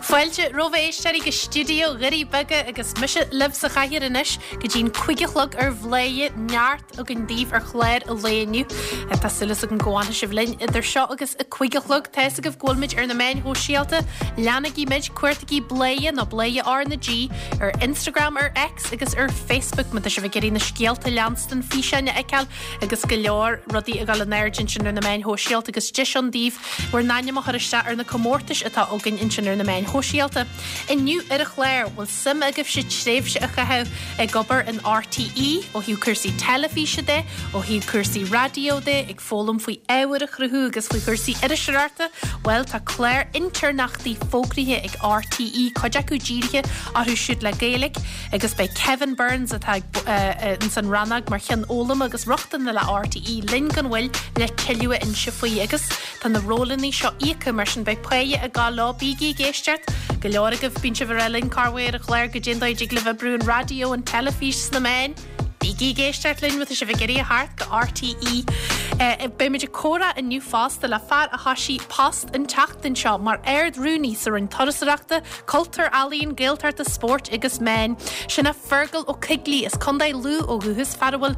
Fáilte romhaibh a éisteoirí go stiúideo Dhoirí Beaga agus mise libh sa chathaoir anois go dtí'n 5 a chlog ar Bhladhaire neart againn daoibh ar chlár an lae inniu. Tá súil agam go bhfanfaidh sibh linn idir seo agus a 5 a chlog. Tá fhios agaibh go bhfuil muid ar na meáin shóisialta. Leanaigí muid, cuartaigí Bladhaire nó Bladhaire R na G ar Instagram, ar X agus ar Facebook má tá sibh ag iarraidh na scéalta a leanstan, físeáin a fheiceáil agus go leor rudaí ag dul in airde ansin ar na meáin shóisialta agus deis ann daoibh bhur n-ainm a chur isteach ar na comórtais atá againn ansin ar na meáin shóisialta. Inniu ar an chlár, bhfuil suim agaibhse tréimhse a chaitheamh ag obair in RTÉ, ó thaobh cúrsaí teilifíse de, ó thaobh cúrsaí raidió de, ag foghlaim faoi ábhar a chruthú agus faoi chúrsaí iriseoireachta? Bhuel, tá clár intéirneachtaí fógraithe ag RTÉ, cuid acu dírithe orthu siúd le Gaeilge. Agus beidh Kevin Burns, atá ins an rannóg mar Cheann Foghlama agus Rochtana le RTÉ, linn gan mhoill le tuilleadh a inse faoi. Agus tá na rólanna seo íoctha, mar sin beidh páighe ag gabháil leo. Bígí ag éisteacht! Go leor agaibh, bíonn sibh ag rá linn corruair ar an chlár goidé an dóigh a dtig libh oibriú an raidió, an teilifís, sna meáin. Bígí ag éisteacht linn má tá sibh ag iarraidh a theacht go RTÉ. Beimid ag comhrá inniu fosta le fear a thoisigh post an tseachtain seo mar Ard-Rúnaí sa Roinn Turasóireachta, Cultúir, Ealaíon, Gaeltachta, Spóirt agus Meán. Sin é Fergal Ó Coigligh as Contae Lú ó dhúchas, fear a bhfuil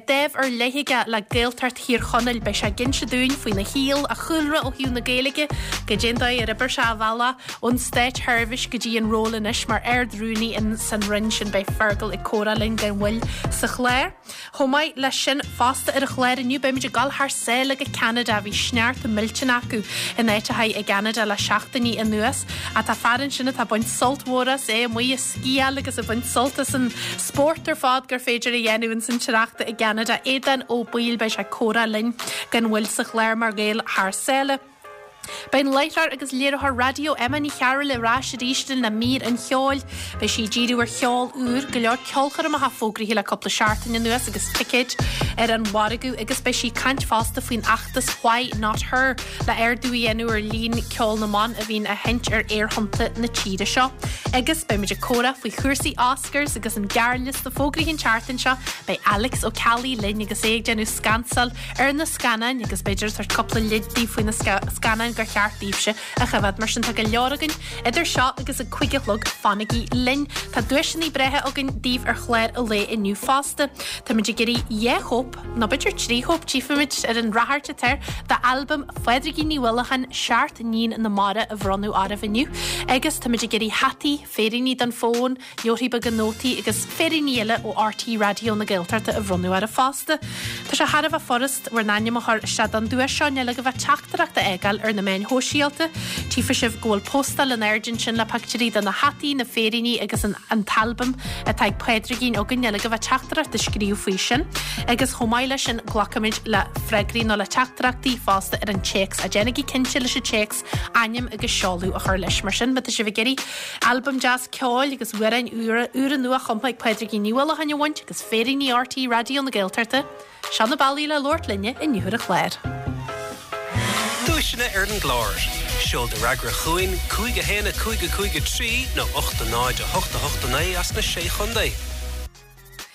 dáimh ar leith aige le Gaeltacht Thír Chonaill. Beidh sé ag inse dúinn faoina shaol, a chúlra ó thaobh na Gaeilge, goidé an dóigh ar oibir sé a bhealach ón státsheirbhís go dtí an ról anois mar Ard-Rúnaí in san Roinn sin. Beidh Fergal ag comhrá linn gan mhoill sa chlár. Chomh maith leis sin, fosta ar an chlár inniu, beimid ag dul thar sáile go Ceanada. Bhí sneachta millteanach acu in áiteacha i gCeanada le seachtainí anuas. Ach tá fear ansin atá ag baint sult mhór as, é amuigh ag sciáil agus ag baint sult as an spórt ar fad gur féidir a dhéanamh ins an sneachta i gCeanada. Aodán Ó Baoill, beidh sé ag comhrá linn gan mhoill sa chlár mar Ghael thar sáile. Beidh an láithreoir agus léiritheoir raidió Emma Ní Chearúil ar ais arís linn le mír an cheoil. Beidh sí ag díriú ar cheol úr, go leor ceolchoirmeacha fógraithe le cúpla seachtain anuas agus ticéid ar an mhargadh agus beidh sí ag caint fosta faoin fheachtas Why Not Her le ardú a dhéanamh ar líon ceol na mban a bhíonn á sheinnt ar aerthonnta na tíre seo. Agus beidh muid ag comhrá faoi chúrsaí Oscars agus an gearrliosta fógraithe an tseachtain seo. Beidh Alex Ó Ceallaigh linn agus é ag déanamh scansáil ar na scannáin agus b'fhéidir ag tabhairt cúpla leid daoibh faoi na scannáin gur cheart daoibhse a choimhéad. Mar sin tá go leor againn idir seo agus a 5 a chlog, fanaigí linn! Tá duaiseanna breátha againn daoibh ar chlár an lae inniu fosta. Táimid ag iarraidh dhá chóip, nó b'fhéidir trí chóip, tchífimid ar an ráchairt atá air, d'albam Phádraigín Ní Uallacháin, Seacht nIníon na Mara a bhronnadh oraibh inniu. Agus táimid ag iarraidh hataí, féiríní don fón, leabharthaí beaga nótaí agus féiríní eile ó RTÉ Raidió na Gaeltachta a bhronnadh oraibh fosta. Tá sé thar a bheith furast bhur n-ainm a chur isteach don duais seo, níl agaibh ach teachtaireacht a fhágáil ar na meáin shóisialta. Tchífidh sibh go bhfuil postáil in airde ansin le pictiúirí de na hataí, na féiríní agus an an t-albam atá ag Pádraigín againn. Níl agaibh ach teachtaireacht a scríobh faoi sin. Agus chomh maith leis sin glacfaimid le freagraí nó le teachtaireachtaí fosta ar an téacs. Déanaigí cinnte leis an téacs ainm agus seoladh a chur leis. Mar sin, má tá sibh ag iarraidh Albam deas ceoil agus amhráin úra, úra nua-chumtha ag Pádraigín Ní Uallacháin a bhaint agus féiríní RTÉ Raidió na Gaeltachta. Seo na bealaí le labhairt linne inniu ar an chlár. Duaiseanna ar an gclár. Seol do fhreagra chugainn, 5 1 5 5 3 nó 8 0 8 8 9 as na Sé Chontae.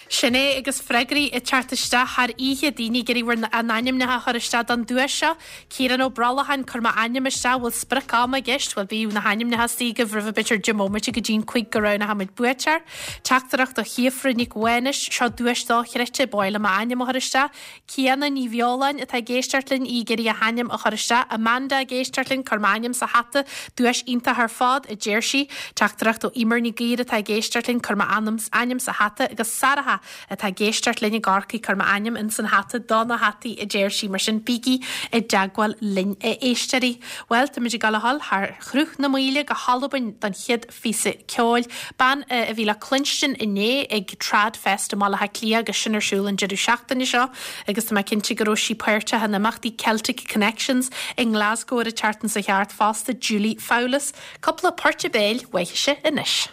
Sin é agus freagraí ag teacht isteach thar oíche, daoine ag iarraidh bhur n-ainmneacha a chur isteach don duais seo. Ciarán Ó Brollacháin, Cuir m'ainm isteach, bhfuil sprioc ama i gceist? Bhuel bíodh na hainmneacha istigh agaibh roimh b'fhéidir 10 mbomaite go dtí'n 5 go roghnóchaimid buaiteoir. Teachtaireacht ó Shíofra Nic Mhánais, Seo duais dochreidte, ba mhaith liom m'ainm a chur isteach. Ciana Ní Bheoláin atá ag éisteacht linn, í ag iarraidh a hainm a chur isteach. Amanda ag éisteacht linn, cuir m'ainm sa hata, duais iontach ar fad, a deir sí. Teachtaireacht ó Emer Ní Gaoir atá ag éisteacht linn, cuir m'ainm ainm sa hata agus Sarah atá ag éisteacht linn i gCorcaigh, cuir m'ainm ins an hata do na hataí, a deir sí. Mar sin, bígí i dteagmháil linn, a éisteoirí. Bhuel, táimid ag dul a dhul thar Shruth na Maoile go hAlbain don chéad phíosa ceoil. Bean a bhí le cluinstin inné ag Tradfest i mBaile Átha Cliath agus sin ar siúl an deireadh seachtaine seo agus tá mé cinnte go raibh sí páirteach in imeachtaí Celtic Connections i nGlasgow ar an tseachtain seo thart fosta, Julie Fowlis. Cúpla port béil uaithise anois.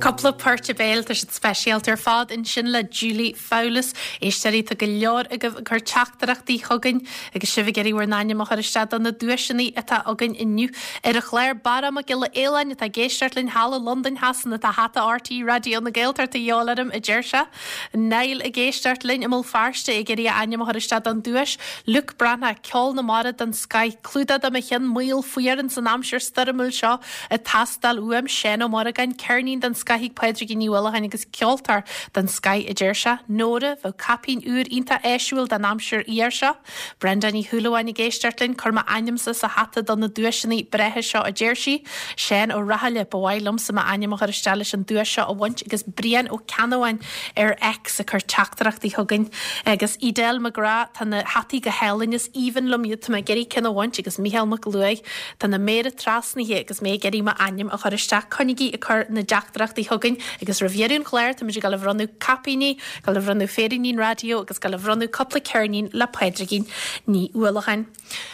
Cúpla port béil, tá siad speisialta ar fad ansin le Julie Fowlis. Éisteoirí, tá go leor agaibh ag cur teachtaireachtaí chugainn agus sibh ag iarraidh bhur n-ainm a chur isteach do na duaiseanna atá againn inniu ar an chlár. Barra Mac Giolla Fhaoláin atá ag éisteacht linn thall i Londain Shasana tá hata RTÉ Raidió na Gaeltachta de dhíobháil orm, a deir sé. Niall ag éisteacht linn i mBéal Feirste ag iarraidh a ainm a chur isteach don duais. Luke Breathnach, Ceol na Mara den scoith, clúdach do mo cheann maol fuar ins an aimsir stoirmiúil seo ag teastáil uaim. Seán Ó Morgáin, ceirnín den scoith ag Pádraigín Ní Uallacháin agus ceoltóir den scoith a deir sé. Nóra, bheadh caipín úr iontach áisiúil don aimsir fhuar seo. Brenda Ní Shúilleabháin ag éisteacht linn, cuir m'ainmse sa hata do na duaiseanna breátha seo a deir sí. Seán Ó Rathaille, ba mhaith liomsa m'ainm a chur isteach leis an duais seo a bhaint agus Brian Ó Ceannabháin ar X ag cur teachtaireachtaí chugainn. Agus Edel McGrath, tá na hataí go hálainn, is aoibhinn liom iad, tá mé ag iarraidh ceann a bhaint agus Mícheál Mac Luaigh, tá na méara trasnaithe agus mé ag iarraidh m'ainm a chur isteach. Coinnigí ag cur na dteachtaireachtaí chugainn agus roimh dheireadh an chláir táimid ag dul a bhronnadh caipíní, Dul a bhronnadh féiríní raidió agus dul a bhronnadh cúpla ceirnín le Pádraigín Ní Uallacháin.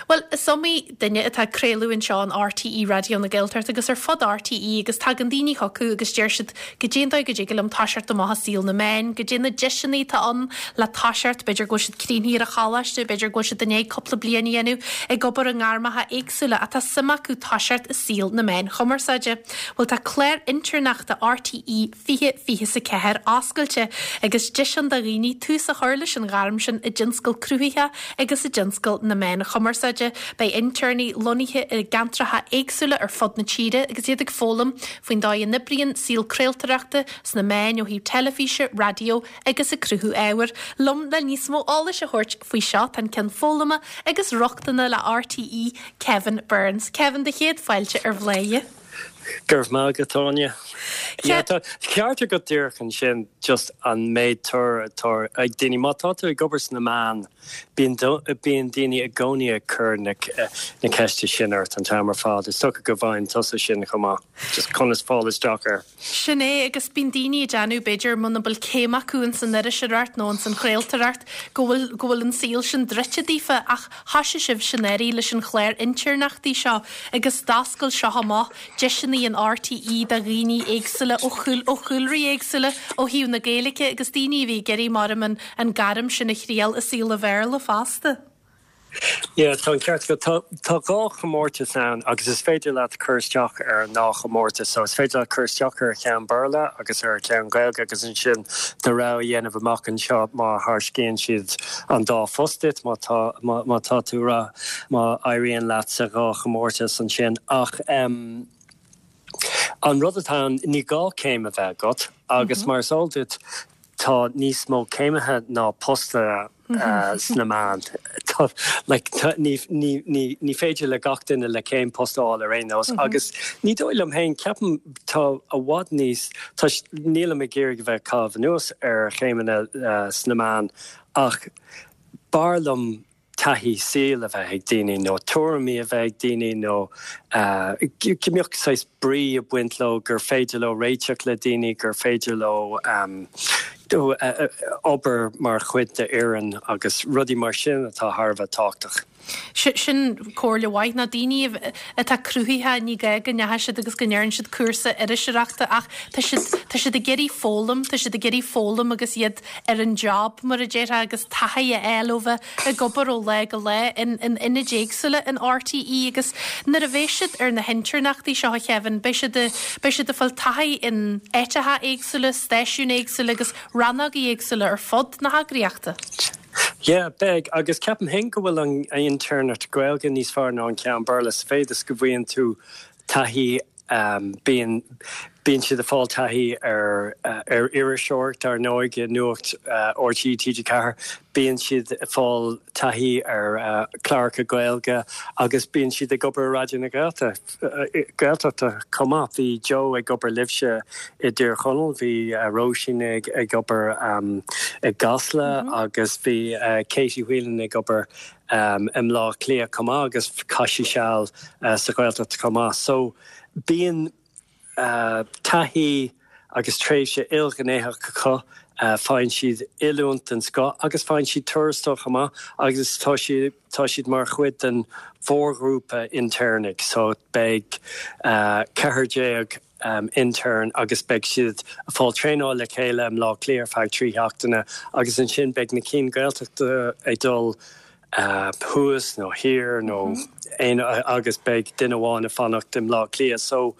Bhuel, is iomaí duine atá ag craoladh anseo in RTÉ Raidió na Gaeltachta agus ar fud RTÉ agus tagann daoine chucu agus deir siad goidé an dóigh go dtig liom toiseacht amach i saol na meán, goidé na deiseanna atá ann le toiseacht, b'fhéidir go bhfuil siad críochnaithe ar an choláiste, b'fhéidir go bhfuil siad i ndiaidh cúpla bliain a dhéanamh ag obair i ngairmeacha éagsúla ach tá suim acu toiseacht i saol na meáin chumarsáide. Bhuel, tá clár intéirneachta RTÉ 2024 oscailte agus deis ann do dhaoine tús a chur leis an ghairm sin i dtionscal cruthaitheach agus i dtionscal na meán chumarsáide. Beidh intéirní lonnaithe i gceantracha éagsúla ar fud na tíre agus iad ag foghlaim faoin dóigh a n-oibríonn saol craoltóireachta sna meáin ó thaobh teilifíse, raidió agus ag cruthú ábhair. Liom le níos mó eolais a thabhairt faoi seo tá an Ceann Foghlama agus Rochtana le RTÉ, Kevin Burns. Kevin, do chéad fáilte ar Bhladhaire. Go raibh maith agat, Áine. Yeah, tá ceart agat díreach ansin, just an méid tóir atá ag daoine. Má tá tú ag obair sna meáin, bíonn bíonn daoine i gcónaí ag cur na na ceiste sin ort an t-am ar fad. Is dócha go bhfaigheann tusa sin chomh maith, just conas fáil isteach air. Sin é, agus bíonn daoine ag déanamh, b'fhéidir, muna bhfuil céim acu ins an iriseoireacht nó ins an chraoltóireacht, go bhfuil go bhfuil an saol sin druidte daofa ach Thoisigh sibhse anuraidh leis an chlár intéirneachtaí seo agus d'oscail seo amach deiseanna in RTÉ do dhaoine éagsúla ó ó chúlraí éagsúla ó thaobh na Gaeilge agus daoine a bhí ag iarraidh maram an an gairm sin a thriail i saol an Bhéarla fosta. Yeah, tá an ceart agat. Tá tá dhá chomórtas ann agus is féidir leat cur isteach ar an ndá chomórtas. So is féidir leat cur isteach ar cheann Béarla agus ar cheann Gaeilge agus ansin do rogha a dhéanamh amach anseo má thairscíonn siad an dá phost duit, má tá má má tá tú ra má éiríonn leat sa dhá chomórtas ansin. Ach em an rud atá ann, ní gá céim a bheith agat agus mar is eol duit tá níos mó céimithe ná postanna sna meáin. Like, ní, ní, ní, ní féidir le gach duine le céim post a fháil ar aon nós agus ní dóigh liom féin, ceapaim tá i bhfad níos, tá, nílim ag iarraidh a bheith ag caitheamh anuas ar chéimeanna sna meáin ach b'fhearr liom taithí saoil a bheith ag daoine nó tuairimí a bheith ag daoine nó go mbeadh saghas brí ag baint leo, gur féidir leo réiteach le daoine, gur féidir leo obair mar chuid d'fhoireann agus rudaí mar sin atá thar a bheith tábhachtach. Sin comhairle mhaith. Na daoine atá cruthaitheach, ní gá go ndeachaigh siad agus go ndearna siad cúrsa iriseoireachta ach tá siad, tá siad ag iarraidh foghlaim, tá siad ag iarraidh foghlaim agus iad ar an job, mar a déarfá, agus taithí a fháil ó bheith ag obair ó lá go lá in ionaid éagsúla in RTÉ agus nuair a bheidh siad ar na hintéirneachtaí seo, a Kevin, beidh siad beidh siad ag fáil taithí in áiteacha éagsúla, stáisiúin éagsúla agus rannógaí éagsúla ar fud na heagraíochta. Yeah, beidh, agus ceapaim féin go bhfuil an intéirneacht Gaeilge níos fearr ná an ceann Béarla sa mhéid is go bhfaigheann tú taithí Bíonn bíonn siad ag fáil taithí ar ar iriseoireacht, ar ndóigh, i Nuacht RTÉ TG4. Bíonn siad ag fáil taithí ar chláracha Gaeilge agus bíonn siad ag obair i Raidió na Gaeltachta chomh maith. Bhí Joe ag obair libhse i dTír Chonaill, bhí Róisín ag ag obair i gCasla agus bhí Katie Whelan ag obair i mBleá Cliath chomh maith agus chaith sí seal sa Ghaeltacht chomh maith. So bíonn taithí agus tréimhse ilghnéitheach acu, faigheann siad oiliúint den scoth agus faigheann siad tuarastal chomh maith agus tá siad tá siad mar chuid den mhórghrúpa intéirnigh so beidh 14 intern agus beidh siad ag fáil traenáil le chéile i mBleá Cliath ar feadh 3 sheachtaine agus ansin beidh na cinn Gaeltachta ag dul thuas nó thiar nó aon agus beidh duine amháin ag fanacht i mBleá Cliath. So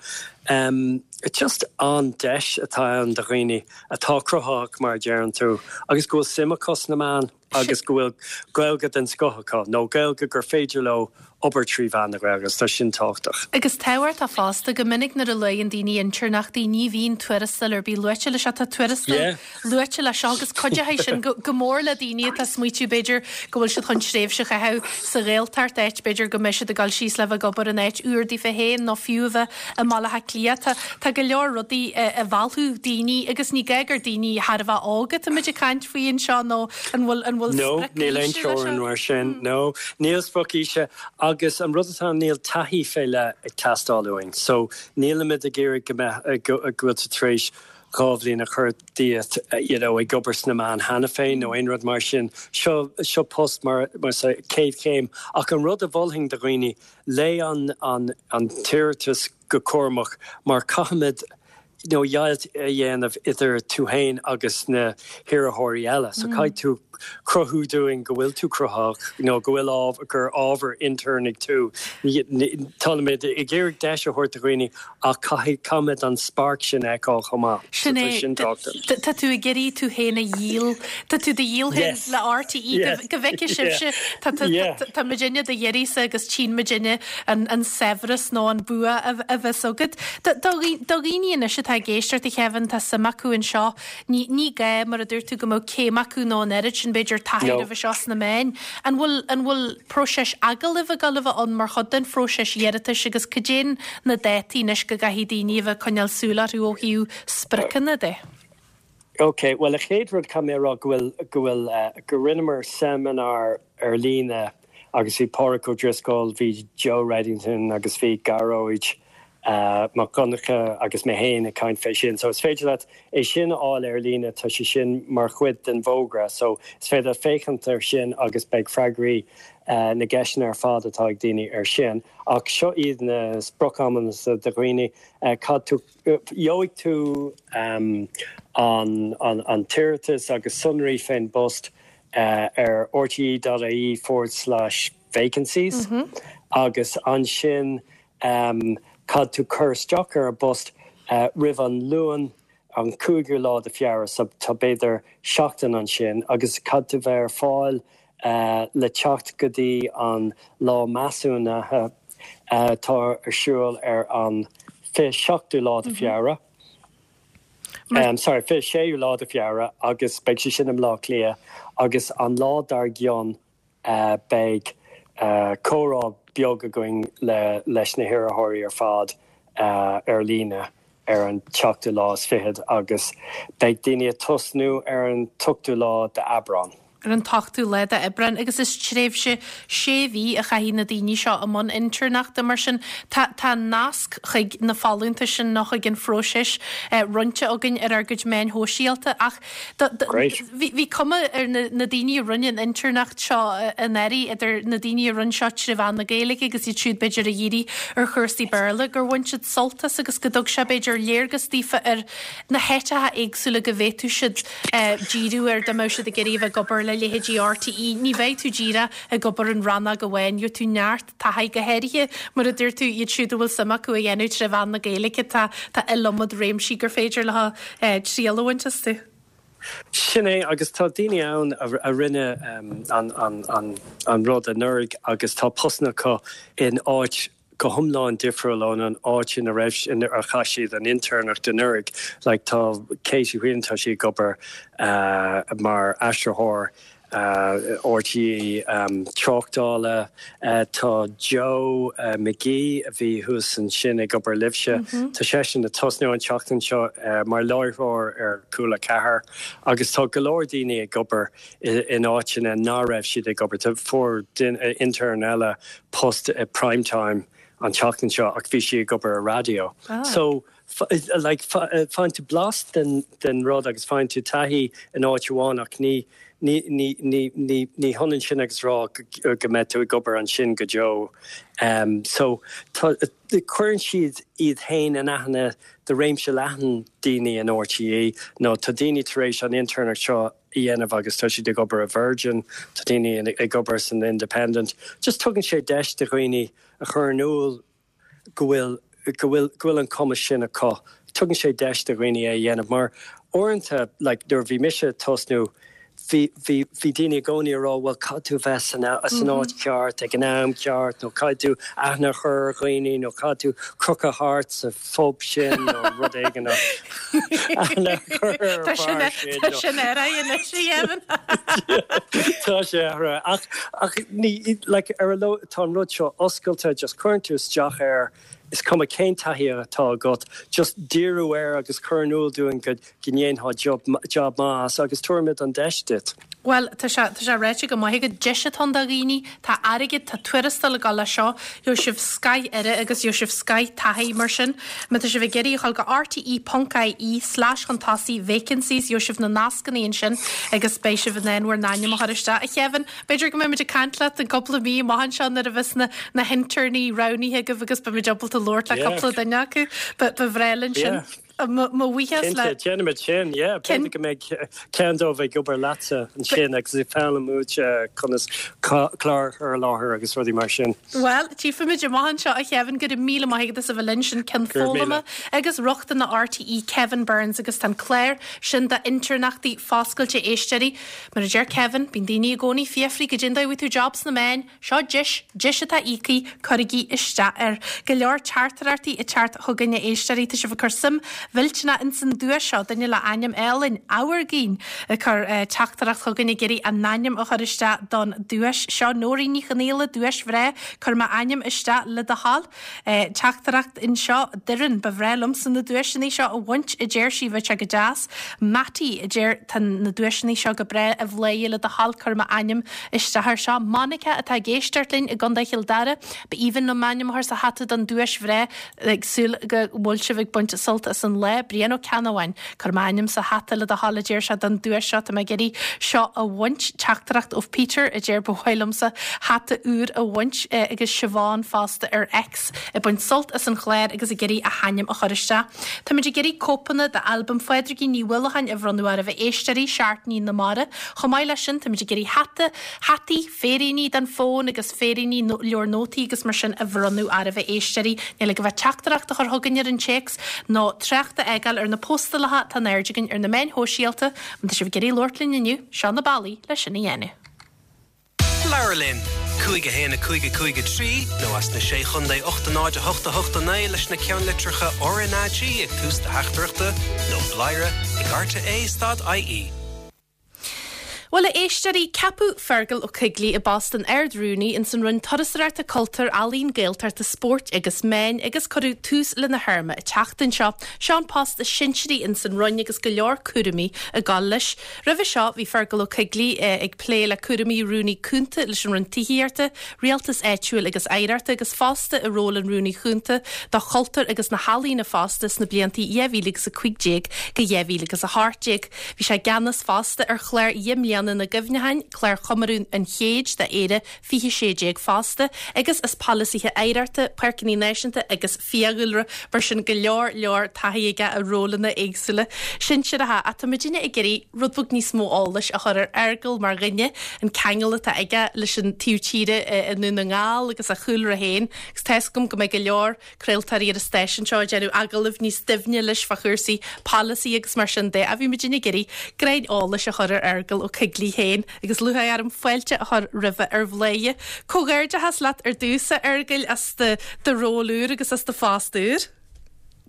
just an-deis atá ann do dhaoine atá cruthaitheach mar a deireann tú agus go bhfuil suim acu sna meáin. agus go bhfuil Gaeilge den scoth acu, nó Gaeilge gur féidir leo obair trí mheán na Gaeilge, agus tá sin tábhachtach. Agus tábhachtach fosta, go minic nuair a luann daoine intéirneachtaí, ní bhíonn tuarastal ar bith luaite leis seo. Tá tuarastal luaite leis seo agus cuideoidh sin go mór le daoine atá ag smaoitiú, b'fhéidir, go bhfuil siad chun tréimhse a chaitheamh sa Ghaeltacht, áit, b'fhéidir, go mbeidh siad ag dul síos le bheith ag obair in áit úr daofa féin nó fiú a bheith i mBaile Átha Cliath. Tá, tá go leor rudaí a mheallfadh daoine agus ní gá gur daoine thar a bheith óg atáimid ag caint faoi anseo nó an bhfuil, an bhfuil No, sprioc níl aon aoise leis teorainn seo? mar sin. No, níl sprioc aoise agus an rud atá ann níl taithí fé leith ag teastáil uainn. So nílimid ag iarraidh go mbeadh, go bhfuil tú tar éis 2 bhliain a chur díot you know ag obair sna meáin cheana féin nó aon rud mar sin. Seo, seo post mar, mar chéad chéim ach an rud a mholfainn do dhaoine, Léigh an an an t-iarratas go cúramach mar caithfimid you know deighilt a dhéanamh idir tú fhéin agus na hiarrthóirí eile. So caithfidh tú cruthú dúinn go bhfuil tú cruthaitheach nó go bhfuil ábhar gur ábhar intéirnigh tú. Táimid ag iarraidh deis a thabhairt do dhaoine ach caithfidh caithfimid an spark sin a fheiceáil chomh maith. Sin é. Tá tú ag iarraidh tú féin a dhíol. Tá tú do dhíol féin le RTÉ go bhfeicfidh sibhse. Tá muidinne do d'iarraidhse agus tchíonn muidinne an saibhreas nó an bua a bheas agat. Do dhaoine anois atá ag éisteacht, a Kevin, tá suim acu anseo. Ní ní gá, mar a dúirt tú, go mbeadh céim acu nó an oiread sin, b'fhéidir, taithí roimhe seo sna meáin. An bhfuil an bhfuil próiseas agallaimh ag dul a bheith ann mar chuid den phróiseas iarratais agus cad é na dátaí anois go gcaithfidh daoine a bheith ag coinneáil súil orthu ó thaobh spriocanna de? Ok, bhuel, an chéad rud caithfidh mé a rá go bhfuil go bhfuil go rinneamar seimineár ar líne agus bhí Pádraic Ó Drisceoil, bhí Joe Reddington agus bhí Gearóid Mac Donncha agus mé féin ag caint fé sin. So is féidir leat é sin a fháil ar líne, tá sé sin mar chuid den bhfógra. So is féidir leat féachaint ar sin agus beidh freagraí na gceisteanna ar fad atá ag daoine ar sin. Ach seo iad na sprioc-amanna do dhaoine, cad tú, gheobhaidh tú an an t-iarratas agus sonraí fén bpost ar rte.ie forward slash. vacancies agus ansin caithfidh tú cur isteach ar an bpost roimh an Luan an 5ú lá de Feabhra so tá b'fhéidir seachtain ansin agus caithfidh tú bheith ar fáil le teacht go dtí an lá measúnaithe atá ar siúl ar an 27ú lá de Feabhra. Sorry, 26ú lá de Feabhra agus beidh sé sin i mBleá Cliath agus an lá dár gcionn beidh comhrá beag againn le leis na hiarrthóirí ar fad ar líne ar an tseachtú lá is fichead agus beidh daoine ag tosnú ar an t-ochtú lá d'Aibreán. ar an t-ochtú lá d'Aibreán agus is tréimhse sé mhí a chaithfidh na daoine seo i mbun intéirneachta. Mar sin, tá tá nasc chuig na folúntais sin nó chuig an phróiseas roinnte againn ar ár gcuid meáin shóisialta ach Great. bhí bhí cuma ar na na daoine a rinne an intéirneacht seo anuraidh, idir na daoine a rinne seo tré mheán na Gaeilge agus iad siúd b'fhéidir a dhírigh ar chúrsaí Béarla, gur bhain siad sult as agus go dtug sé b'fhéidir léargas daofa ar na háiteacha éagsúla go bhféadfadh siad díriú air dá mbeadh siad ag iarraidh a bheith ag obair le leithéidí RTÉ. Ní bheidh tú díreach ag obair in rannóg amháin, gheobhaidh tú neart taithí, go háirithe mar a dúirt tú, iad siúd a bhfuil suim acu a dhéanamh tré mheán na Gaeilge, tá tá iliomad réimsí gur féidir leo triail a bhaint astu. Sin é, agus tá daoine ann a rinne an rud anuraidh agus tá postanna acu in áit go hiomlán difriúil ón an áit ina raibh, inar chaith siad an intéirneacht anuraidh. Like tá Katie Whelan, tá sí ag obair mar aistritheoir RTÉ tráchtála. Tá Joe McGee a bhí thuas ansin ag obair libhse, tá seisean ag tosnú an tseachtain seo mar láithreoir ar Cúla 4 agus tá go leor daoine ag obair in áiteanna ná raibh siad ag obair. Fuair intern eile post i Prime Time an tseachtain seo ach bhí sí ag obair i raidió. So, like, faigheann tú blas den, den rud agus faigheann tú taithí in áit amháin ach ní, ní, ní, ní, ní, ní hionann sin agus rá go, go mbeidh tú ag obair ansin go deo. So, tá, cuireann siad iad féin in aithne do réimse leathan daoine in RTÉ nó tá daoine tar éis an intéirneacht seo a dhéanamh agus tá siad ag obair i Virgin, tá daoine ag obair san Independent. Just tugann sé deis do dhaoine a chur in iúl go bhfuil, go bhfuil, go bhfuil an cumas sin acu. Tugann sé deis do dhaoine é a dhéanamh mar uaireanta, like, nuair a bhí mise ag tosnú, bhí, bhí, bhí daoine i gcónaí ag rá bhuel caithfidh tú bheith san, san áit cheart ag an am ceart nó caithfidh tú aithne a chur ar dhaoine nó caithfidh tú crochadh thart sa phub sin nó rud éigin nó aithne a chur ar Tá sin, an bhfear sin tá nó sin athraithe anois, a dheimhin. Tá sé athraithe ach, ach ní, like, ar a lo, tá an rud seo oscailte, just cuireann tú isteach air, is cuma cén taithí atá agat, just díriú air agus cur in iúl dúinn go go ndéanfá job maith as agus tabharfaimid an deis duit. Bhuel, tá sé, tá sé ráite go maith agat, deis atá ann do dhaoine, tá airgead, tá tuarastal ag dul leis seo, gheobhaidh sibh scoth aire agus gheobhaidh sibh scoth taithí mar sin. Má tá sibh ag iarraidh a dhul go rte ponc ie slash chun tosaigh vacancies, gheobhaidh sibh na nascanna ansin agus beidh sibh in ann bhur n-ainm a chur isteach. A Kevin, b'fhéidir go mbeimid ag caint leat in cúpla mí amach anseo nuair a bheas na, na hinterní roghnaithe agaibh agus beimid ábalta labhairt le Yeah. cúpla duine acu. Ba, ba bhreá linn sin. Yeah. Mo bhuíochas le. Cinnte, déanfaimid sin, yeah. B'fhéidir go mbeidh ceann dóibh ag obair leatsa ansin agus ag foghlaim uait conas clár a chur i láthair agus rudaí mar sin. Bhuel, tchífimid amach anseo, a Kevin, go raibh míle maith agat as a bheith linn. Sin Ceann Go raibh míle. Foghlama agus Rochtana RTÉ, Kevin Burns, agus tá an clár sin d'intéirneachtaí foscailte, a éisteoirí. Mar a deir Kevin, bíonn daoine i gcónaí ag fiafraí goidé an dóigh a bhfuair tú job sna meáin. Seo deis, deis atá íoctha, cuirigí isteach air. Go leor teachtaireachtaí ag teacht chugainn a éisteoirí, tá sibh ag cur suim mhillteanach ins an duais seo, duine le ainm álainn, Amhargaín, ag cur teachtaireacht chugainn ag iarraidh a n-ainm a chur isteach don duais seo. Nóirín Ní Chonaola, duais bhreá, cuir m'ainm isteach le do thoil. Teachtaireacht anseo, Doireann, ba bhreá liomsa na duaiseanna seo a bhaint, a deir sí, bheadh sé go deas. Mattie, a deir, tá na duaiseanna seo go breá, a Bhláthnaid, le do thoil cuir m'ainm isteach air seo. Monica atá ag éisteacht linn i gContae Chill Dara, ba aoibhinn liom m'ainm a chur sa hata don duais bhreá, ag súil go bhfuil sibh ag baint sult as an. an lá, Brian Ó Ceannabháin. Cuir m'ainm sa hata le do thoil a deir sé don duais seo, tá mé ag iarraidh seo a bhaint. Teachtaireacht ó Peter a deir ba mhaith liomsa hata úr a bhaint agus Siobhán fosta ar X ag baint sult as an chlár agus ag iarraidh a hainm a chur isteach. Táimid ag iarraidh cóipeanna d'albam Phádraigín Ní Uallacháin a bhronnadh oraibh a éisteoirí, Seachtainí na Mara. Chomh maith leis sin táimid ag iarraidh hata, hataí, féiríní don fón agus féiríní, leabhar nótaí agus mar sin a bhronnadh oraibh a éisteoirí. Níl agaibh ach teachtaireacht a chur chugainn ar an téacs nó trácht a fhágáil ar na postálacha atá in airde againn ar na meáin shóisialta. Má tá sibh ag iarraidh labhairt linn inniu, seo na bealaí le sin a dhéanamh. Labhair linn! 5 1 5 5 3 nó as na Sé Chontae 8 0 8 8 9 leis na ceannlitreacha RnaG ag tús do theachtaireachta nó bladhaire ag rte stad ie. Bhuel, a éisteoirí, ceapadh Fergal Ó Coigligh i bpost an Ard-Rúnaí ins an Roinn Turasóireachta, Cultúir, Ealaíon, Gaeltachta, Spóirt agus Meáin agus cuireadh tús lena théarma an tseachtain seo. Seo an post is sinsearaí ins an Roinn agus go leor cúraimí ag gabháil leis. Roimhe seo bhí Fergal Ó Coigligh ag plé le cúraimí Rúnaí Cúnta leis an Roinn Tithíochta, Rialtais Áitiúil agus Oidhreachta agus fosta i ról an Rúnaí Chúnta do Chultúr agus na hEalaíona fosta sna blianta 2015 go 2018. Bhí sé i gceannas fosta ar chlár Dheich mBliana na gCuimhneacháin, clár chomóradh an chéid d'Éire 2016 fosta, agus as polasaithe oidhreachta, páirceanna náisiúnta agus fiadhúlra, mar sin go leor leor taithí aige i rólanna éagsúla sinsearacha. Ach tá muidinne ag iarraidh rud beag níos mó eolais a chur ar Fheargal mar dhuine, an ceangal atá aige leis an taobh tíre i nDún na nGall agus a chúlra féin, agus tá 'fhios agam go mbeidh go leor craoltóirí ar an stáisiún seo ag déanamh agallaimh níos doimhne leis fá chúrsaí polasaí agus mar sin de. Ach bhí muidinne ag iarraidh greim eolais a chur ar Fheargal Ó Coigligh féin agus lúcháir orm fáilte a chur roimhe ar Bhladhaire. Comhghairdeachas leat ar dtús, a Fheargail, as do do ról úr agus as do phost úr.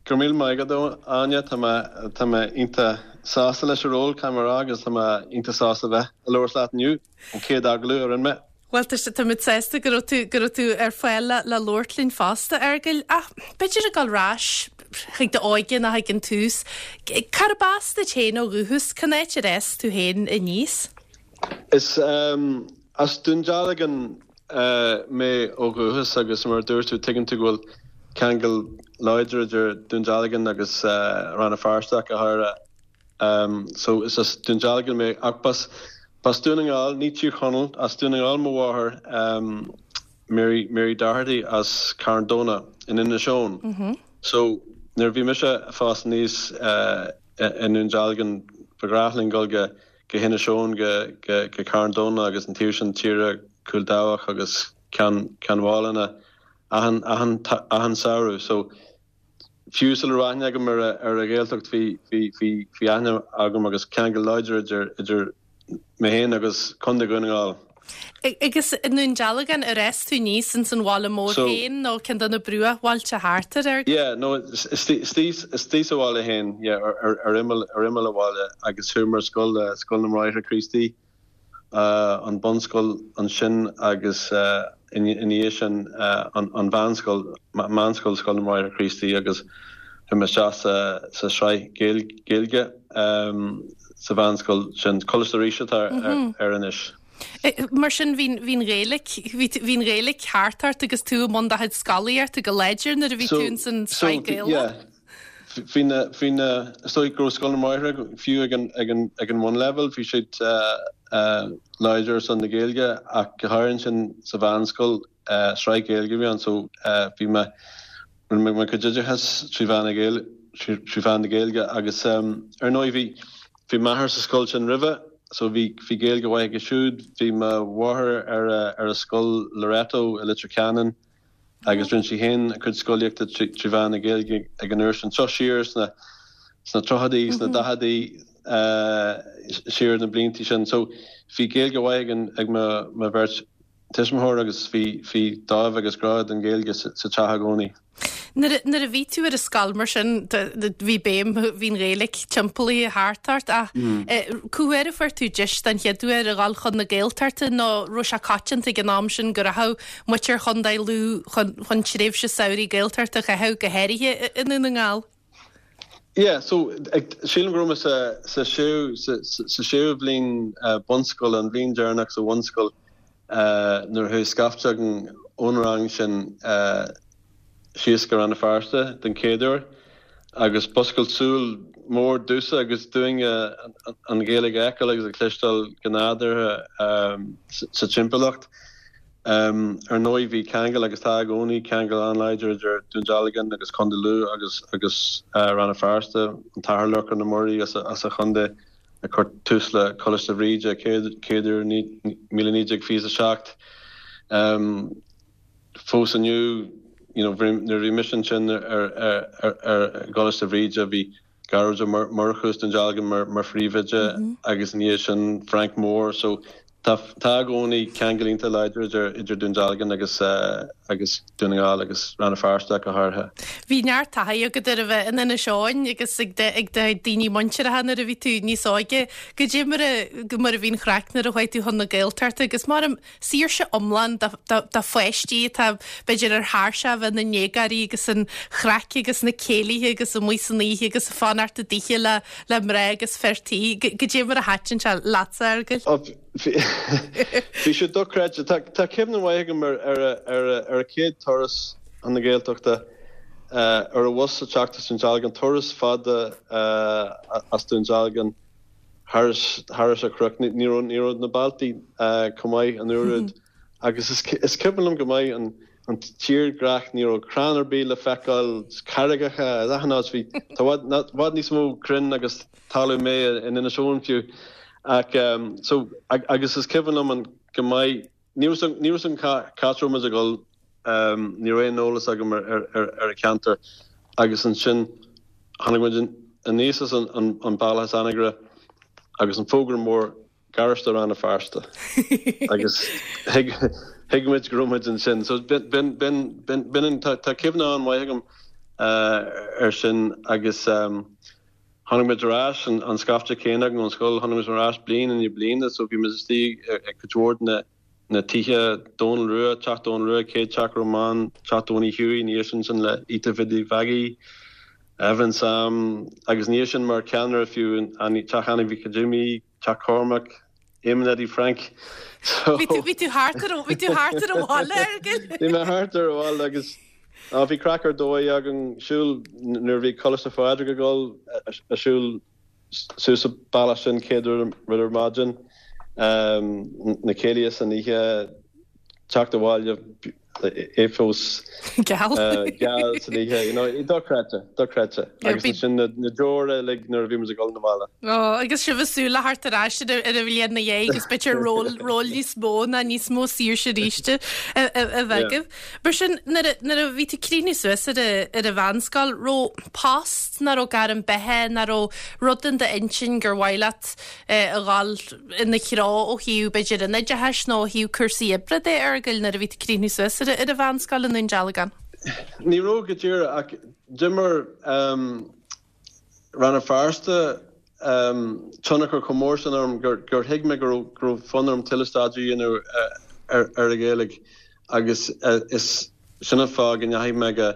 Go raibh míle maith agat, a Áine. Tá mé tá mé iontach sásta leis an ról, caithfidh mé a rá, agus tá mé iontach sásta bheith ag labhairt leat inniu, an chéad agallamh a rinne mé. Bhuel, tá sé, táimid sásta go raibh tú, go raibh tú ar fáil le, le labhairt linn fosta, a Fheargail. Ach b'fhéidir ag dul ar ais chuig d'óige nó chuig an tús, cárb as duit féin ó dhúchas? Cén áit ar fhás tú féin aníos? Is as Dún Dealgan mé ó dhúchas agus mar a dúirt tú, tuigeann tú go bhfuil ceangal láidir idir Dún Dealgan agus Rann na Feirste ach go háirithe. So is as Dún Dealgan mé ach b'as b'as Dún na nGall, ní Tír Chonaill, as Dún na nGall mo mháthair Mary Mary Doherty as Carn Domhnach in Inis Eoghain. So nuair a bhí mise ag fás aníos i nDún Dealgan ba ghnách linn dul go go hInis Eoghain go go go Carn Domhnach agus an taobh sin tíre Cúil Dabhach agus Ceann Ceann Mhálanna achan achan achan samhradh. So Fiú sula raibh aithne agam ar an Ghaeltacht bhí bhí aithne agam agus ceangal láidir idir idir mé féin agus Contae Dhún na nGall. Agus i nDún Dealgan ar fhás tú aníos ins an bhaile mór féin nó ceann de na bruachbhailte thart air? Yeah, no, istigh sa bhaile féin, yeah, ar imeall ar imeall an bhaile agus chuaigh mé ar scoil, Scoil na mBráithre Críostaí. an bunscoil ansin agus ina dhiaidh sin an mheánscoil, Meánscoil Scoil na mBráithre Críostaí agus chuaigh mé isteach sa sraith Gaeilge sa mheánscoil sin, Coláiste Rís atá air anois. Mar sin bhí an Ghaeilge, bhí an Ghaeilge thart ort agus tú i mbun do chuid scolaíochta go láidir nuair a bhí tú ins an sraith Gaeilge? Bhí na, bhí na, is dóigh go raibh Scoil na mBráithre, fiú ag an, ag an, ag an bhunleibhéal, bhí siad láidir ar son na Gaeilge ach go háirithe ansin sa mheánscoil, sraith Ghaeilge a bhí ann so bhí mé, rinne mé mo chuid oideachais trí mheán na Gaeilge, trí mheán na Gaeilge agus ar ndóigh bhí, bhí m'athair sa scoil sin roimhe so bhí, bhí Gaeilge mhaith aige siúd, bhí mo mháthair ar a, ar a scoil Loreto i Leitir Ceanainn, agus rinne sí féin a cuid scolaíochta trí mheán na Gaeilge ag an uair sin. Seo siar sna sna tríochaidí, sna daicheadaí, siar na blianta sin. So bhí Gaeilge mhaith ag an ag mo mo bheirt tuismitheoir agus bhí bhí dáimh agus grá don Ghaeilge sa teach i gcónaí. Nuair a bhí tú ar an scoil mar sin, bhí béim, bhí an Ghaeilge timpeallaithe thart ort ach cá huair a fuair tú deis den chéad uair a dhul chun na Gaeltachta nó raibh sé coitianta ag an am sin go rachadh muintir Chontae Lú chun tréimhse samhraidh Gaeltachta a chaitheamh, go háirithe i nDún na nGall? Yeah, so sílim go raibh mé sa sa séú sa séú bhliain bunscoile, an bhliain deireanach sa bhunscoil nuair a chuaigh scaifte againn ón rang sin síos go Rann na Feirste den chéad uair. Agus b'oscailt súl mór domhsa agus dúinne an Ghaeilge a fheiceáil agus a chloisteáil go nádúrtha sa timpeallacht. Ar ndóigh bhí ceangal agus tá i gcónaí ceangal an-láidir idir Dún Dealgan agus Contae Lú agus agus Rann na Feirste, an tAthair Lorcán Ó Muirí as an chontae a chuir tús le Coláiste Bhríde chéad uair 1927. Fós inniu, you know, nuair a bhí mise ansin ar i gColáiste Bhríde, bhí Gearóid Ó Murchú as Dún Dealgan mar phríomhoide agus ina dhiaidh sin Frank Moore. So tá tá i gcónaí ceangal iontach láidir idir idir Dún Dealgan agus agus Dún na nGall agus Rann na Feirste ach go háirithe. Bhí neart taithí agat ar a bheith in Inis Eoghain agus ag ag do daoine muinteartha nuair a bhí tú níos óige. Goidé mar a mar a bhí an chraic nuair a chuaigh tú chun na Gaeltachta agus mar saoirse iomlán do pháistí atá, b'fhéidir, ar thairseach a bheith ina ndéagóirí agus an chraic agus na céilithe agus amuigh san oíche agus fanacht i dtithe le le mná agus fir tí. Goidé mar a thaitin sé leatsa, a Fheargail? Bhí sé dochreidte. Tá cuimhne mhaith agam ar ar an chéad turas chun na Gaeltachta ar an bhus ag teacht as Dún Dealgan, turas fada as Dún Dealgan. thairis an chnoc. Ní raibh na bealtaí chomh maith an uair úd agus is cuimhin liom go maith an tírdhreach, ní raibh crann ar bith le feiceáil, carraigeacha in achan áit, bhí, tá i bhfad níos mó crainn agus talamh méith in Inis Eoghain fiú. Ach so, agus is cuimhin liom go maith, ní raibh ní raibh fhios agam cá raibh muid ag dul, ní raibh aon eolas agam ar an cheantar agus ansin tháinig muid aníos as an bealach as Anagaire agus an fógra mór Garáiste Rann na Feirste agus thuig thuig muid go raibh muid ansin. So b'in b'in b'in tá cuimhne an-mhaith agam ar sin agus tháinig muid ar ais an scaifte céanna againn ón scoil, tháinig muid ar ais bliain i ndiaidh bliana so bhí muid istigh ag cuid mhór de na na tithe, Dónal Rua, Teach Dónal Rua, chéad teach a raibh mé ann, Teach Donie Hughie, ina dhiaidh sin sin le Ita Bhiddy Mhaggie, Evelyn Sam agus ina dhiaidh sin mar cheannaire fiú Teach Annie Mhic Jimmy, Teach Cormac, Éamonn Eddie Frank. So Bhí tú bhí tú thart ar bhí tú thart ar an bhaile, a Fheargail. Bhí mé thart ar an bhaile agus á bhí craic ar dóigh againn siúl nuair a bhí Coláiste Phádraig ag dul a siúl suas an bealach sin céad rud ar maidin, na céilithe san oíche, teacht abhaile é fós geal geal san oíche, you know, dochreidte, dochreidte. Agus ansin na deora uilig nuair a bhí muid ag dul 'na bhaile. Ó, agus sibh ag súil le theacht ar ais ar an bhliain ina dhiaidh agus b'fhéidir ról ról níos mó ná níos mó saoirse arís a bheith agaibh. Mar sin, nuair a bhí tú ag críochnú suas ar an mheánscoil, raibh post ná raibh gairm beatha ná raibh rud in d'intinn gur mhaith leat a dhul ina threo ó thaobh b'fhéidir an oideachais nó ó thaobh cúrsaí oibre de, a Fheargail, nuair a bhí tú ag críochnú suas ar an mheánscoil i nDún Dealgan? Ní raibh go díreach ach d'imir Rann na Feirste tionchar chomh mór sin orm gur thuig mé go raibh fonn orm tuilleadh staidéir a dhéanamh ar an Ghaeilge agus is sin an fáth go ndeachaigh mé go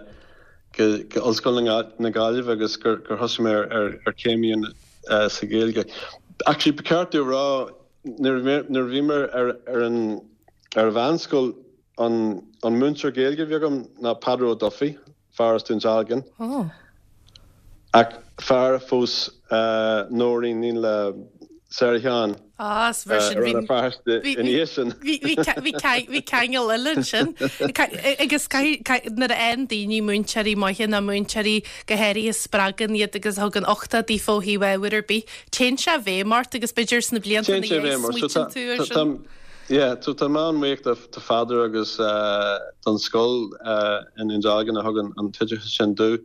Ollscoil na Gaillimhe agus gur thosaigh mé ar chéim a dhéanamh sa Ghaeilge. Actually, ba cheart domh a rá, nuair a bhí mé ar an mheánscoil, an múinteoir Gaeilge a bhí agam ná Peadar Ó Dufaigh. fear as Dún Dealgan. Ach fear a phós Nóirín, iníon le Sarah Sheáin Ah, is mar sin i Rann na Feirste ina dhiaidh sin. Bhí ceangal eile ansin. Agus nuair a fhaigheann daoine múinteoirí maithe nó múinteoirí go háirithe a spreagann iad agus a thugann uchtach daofa ó thaobh ábhair ar bith, téann sé i bhfeidhm ort agus b'fhéidir sna blianta ina dhiaidh smaoitíonn tú air sin. Yeah, so tá mé an-bhuíoch do Pheadar agus don scoil i nDún Dealgan a thug an t-oideachas sin domh.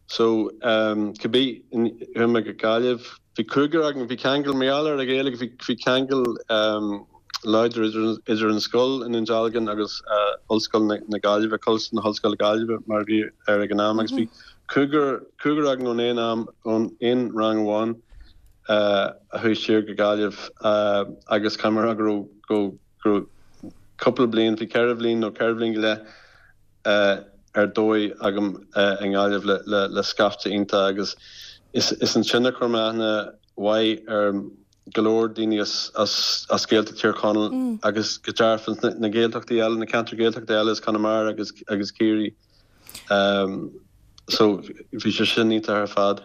So, cibé, chuaigh mé go Gaillimh, bhí cúigear againn, bhí ceangal, mar gheall ar an Ghaeilge, bhí bhí ceangal láidir idir an scoil i nDún Dealgan agus Ollscoil na Gaillimhe, Coláiste na hOllscoile Gaillimhe mar a bhí air ag an am agus bhí cúigear, cúigear againn ón aon am, ón aon rang amháin. a chuaigh siar go Gaillimh agus caithfidh mé a rá go raibh, go raibh cúpla bliain, bhí ceithre bhliain nó ceithre bhliain go leith ar dóigh agam i nGaillimh le, le, le scaifte iontach agus is, is ansin a chuir mé aithne mhaith ar go leor daoine as, as, as Gaeltacht Thír Chonaill agus go dearfa na Gaeltachtaí eile, na ceantair Gaeltachta eile as Conamara agus, agus Ciarraí. So bhí sé sin iontach ar fad.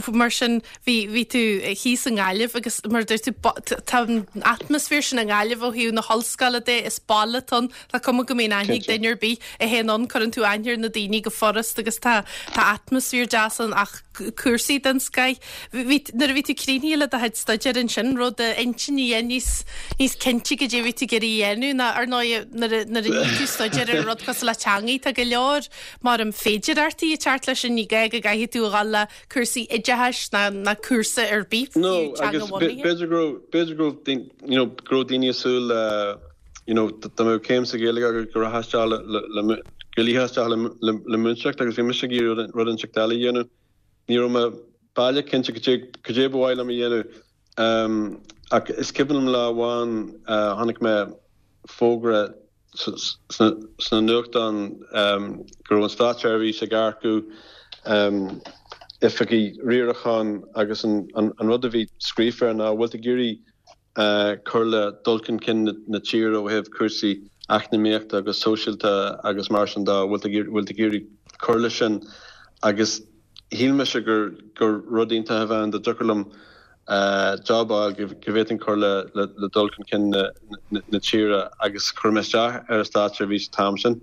Mar sin, bhí, bhí tú thíos i nGaillimh agus mar a dúirt tú, tá an atmaisféar sin i nGaillimh ó thaobh na hollscoile de, is baile atá ann, tá cuma go mbíonn aithne ag duine ar bith a théann ann, cuireann tú aithne ar na daoine go furast agus tá, tá atmaisféar deas ann ach cúrsaí den scoith. Bhí, nuair a bhí tú críochnaithe le do chuid staidéir ansin, raibh d'intinn níos, níos cinnte goidé a bhí tú ag iarraidh a dhéanamh ná ar ndóigh nuair a, nuair a ní tú staidéar ar rud cosúil le teangaí, tá go leor Mar an féidearthachtaí ag teacht leis sin, ní gá go gcaithfidh tú a dhul le cúrsaí oideachais ná ná cúrsa ar bith, fiú No, agus teanga-bhunaithe. b'fhéidir go raibh, b'fhéidir go raibh, you know, go raibh daoine ag súil le, you know, dá mbeadh céim sa Ghaeilge agat go rachfá isteach le, le, le, go luífeá isteach le, le, le múinteoireacht agus bhí mise ag iarraidh rud, rud inteacht eile a dhéanamh. Ní raibh mé baileach cinnte cad é, cad é ba mhaith liom a dhéanamh. Ach is cuimhin liom lá amháin, chonaic mé fógra sna nuachtáin go raibh an státseirbhís ag earcú oifigigh riaracháin agus an rud a bhí scríofa air ná bhfuil tú ag iarraidh cur le dul chun cinn na tíre ó thaobh cúrsaí eacnamaíochta agus sóisialta agus mar sin de, bhfuil tú ag iarraidh cur leis sin agus shíl mise gur rud iontach a bheadh ann dá dtiocfadh liom job a fháil go bhféadfainn cur le dul chun cinn na tíre agus chuir mé isteach ar an státseirbhís an t-am sin.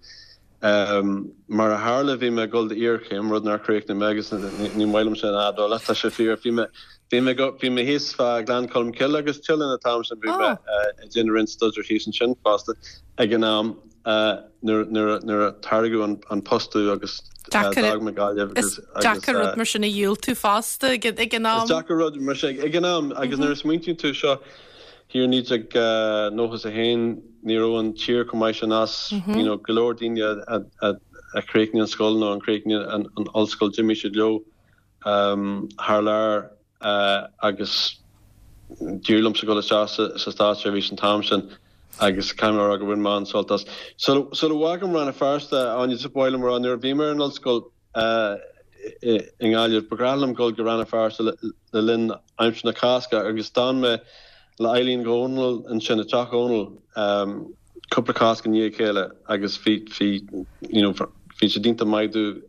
Mar a tharla bhí mé ag dul d'iarchéim, rud nár chríochnaigh mé agus ní maith liom sin a admháil ach tá sé fíor. Bhí mé bhí mé bhí mé thíos fá Ghleann Cholm Cille agus tuilleadh an t-am sin bhí mé ag déanamh roinnt staidéir thíos ansin fosta ag an am. nuair a tairgeadh an post domh agus d'fhág mé Gaillimh agus. Is deacair rud mar sin a dhiúltú fosta ag an am. Is deacair rud mar sin ag an am agus nuair a smaointíonn tú seo thiar i 1991 ní raibh an tír chomh maith sin as, you know, go leor daoine a chríochnaigh an scoil nó a chríochnaigh an ollscoil d'imigh siad leo thar lear. agus d'éirigh liomsa dul isteach sa státseirbhís an t-am sin agus caithfidh mé a rá gur bhain mé an-sult as. Sula bhfágaim Rann na Feirste, Áine, just ba mhaith liom a rá nuair a bhí mé ar an ollscoil i nGaillimh, ba ghnách liom dul go Rann na Feirste le linn aimsir na Cásca agus d'fhan mé le Eileen Dhónaill ansin, i dteach Dhónaill, cúpla Cásc i ndiaidh a chéile agus bhí, bhí, you know, bhí siad iontach maith domh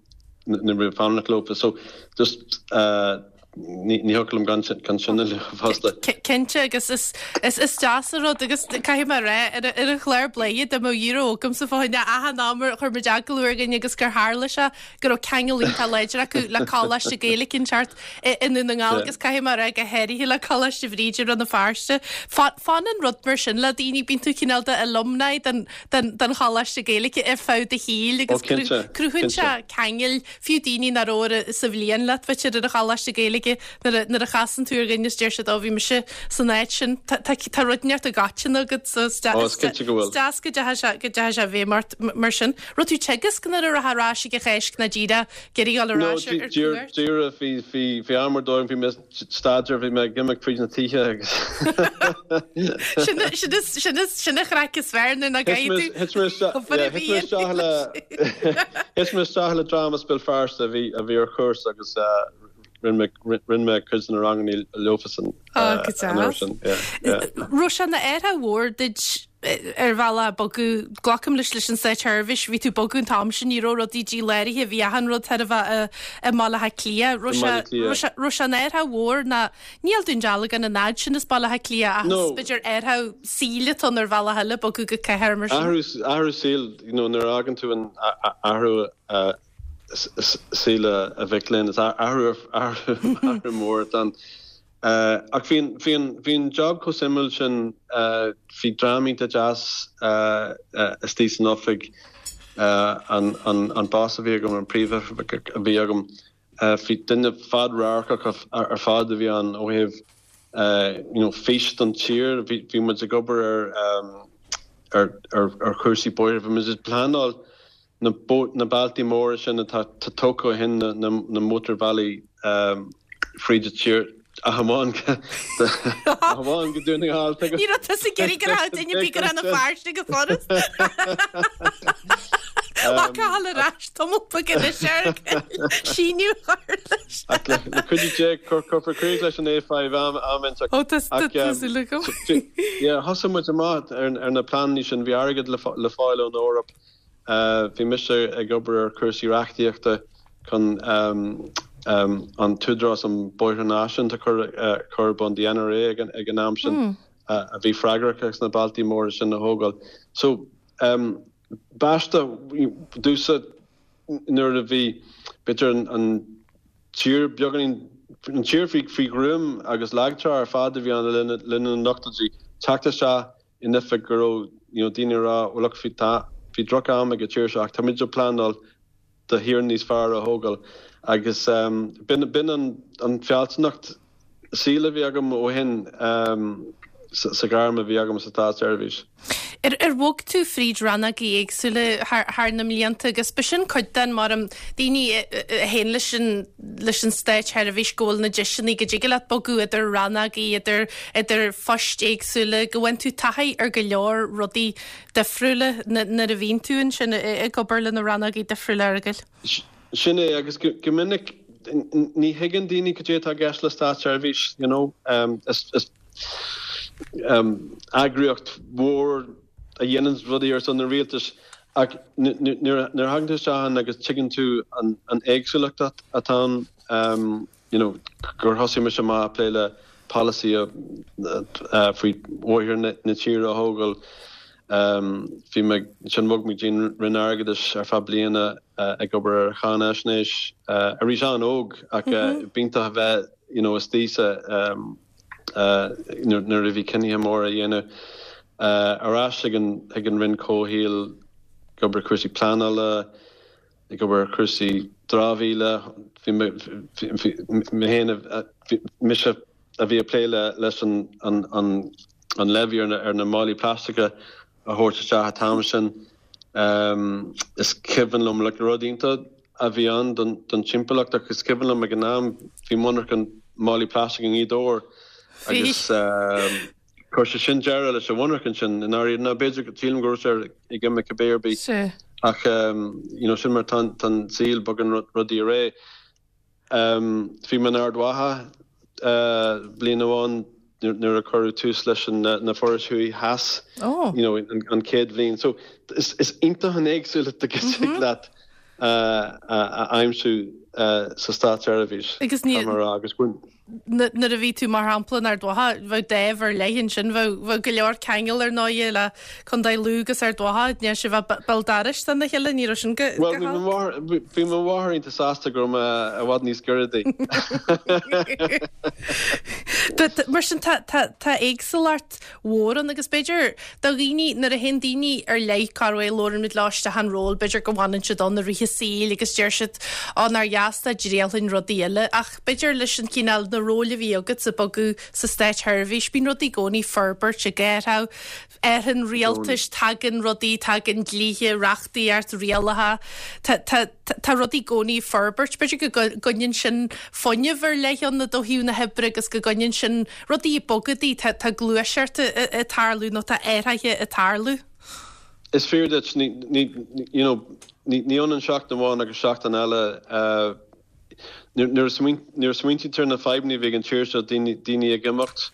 nuair a bhí mé ag fanacht leofa. So just eh, ní, ní thiocfadh liom gan sin, gan sin a lua fosta. Cinnte agus is, is, is deas an rud agus caithfidh mé a rá ar, ar an chlár Bladhaire dá mbeadh euro agamsa fá choinne achan am ar chuir muid agallamh ar dhuine agus gur tharla sé go raibh ceangal iontach láidir acu le Coláiste Gaeilge inteacht i nDún na nGall agus caithfidh mé a rá go háirithe le Coláiste Bhríde i Rann na Feirste. Fanann rud mar sin le daoine, bíonn tú cineál de alumni den den Choláiste Gaeilge ar feadh do shaoil agus cruthaíonn sé ceangail, fiú daoine nach raibh sa bhliain leat b'fhéidir ar an Choláiste Gaeilge nuair a chasann tú ar dhuine is deir siad ó bhí mise san áit sin. Tá rud inteacht i gcoiteann agat so is deas go dteachaigh sé go dteachaigh sé i bhfeidhm ort mar sin. Raibh tú ag teagasc nuair a rachfá ar ais ag an Cháisc ná díreach ag iarraidh dul ar ais ar cuairt? Díreach, bhí, bhí, bhí am ar dóigh, bhí mé ag staidéar, bhí mé ag imeacht fríd na tithe agus. Sin, sin is, sin is, sin an chraic is fearr nuair nach gcaithfidh tú Thit mé isteach, yeah, thit mé isteach le, thit mé isteach le dream as Béal Feirste a bhí, a bhí ar chúrsa agus rinne mé, rinne mé cuid de na ranganna leofasan Ó, go an uair sin, yeah, yeah. Raibh sé ina athrú mhór duit ar bhealach bogadh, glacaim leis leis an Státseirbhís, bhí tú ag bogadh an t-am sin, ní raibh rudaí díláraithe, bhí achan rud chóir a bheith i mBaile Átha Cliath. Raibh sé, raibh sé, raibh sé ina athrú mhór ná, níl Dún Dealgan an fhad sin as Baile Átha Cliath ach is b'fhéidir athrú saoil atá ann ar bhealach eile bogadh go cathair mar sin. Athrú, athrú saoil, you know, nuair a fhágann tú an athrú saoil a mhic léinn, is athrú, athrú, athrú mór atá ann. Ach bhí an, bhí an, bhí an job chomh suimiúil sin, bhí dream iontach deas istigh san oifig, an, an, an boss a bhí agam, an príomhoifigeach a bhí agam, bhí duine fad-radharcach ar fad a bhí ann ó thaobh you know fís don tír, bhí, bhí muid ag obair ar, ar, ar, ar chúrsaí bóithre, bhí muid ag pleanáil na bealtaí móra sin atá tógtha ó shin, na mótarbhealaí fríd an tír, ach amháin go Dún na nGall. Ní raibh tusa ag iarraidh go raibh duine ar bith go Rann na Feirste go furast. Lá Cathal ar ais tamall beag anois ar síniú a chur leis. Ach le cuidiú Dé cuirfear críoch leis an A5 am inteacht. Ó tá súil agam. Yeah, thosaigh muid amach ar na pleananna sin, bhí airgead le fáil ón Eoraip. Bhí mise ag obair ar chúrsaí reachtaíochta. chun an tÚdarás um Bóithre Náisiúnta a chur ar bun, the NRA ag an am sin, a bhí freagrach as na bealtaí móra sin a thógáil. So, b'aisteach domhsa nuair a bhí, b'fhéidir, an tír beagáinín, an tír faoi ghruaim agus lagtrá ar fad a bhí ann le linn na n-ochtóidí, teacht isteach in oifig go raibh you know daoine ag rá well look bhí tá bhí droch am ag an tír seo ach táimid ag pleanáil do thír níos fearr a thógáil agus b'in b'in an an fealsúnacht saoil a bhí agam ó shin sa ghairm a bhí agam sa státseirbhís. Ar ar bhog tú fríd rannógaí éagsúla thar thar na mblianta agus b'shin cuid den mar um daoine a théann leis an leis an státsheirbhís go bhfuil na deiseanna go dtig leat bogadh idir rannógaí idir idir phoist éagsúla, go bhfaigheann tú taithí ar go leor rudaí difriúla nuair a bhíonn tú ansin ag obair le na rannógaí difriúla, a Fhearghail. Sin é, agus go minic ní thuigeann daoine cad é atá i gceist le státseirbhís, you know. Is eagraíocht mhór a dhéanann rudaí ar son an rialtais ach nuair a thagann tú isteach ann agus tuigeann tú an éagsúlacht atá ann, you know, gur thosaigh mise amach ag plé le polasaí faoi bhóithre na tíre a thógáil. Bhí mé, ansin bhog mé go dtí an Roinn Airgeadais ar feadh bliana ag obair ar cháinaisnéis. Arís an-óg ach b'iontach a bheith, you know, istigh sa, nuair a bhí cinnithe móra á dhéanamh. Ar ais ag an, ag an Roinn Comhshaoil ag obair ar chúrsaí pleanála, ag obair ar chúrsaí dramhaíola. Bhí mé, bhí mé féin, bhí mise a bhí ag plé le, leis an, an, an, an levy ar na, ar na málaí plaisteacha a thabhairt isteach an t-am sin. Is cuimhin liom, like, rud iontach a bhí ann don, don timpeallacht ach is cuimhin liom ag an am bhí monarcha málaí plaisteach i nGaoth Dobhair agus, Chuir sé sin deireadh leis an mhonarcha sin i ndáiríre. Nó b'fhéidir, sílim go raibh sé ag imeacht cibé ar bith. Ach you know sin mar tá an saol, bogann rudaí ar aghaidh. Bhí mé in Ard Mhacha bliain amháin nuair a cuireadh tús leis na forais thuaidh theas, you know an chéad bhliain. So is iontach an éagsúlacht a thig leat a aimsiú sa státseirbhís. Agus ní. Agus Nuair a bhí tú, mar shampla, in Ard Mhacha, bheadh dáimh ar leith ansin, bheadh go leor ceangal ar ndóighe le Contae Lú agus Ard Mhacha, ní raibh sibh béal dorais dona chéile, ní raibh sin go Bhuel, bhí mo mháthair iontach sásta go raibh mé i bhfad níos giorra di. Mar sin, tá éagsúlacht mhór ann agus b'fhéidir do dhaoine, nuair a théann daoine ar leith, corruair labhrann muid leo isteach an ról, b'fhéidir go bhfanann siad ann i rith a saoil agus deir siad ó nár dheas dá dtriailfinn rudaí eile ach b'fhéidir leis an chineál, na róil a bhí agat ag bogadh sa státsheirbhís, bíonn rudaí i gcónaí ag forbairt, ag athrú, athraíonn rialtais, tagann rudaí, tagann dlíthe, reachtaíocht, rialacha, tá, tá, tá rudaí i gcónaí ag forbairt, b'fhéidir go gcoinníonn sin fuinneamh ar leith ann ó thaobh na hoibre agus go gcoinníonn sin rudaí ag bogadh di, tá tá gluaiseacht ag tarlú nó tá athruithe ag tarlú. Is fíor duit, ní, ní, you know, ní, ní ionann seachtain amháin agus seachtain eile. Nuair a nuair a smaointíonn tú ar na fadhbanna a bhí ag an tír seo, daoine, daoine ag imeacht,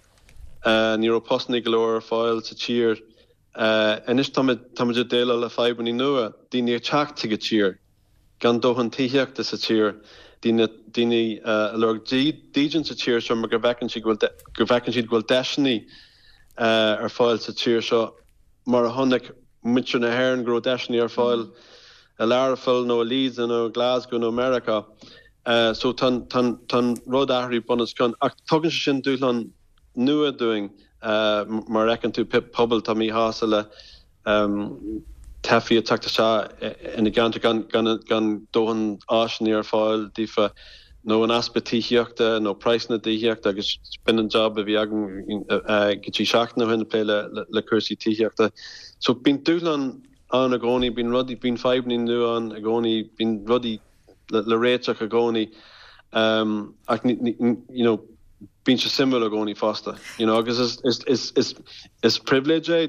ní raibh postanna go leor ar fáil sa tír. Anois táimid, táimid ag déileáil le fadhbanna nua, daoine ag teacht chuig an tír. gan dóthain tithíochta sa tír, daoine daoine ag lorg dídean sa tír seo mar go bhfeiceann siad go bhfuil go bhfeiceann siad go bhfuil deiseanna ar fáil sa tír seo mar a chonaic muintir na hÉireann go raibh deiseanna ar fáil i Learpholl nó i Leeds nó i Glasgow nó i Meiriceá. So tá tá tá an rud athraithe bun os cionn ach tugann sé sin dúshlán nua dúinn mar a fheiceann tú pobail atá míshásta le teifigh ag teacht isteach ina gceantar gan dóthain áiseanna ar fáil daofa nó an easpa tithíochta nó praghsanna tithíochta agus b'in an job a bhí agam go dtí seachtain ó shin ag plé le cúrsaí tithíochta. So bíonn dúshlán ann i gcónaí, bíonn rudaí, bíonn fadhbanna nua ann i gcónaí, bíonn rudaí le réiteach i gcónaí ach you know bíonn sé suimiúil i gcónaí fosta you know agus is is is is is pribhléid é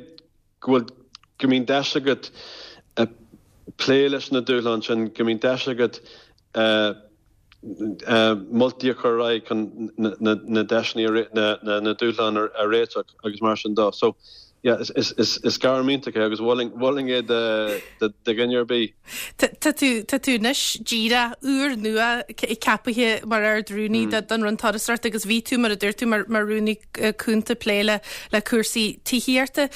go bhfuil, go mbíonn deis agat plé leis na dúshláin sin, go mbíonn deis agat moltaí a chur ar aghaidh chun na deiseanna, na dúshláin a réiteach agus mar sin de. So, yeah, is gairm iontach é agus mholfainn é do dhuine ar bith. Tá tú, tá tú anois díreach úr nua ceapaithe mar Ard-Rúnaí don Roinn Turasóireachta agus bhí tú, mar a dúirt tú, mar Rúnaí Cúnta ag plé le le cúrsaí tithíochta.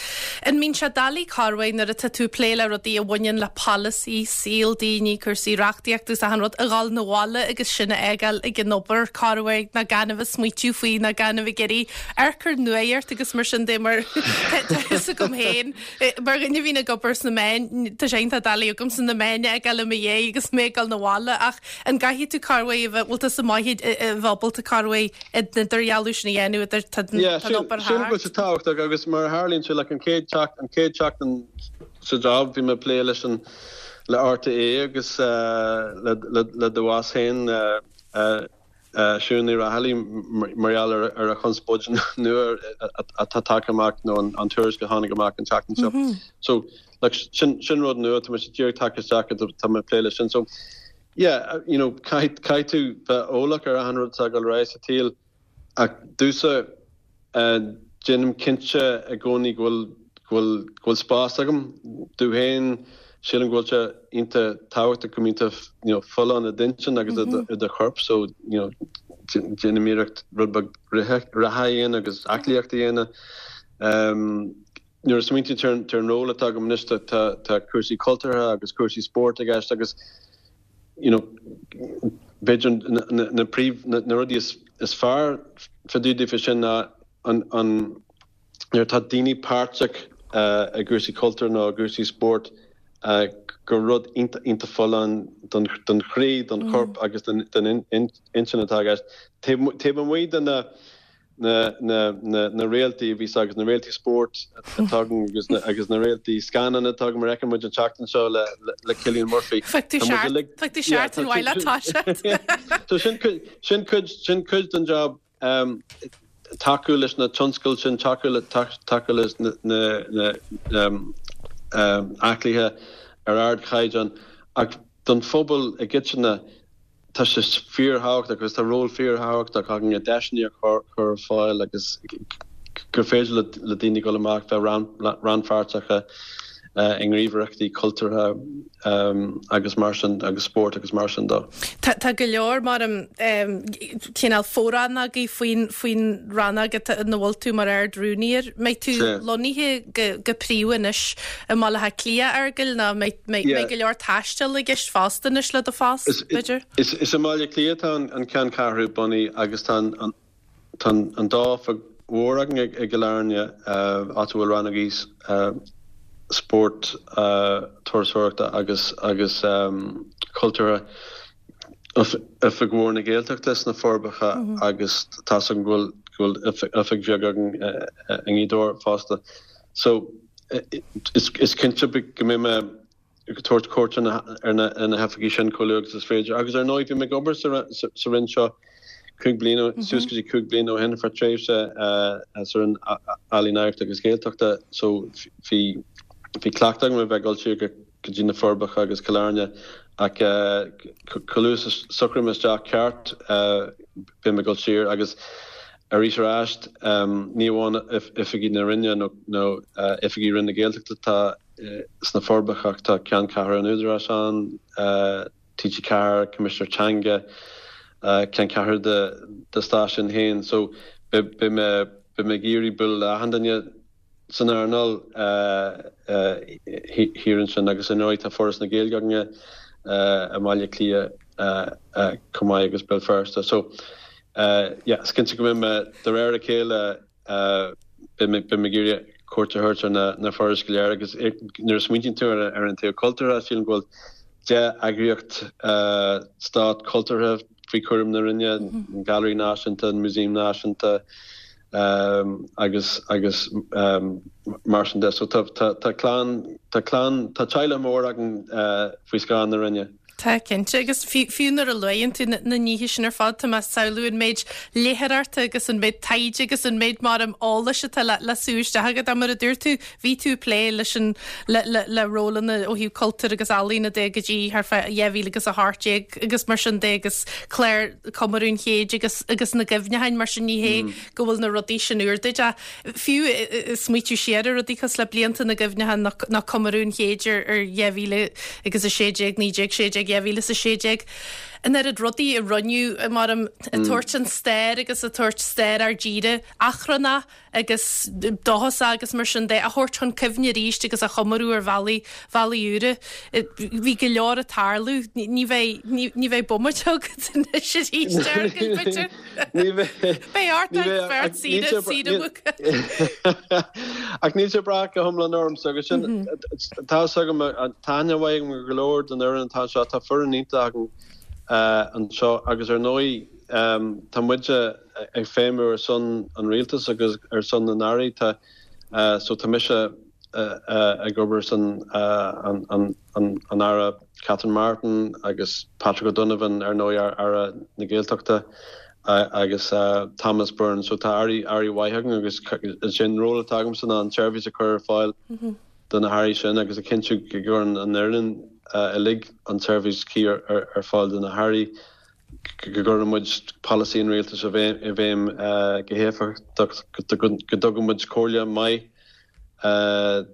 An mbíonn sé doiligh corruair nuair atá tú ag plé le rudaí a bhaineann le polasaí, saol daoine, cúrsaí reachtaíochta agus achan rud, a dhul 'na bhaile agus sin a fhágáil ag an obair corruair ná gan a bheith ag smaoitiú faoi ná gan a bheith ag iarraidh amharc ar nuacht agus mar sin de mar tá fhios agam féin mar dhuine a bhíonn ag obair sna meáin, tá sé iontach doiligh agamsa na meáin a fhágáil i mo dhiaidh agus mé ag dul 'na bhaile ach an gcaithfidh tú corruair a bheith, bhfuil tusa maith a bheith ábalta corruair an idirdhealú sin a dhéanamh idir tá an obair thart. Sílim go bhfuil sé tábhachtach agus mar a tharlaíonn sé like an chéad an chéad seachtain sa job bhí mé ag plé leis an le RTÉ agus le le do bhoss féin Siún Ní Raghallaigh mar gheall ar a chonspóid nua atá tagtha amach nó an tuairisc a tháinig amach an tseachtain seo. So like sin sin rud nua tá mise díreach tagtha isteach tá mé ag plé leis sin. So yeah you know caithfidh caithfidh tú bheith eolach ar achan rud atá ag dul ar aghaidh sa tsaol ach domhsa Déanaim cinnte i gcónaí go bhfuil, go bhfuil, go bhfuil spás agam domh féin. Sílim go bhfuil sé iontach tábhachtach go mbíonn tú you know folláin i d'intinn agus i do chorp so you know déanaim iarracht rud beag rith, reatha a dhéanamh agus aclaíocht a dhéanamh. Nuair a smaointíonn tú ar an ról atá agam anois tá, tá cúrsaí cultúrtha agus cúrsaí spóirt i gceist agus you know b'fhéidir na príomh, na rudaí is fearr fá dtaobh daofa sin ná an, an, nuair atá daoine páirteach i gcúrsaí cultúir nó i gcúrsaí spóirt gur rud iontach, iontach folláin don, don chroí, don chorp agus don, don intinn atá i gceist. Taobh, taobh amuigh de na, na réaltaí a bhíos agus na réaltaí spóirt atá againn agus na agus na réaltaí scannán atá againn mar a fheiceann muid an tseachtain seo le le Cillian Murphy. Tá muid uilig Tá tú seachtain mhaith le toiseacht. So sin cuid sin cuid sin cuid den job tacú leis na tionscail sin, tacú le tacú leis na na na aclaithe ar ardchaighdeán ach don phobal i gcoitinne Tá sé fíorthábhachtach agus tá ról fíorthábhachtach againn i deiseanna a chur ar fáil agus gur féidir le daoine dul amach bheith rannpháirteach i ngníomhaireachtaí cultúrtha agus mar sin agus spórt agus mar sin de. Tá go leor mar cineál fo-rannógaí faoin faoin rannóg ina bhfuil tú mar Ard-Rúnaí air. Mbeidh tú lonnaithe go príomha anois i mBaile Átha Cliath, a Fheargail, nó mbeidh go leor taistil i gceist fosta anois le do phost, b'fhéidir? Is i mBaile Átha Cliath atá an ceanncheathrú bunaithe agus tá an dá oifig mhór againn i gCill Airne, áit a bhfuil rannógaí spóirt, turasóireachta agus cultúrtha, Oifig mhór na Gaeltachta sna Forbacha agus tá's agam go bhfuil oifig bheag againn i nGaoth Dobhair fosta. So, is cinnte go mbeidh mé ag tabhairt cuairt ar na hoifigí sin chomh luath agus is féidir. Agus ar ndóigh, bhí mé ag obair sa Roinn seo cúig bliana, suas go dtí cúig bliana ó shin ar feadh tréimhse sa Roinn Ealaíon, Oidhreachta agus Gaeltachta so bhí cleachtadh agam a bheith ag dul siar go dtí na Forbacha agus Cill Airne ach chomh luath is a socraím isteach ceart beidh mé ag dul siar agus arís ar ais, ní amháin oifigí na Roinne nó oifigí Roinn na Gaeltachta atá sna Forbacha ach tá ceanncheathrú an Údaráis ann, TG4, Coimisinéir Teanga, ceanncheathrú do stáisiún féin. So beidh mé ag iarraidh bualadh le achan duine san earnáil thiar ansin agus ar ndóigh tá Foras na Gaeilge againne i mBaile Átha Cliath chomh maith agus Béal Feirste. So yeah, is cinnte go mbeidh mé de réir a chéile beidh mé ag iarraidh cuairt a thabhairt ar na forais go léir agus nuair a smaointíonn tú ar an taobh cultúrtha sílim go bhfuil 10 eagraíocht stát cultúrtha faoi chúram na Roinne, an Gailearaí Náisiúnta, an Músaem Náisiúnta, agus agus mar sin de. So tá tá clann tá clann tá teaghlach mór againn faoi scáth na Roinne. Tá, cinnte, agus fiú nuair a luann tú na nithe sin ar fad, tá mé ag samhlú an méid léitheoireachta agus an méid taighde agus an méid maram eolais atá le sú isteach agat. Mar a dúirt tú, bhí tú ag plé leis an le le le rólanna ó thaobh cultúir agus ealaíona de go dtí thart fá 2018 agus mar sin de agus clár comóradh an chéid agus agus na gcuimhneacháin mar sin ní hé go bhfuil na rudaí sin úr duit ach fiú smaoitiú siar ar rudaí cosúil le blianta na gcuimhneachán nó comóradh an chéid ar 2016, 1916, 2016, an oiread rudaí a rinneadh maram ag tabhairt an stair agus ag tabhairt stair ár dtíre achrannach agus dóchasach agus mar sin de a thabhairt chun cuimhne arís agus a chomóradh ar bhealaí, bhealaí úra. Bhí go leor ag tarlú. Ní bheidh, ní bheidh bomaite agat anois arís, a Fhearghail, b'fhéidir. Ní bheidh. Beidh ort ag beirt saoire, saoire mhuca. Ach níl sé ag brath go hiomlán ormsa agus sin, tá fhios agam, tá aithne mhaith agam ar go leor den fhoireann atá anseo, tá foireann iontach againn anseo agus ar ndóigh tá muide ag feidhmiú ar son an rialtais agus ar son na n-airí, tá, so tá mise ag obair ar son an Aire Catherine Martin agus Patrick O'Donovan ar ndóigh Aire na Gaeltachta agus Thomas Byrne. So tá airí airí mhaith againn agus is é an ról atá agamsa ná an tseirbhís a chur ar fáil do na hairí sin agus a chinntiú go gcuireann an fhoireann uilig an tseirbhís chuí ar fáil do na hairí. go gcuireann muid polasaí an rialtais i bhfeidhm go héifeachtach, go dtugann muid comhairle maith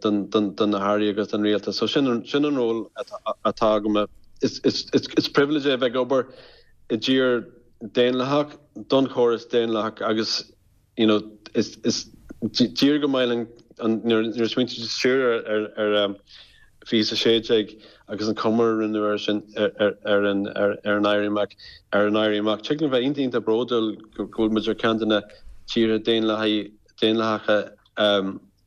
do na hairí agus don rialtas. So sin an ról atá agam. Is pribhléid é a bheith ag obair i dtír daonlathach, don chóras daonlathach agus you know, is tír go maith linn nuair a smaointíonn tú siar ar 2016 agus an comóradh a rinneadh ar sin ar an ar an Éirí Amach ar an Éirí Amach. Tig linn bheith iontach iontach bródúil go bhfuil muid ar ceann de na tíortha daonlathacha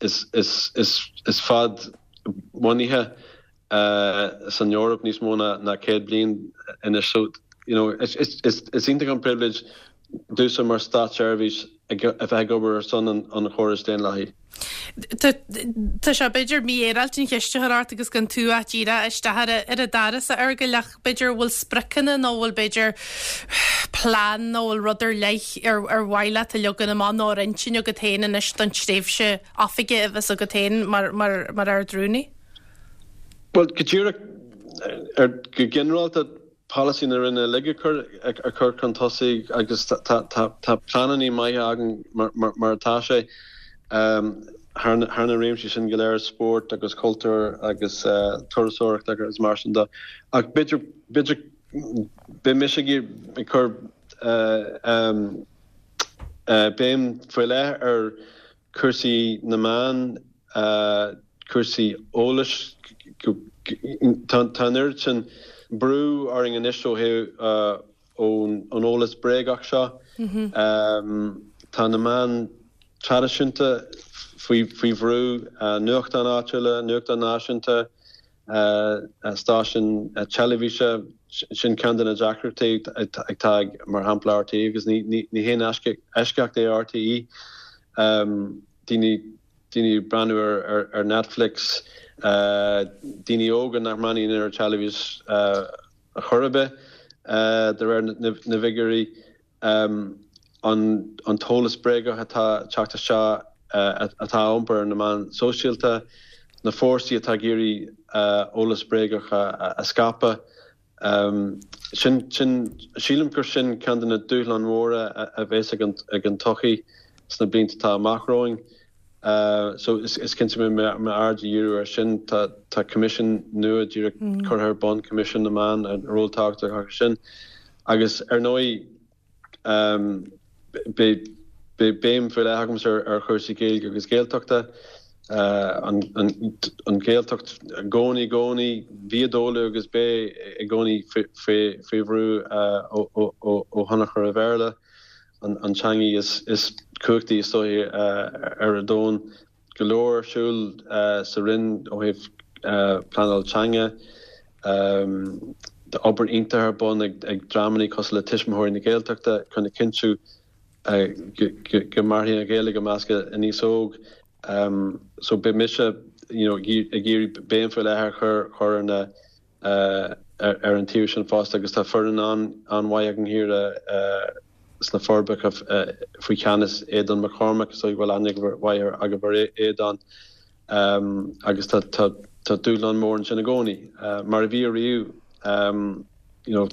is is is is fad-bhunaithe san Eoraip níos mó ná 100 bliain anois. So, you know, is iontach an pribhléid domhsa mar státseirbhíseach a bheith ag obair ar son an chórais daonlathaigh. Tá sé b'fhéidir mífhéaráilte an cheist a chur ort agus gan tú ach díreach isteach ar an doras a Fhearghail ach b'fhéidir bhfuil spriocanna nó bhfuil b'fhéidir plean nó bhfuil rud ar leith ar mhaith leat a leagan amach nó ar intinn agat féin anois don tréimhse oifige a bheas agat féin mar Ard-Rúnaí? Bhuel, go díreach, ar, go ginearálta, polasaí na Roinne uilig a chur, a chur chun tosaigh agus tá, tá, tá pleananna maithe againn mar, mar, mar atá sé, thar na, thar na réimsí sin go léir, spórt agus cultúr agus turasóireacht agus mar sin de. Ach b'fhéidir, b'fhéidir, beidh mise ag iarraidh, ag cur béim faoi leith ar cúrsaí na meán, cúrsaí eolais. Tá an oiread sin brú orainn anois ó thaobh ón eolas bréagach seo. Tá na meáin traidisiúnta faoi bhrú, nuachtáin áitiúla, nuachtáin náisiúnta, stáisiúin teilifíse, sin ceann de na deacrachtaí atá ag, mar shampla, RTÉ agus ní haon eisceacht é RTÉ. Daoine daoine ag breathnú ar Netflix, daoine óga nach mbreathnaíonn ar an teilifís ar chor ar bith, de réir na bhfigiúirí. an t-eolas bréagach atá ag teacht isteach, atá á iompar ar na meáin sóisialta, na fórsaí atá ag iarraidh eolas bréagach a scaipeadh. Sin, sin, sílim gur sin ceann de na dúshláin mhóra a bheas ag an tsochaí sna blianta atá amach romhainn. So is cinnte go mbeidh m'aird á dhíriú air sin. Tá tá coimisiún nua díreach curtha ar bun, Coimisiún na Meán, ról tábhachtach acu sin. Agus ar ndóigh beidh beidh béim faoi leith agamsa ar chúrsaí Gaeilge agus Gaeltachta. An an Ghaeltacht i gcónaí i gcónaí, bhí i dtólamh agus beidh i gcónaí faoi faoi bhrú ó ó ó thionchar an Bhéarla. an teangaidh is cumhachtaí is dóiche ar an domhan. Go leor ar siúl sa Roinn ó thaobh pleanáil teanga. Tá obair iontach ar bun ag dreamanna cosúil le Tuismitheoirí na Gaeltachta chun a chinntiú go mairfidh an Ghaeilge i measc an aos óg. So beidh mise you know ag iarraidh béim faoi leith a chur ar na. ar an taobh sin fosta agus tá foireann an-mhaith againn thiar sna Forbacha faoi cheannas Aodán McCormack, is dóigh go bhfuil aithne mhaith agaibh ar Aodán agus tá dúshlán mór ansin i gcónaí, mar a bhí ariamh. You know,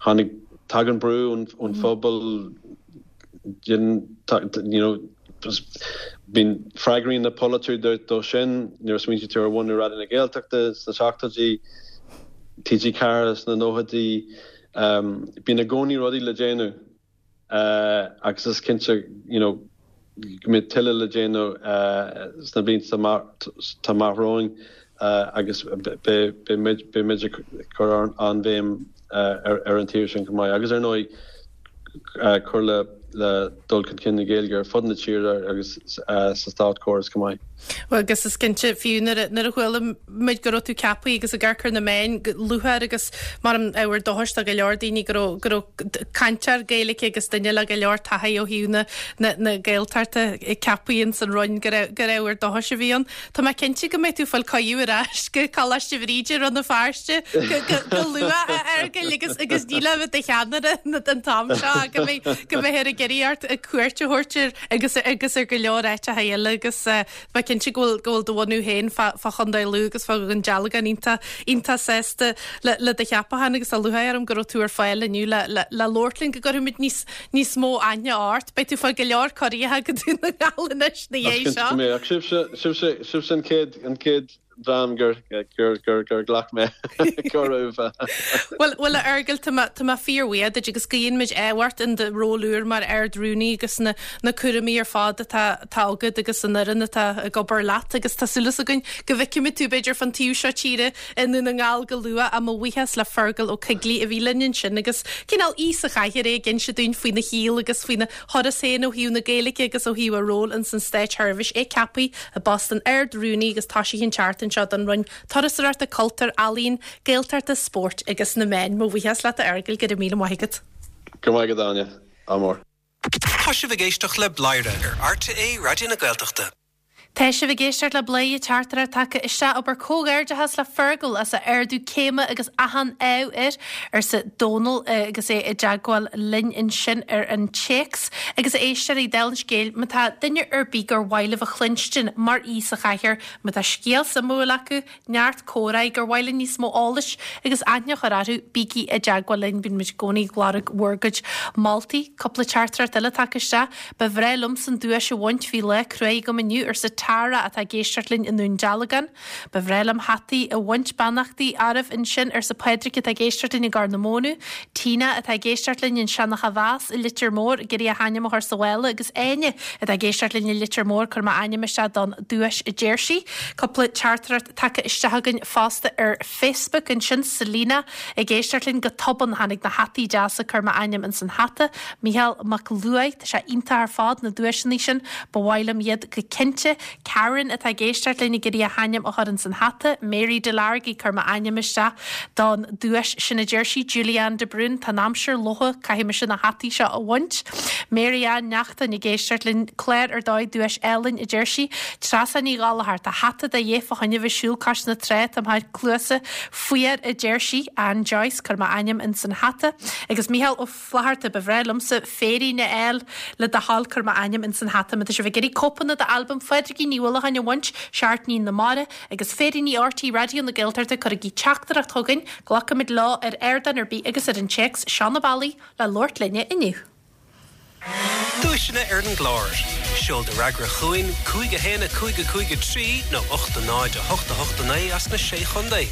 tháinig, tagann brú ón phobal, you know, bíonn, freagraíonn na polaiteoirí dó sin, nuair a smaointíonn tú ar bhunú Raidió na Gaeltachta sna seachtóidí, TG4 sna nóchaidí, bíonn i gcónaí rudaí le déanamh agus is cinnte, you know, go mbeidh tuilleadh le déanamh sna blianta atá amach romhainn agus beidh muid ag cur an-bhéim ar an taobh sin chomh maith agus ar ndóigh cur le dul chun cinn na Gaeilge ar fud na tíre agus sa státchóras chomh maith. Bhuel, agus is cinnte, fiú nuair a chuala muid go raibh tú ceaptha agus ag amharc ar na meáin go lúcháir agus mar an ábhar dóchais do go leor daoine go raibh go raibh cainteoir Gaeilge agus duine le go leor taithí ó thaobh na na na Gaeltachta ceaptha ins an Roinn gur gur ábhar dóchais a bhí ann. Tá mé cinnte go mbeidh tú ag fáil cuireadh ar ais go Coláiste Bhríde i Rann na Feirste go luath a Fheargail agus agus ní le bheith i do cheannaire an t-am seo go mbeidh go mbeifear ag iarraidh ort cuairt a thabhairt ar agus agus ar go leor áiteacha eile agus tá mé cinnte go bhfuil go bhfuil do bhunú féin fá fá Chontae Lú agus fá Dhún Dealgan iontach iontach sásta le le do cheapachán agus tá lúcháir orm go raibh tú ar fáil inniu le le le labhairt linn go gcuirfimid níos níos mó aithne ort. Beidh tú ag fáil go leor cuirí go Dún na nGall anois na dhiaidh seo. Go mbeadh sibhse, sibhse, sibhse an chéad, an chéad dream gur, gur, gur, gur ghlac mé cuireadh. Bhuel, bhuel a Fheargail, tá mé, tá mé fíorbhuíoch duit agus guíonn muid ádh ort in do ról úr mar Ard-Rúnaí agus na, na cúraimí ar fad atá, atá agat agus an fhoireann atá ag obair leat agus tá súil againn go bhfeicfimid tú b'fhéidir fán taobh seo tíre i nDún na nGall go luath ach mo bhuíochas le Fergal Ó Coigligh a bhí linn ansin agus cineál aoi sa chathaoir é ag inse dúinn faoina shaol agus faoina thuras féin ó thaobh na Gaeilge agus ó thaobh a ról ins an Státseirbhís. É ceaptha i bpost an Ard-Rúnaí agus toisithe an tseachtain seo don Roinn Turasóireachta, Cultúir, Ealaíon, Gaeltachta, Spóirt agus na Meáin. Mo bhuíochas leat a Fheargail, go raibh míle maith agat. Go raibh maith agat Áine. Ádh mór. Tá sibh ag éisteacht le Bladhaire ar RTÉ Raidió na Gaeltachta. Tá sibh ag éisteacht le Bladhaire teachtaireacht tagtha isteach abair comhghairdeachas le Fergal as a ardú céime agus achan ádh air, arsa Dónal agus é i dteagmháil linn ansin ar an téacs. Agus a éisteoirí, dála an scéil, má tá duine ar bith gur mhaith libh a chluinstin mar aoi sa chathaoir, má tá scéal suimiúil acu, neart comhráí gur mhaith linn níos mó eolais agus aithne a chur orthu, bígí i dteagmháil linn, bíonn muid i gcónaí ag lorg bhur gcuid moltaí. Cúpla teachtaireacht eile tagtha isteach. Ba bhreá liomsa an duais a bhaint, bhí lá cruaidh agam inniu, arsa Tara atá ag éisteacht linn i nDún Dealgan. Ba bhreá liom hataí a bhaint, beannachtaí oraibh ansin, arsa Pádraig atá ag éisteacht linn i gCorr na Móna. Tina atá ag éisteacht linn i Seanach a' Mheas i Leitir Móir ag iarraidh a hainm a chur sa mhála agus Áine atá ag éisteacht linn i Leitir Móir, cuir m'ainm isteach don duais a deir sí. Cúpla teachtaireacht tagtha isteach againn fosta ar Facebook ansin, Selina ag éisteacht linn go tobann tháinig na hataí deasa cuir m'ainm ins an hata. Micheál Mac Luaigh, tá sé iontach ar fad na duaiseanna sin, ba mhaith liom iad go cinnte. Karen atá ag éisteacht linn ag iarraidh a hainm a chur ins an hata. Mary Delargy, cuir m'ainm isteach don duais sin a deir sí. Julianne de Brún, tá an aimsir lofa, caithfidh mise na hataí seo a bhaint. Mary Ann Neachtain ag éisteacht linn, clár ar dóigh, duais álainn a deir sí. Treasa Ní Ghallchóir, tá hata de dhíth fá choinne bheith siúl cois na trá, táim thar cluasa fuar a deir sí. Ann Joyce, cuir m'ainm ins an hata. Agus Micheál Ó. Flatharta, Ba bhreá liomsa féirín a fháil le do thoil cuir m'ainm ins an hata má tá sibh ag iarraidh cóipeanna d'albam Phádraigín Ní Uallacháin a bhaint, Seachtainí na Mara, agus féiríní RTÉ Raidió na Gaeltachta cuirigí teachtaireacht chugainn, glacfaimid leo ar ardán ar bith agus ar an téacs, seo na bealaí le labhairt linne inniu. Duaiseanna ar an gclár. Seol do fhreagra chugainn, 5 1 5 5 3 nó 8 0 8 8 9 as na Sé Chontae.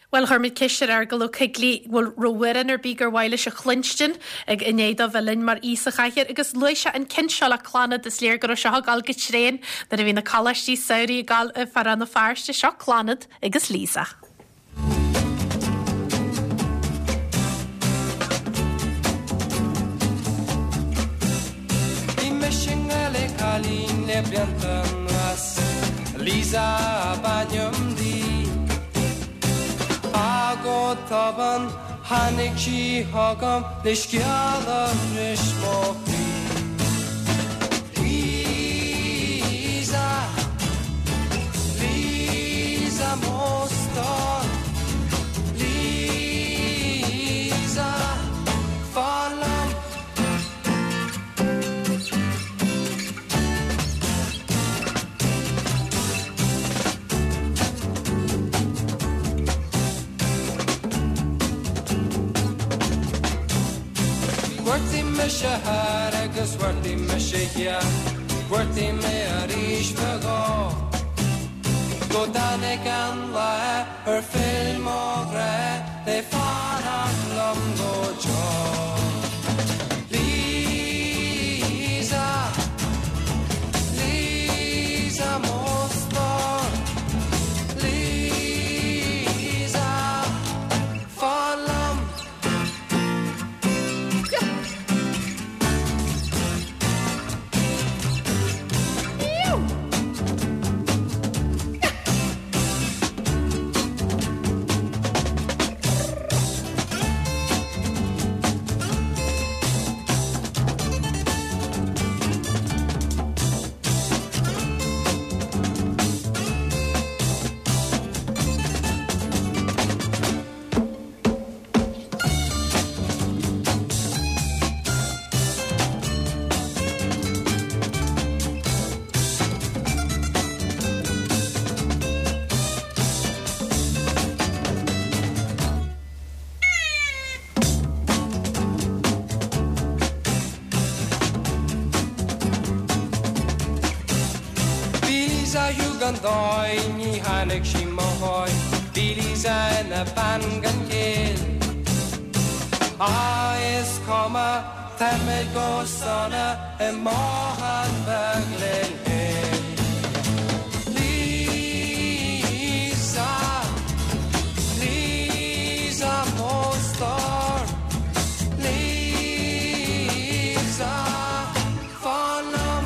Bhuel, chuir muid ceist ar Fheargal Ó Coigligh bhfuil raibh amhrán ar bith gur mhaith leis a chluinstin ag i ndiaidh dó bheith linn mar aoi sa chathaoir agus luaigh sé an ceann seo le Clannad, is léir go raibh seo ag dul go tréan nuair a bhí na coláistí samhraidh ag dul fá Rann na Feirste, seo Clannad agus Lisa. Bhí mise i ngrá le cailín le blianta anuas, Lisa ab ainm di. Ach go tobann tháinig sí chugam le scéal a bhris mo chroí. Lisa, Lisa mo stór, Lisa. Chuartaigh mise thoir agus chuartaigh mise thiar, Chuartaigh mé arís fadó. Go dtáinig an lá ar phill mo ghrá le fanacht liom go deo. Lisa, Lisa mo stór, Lisa, fan liom. Bhí Lisa gan dóigh, ní tháinig sí mo dhóigh, Bhí Lisa ina bean gan chéill. Á, is cuma, táimid go sona i mbothán beag linn féin. Lisa, Lisa mo stór, Lisa, fan liom.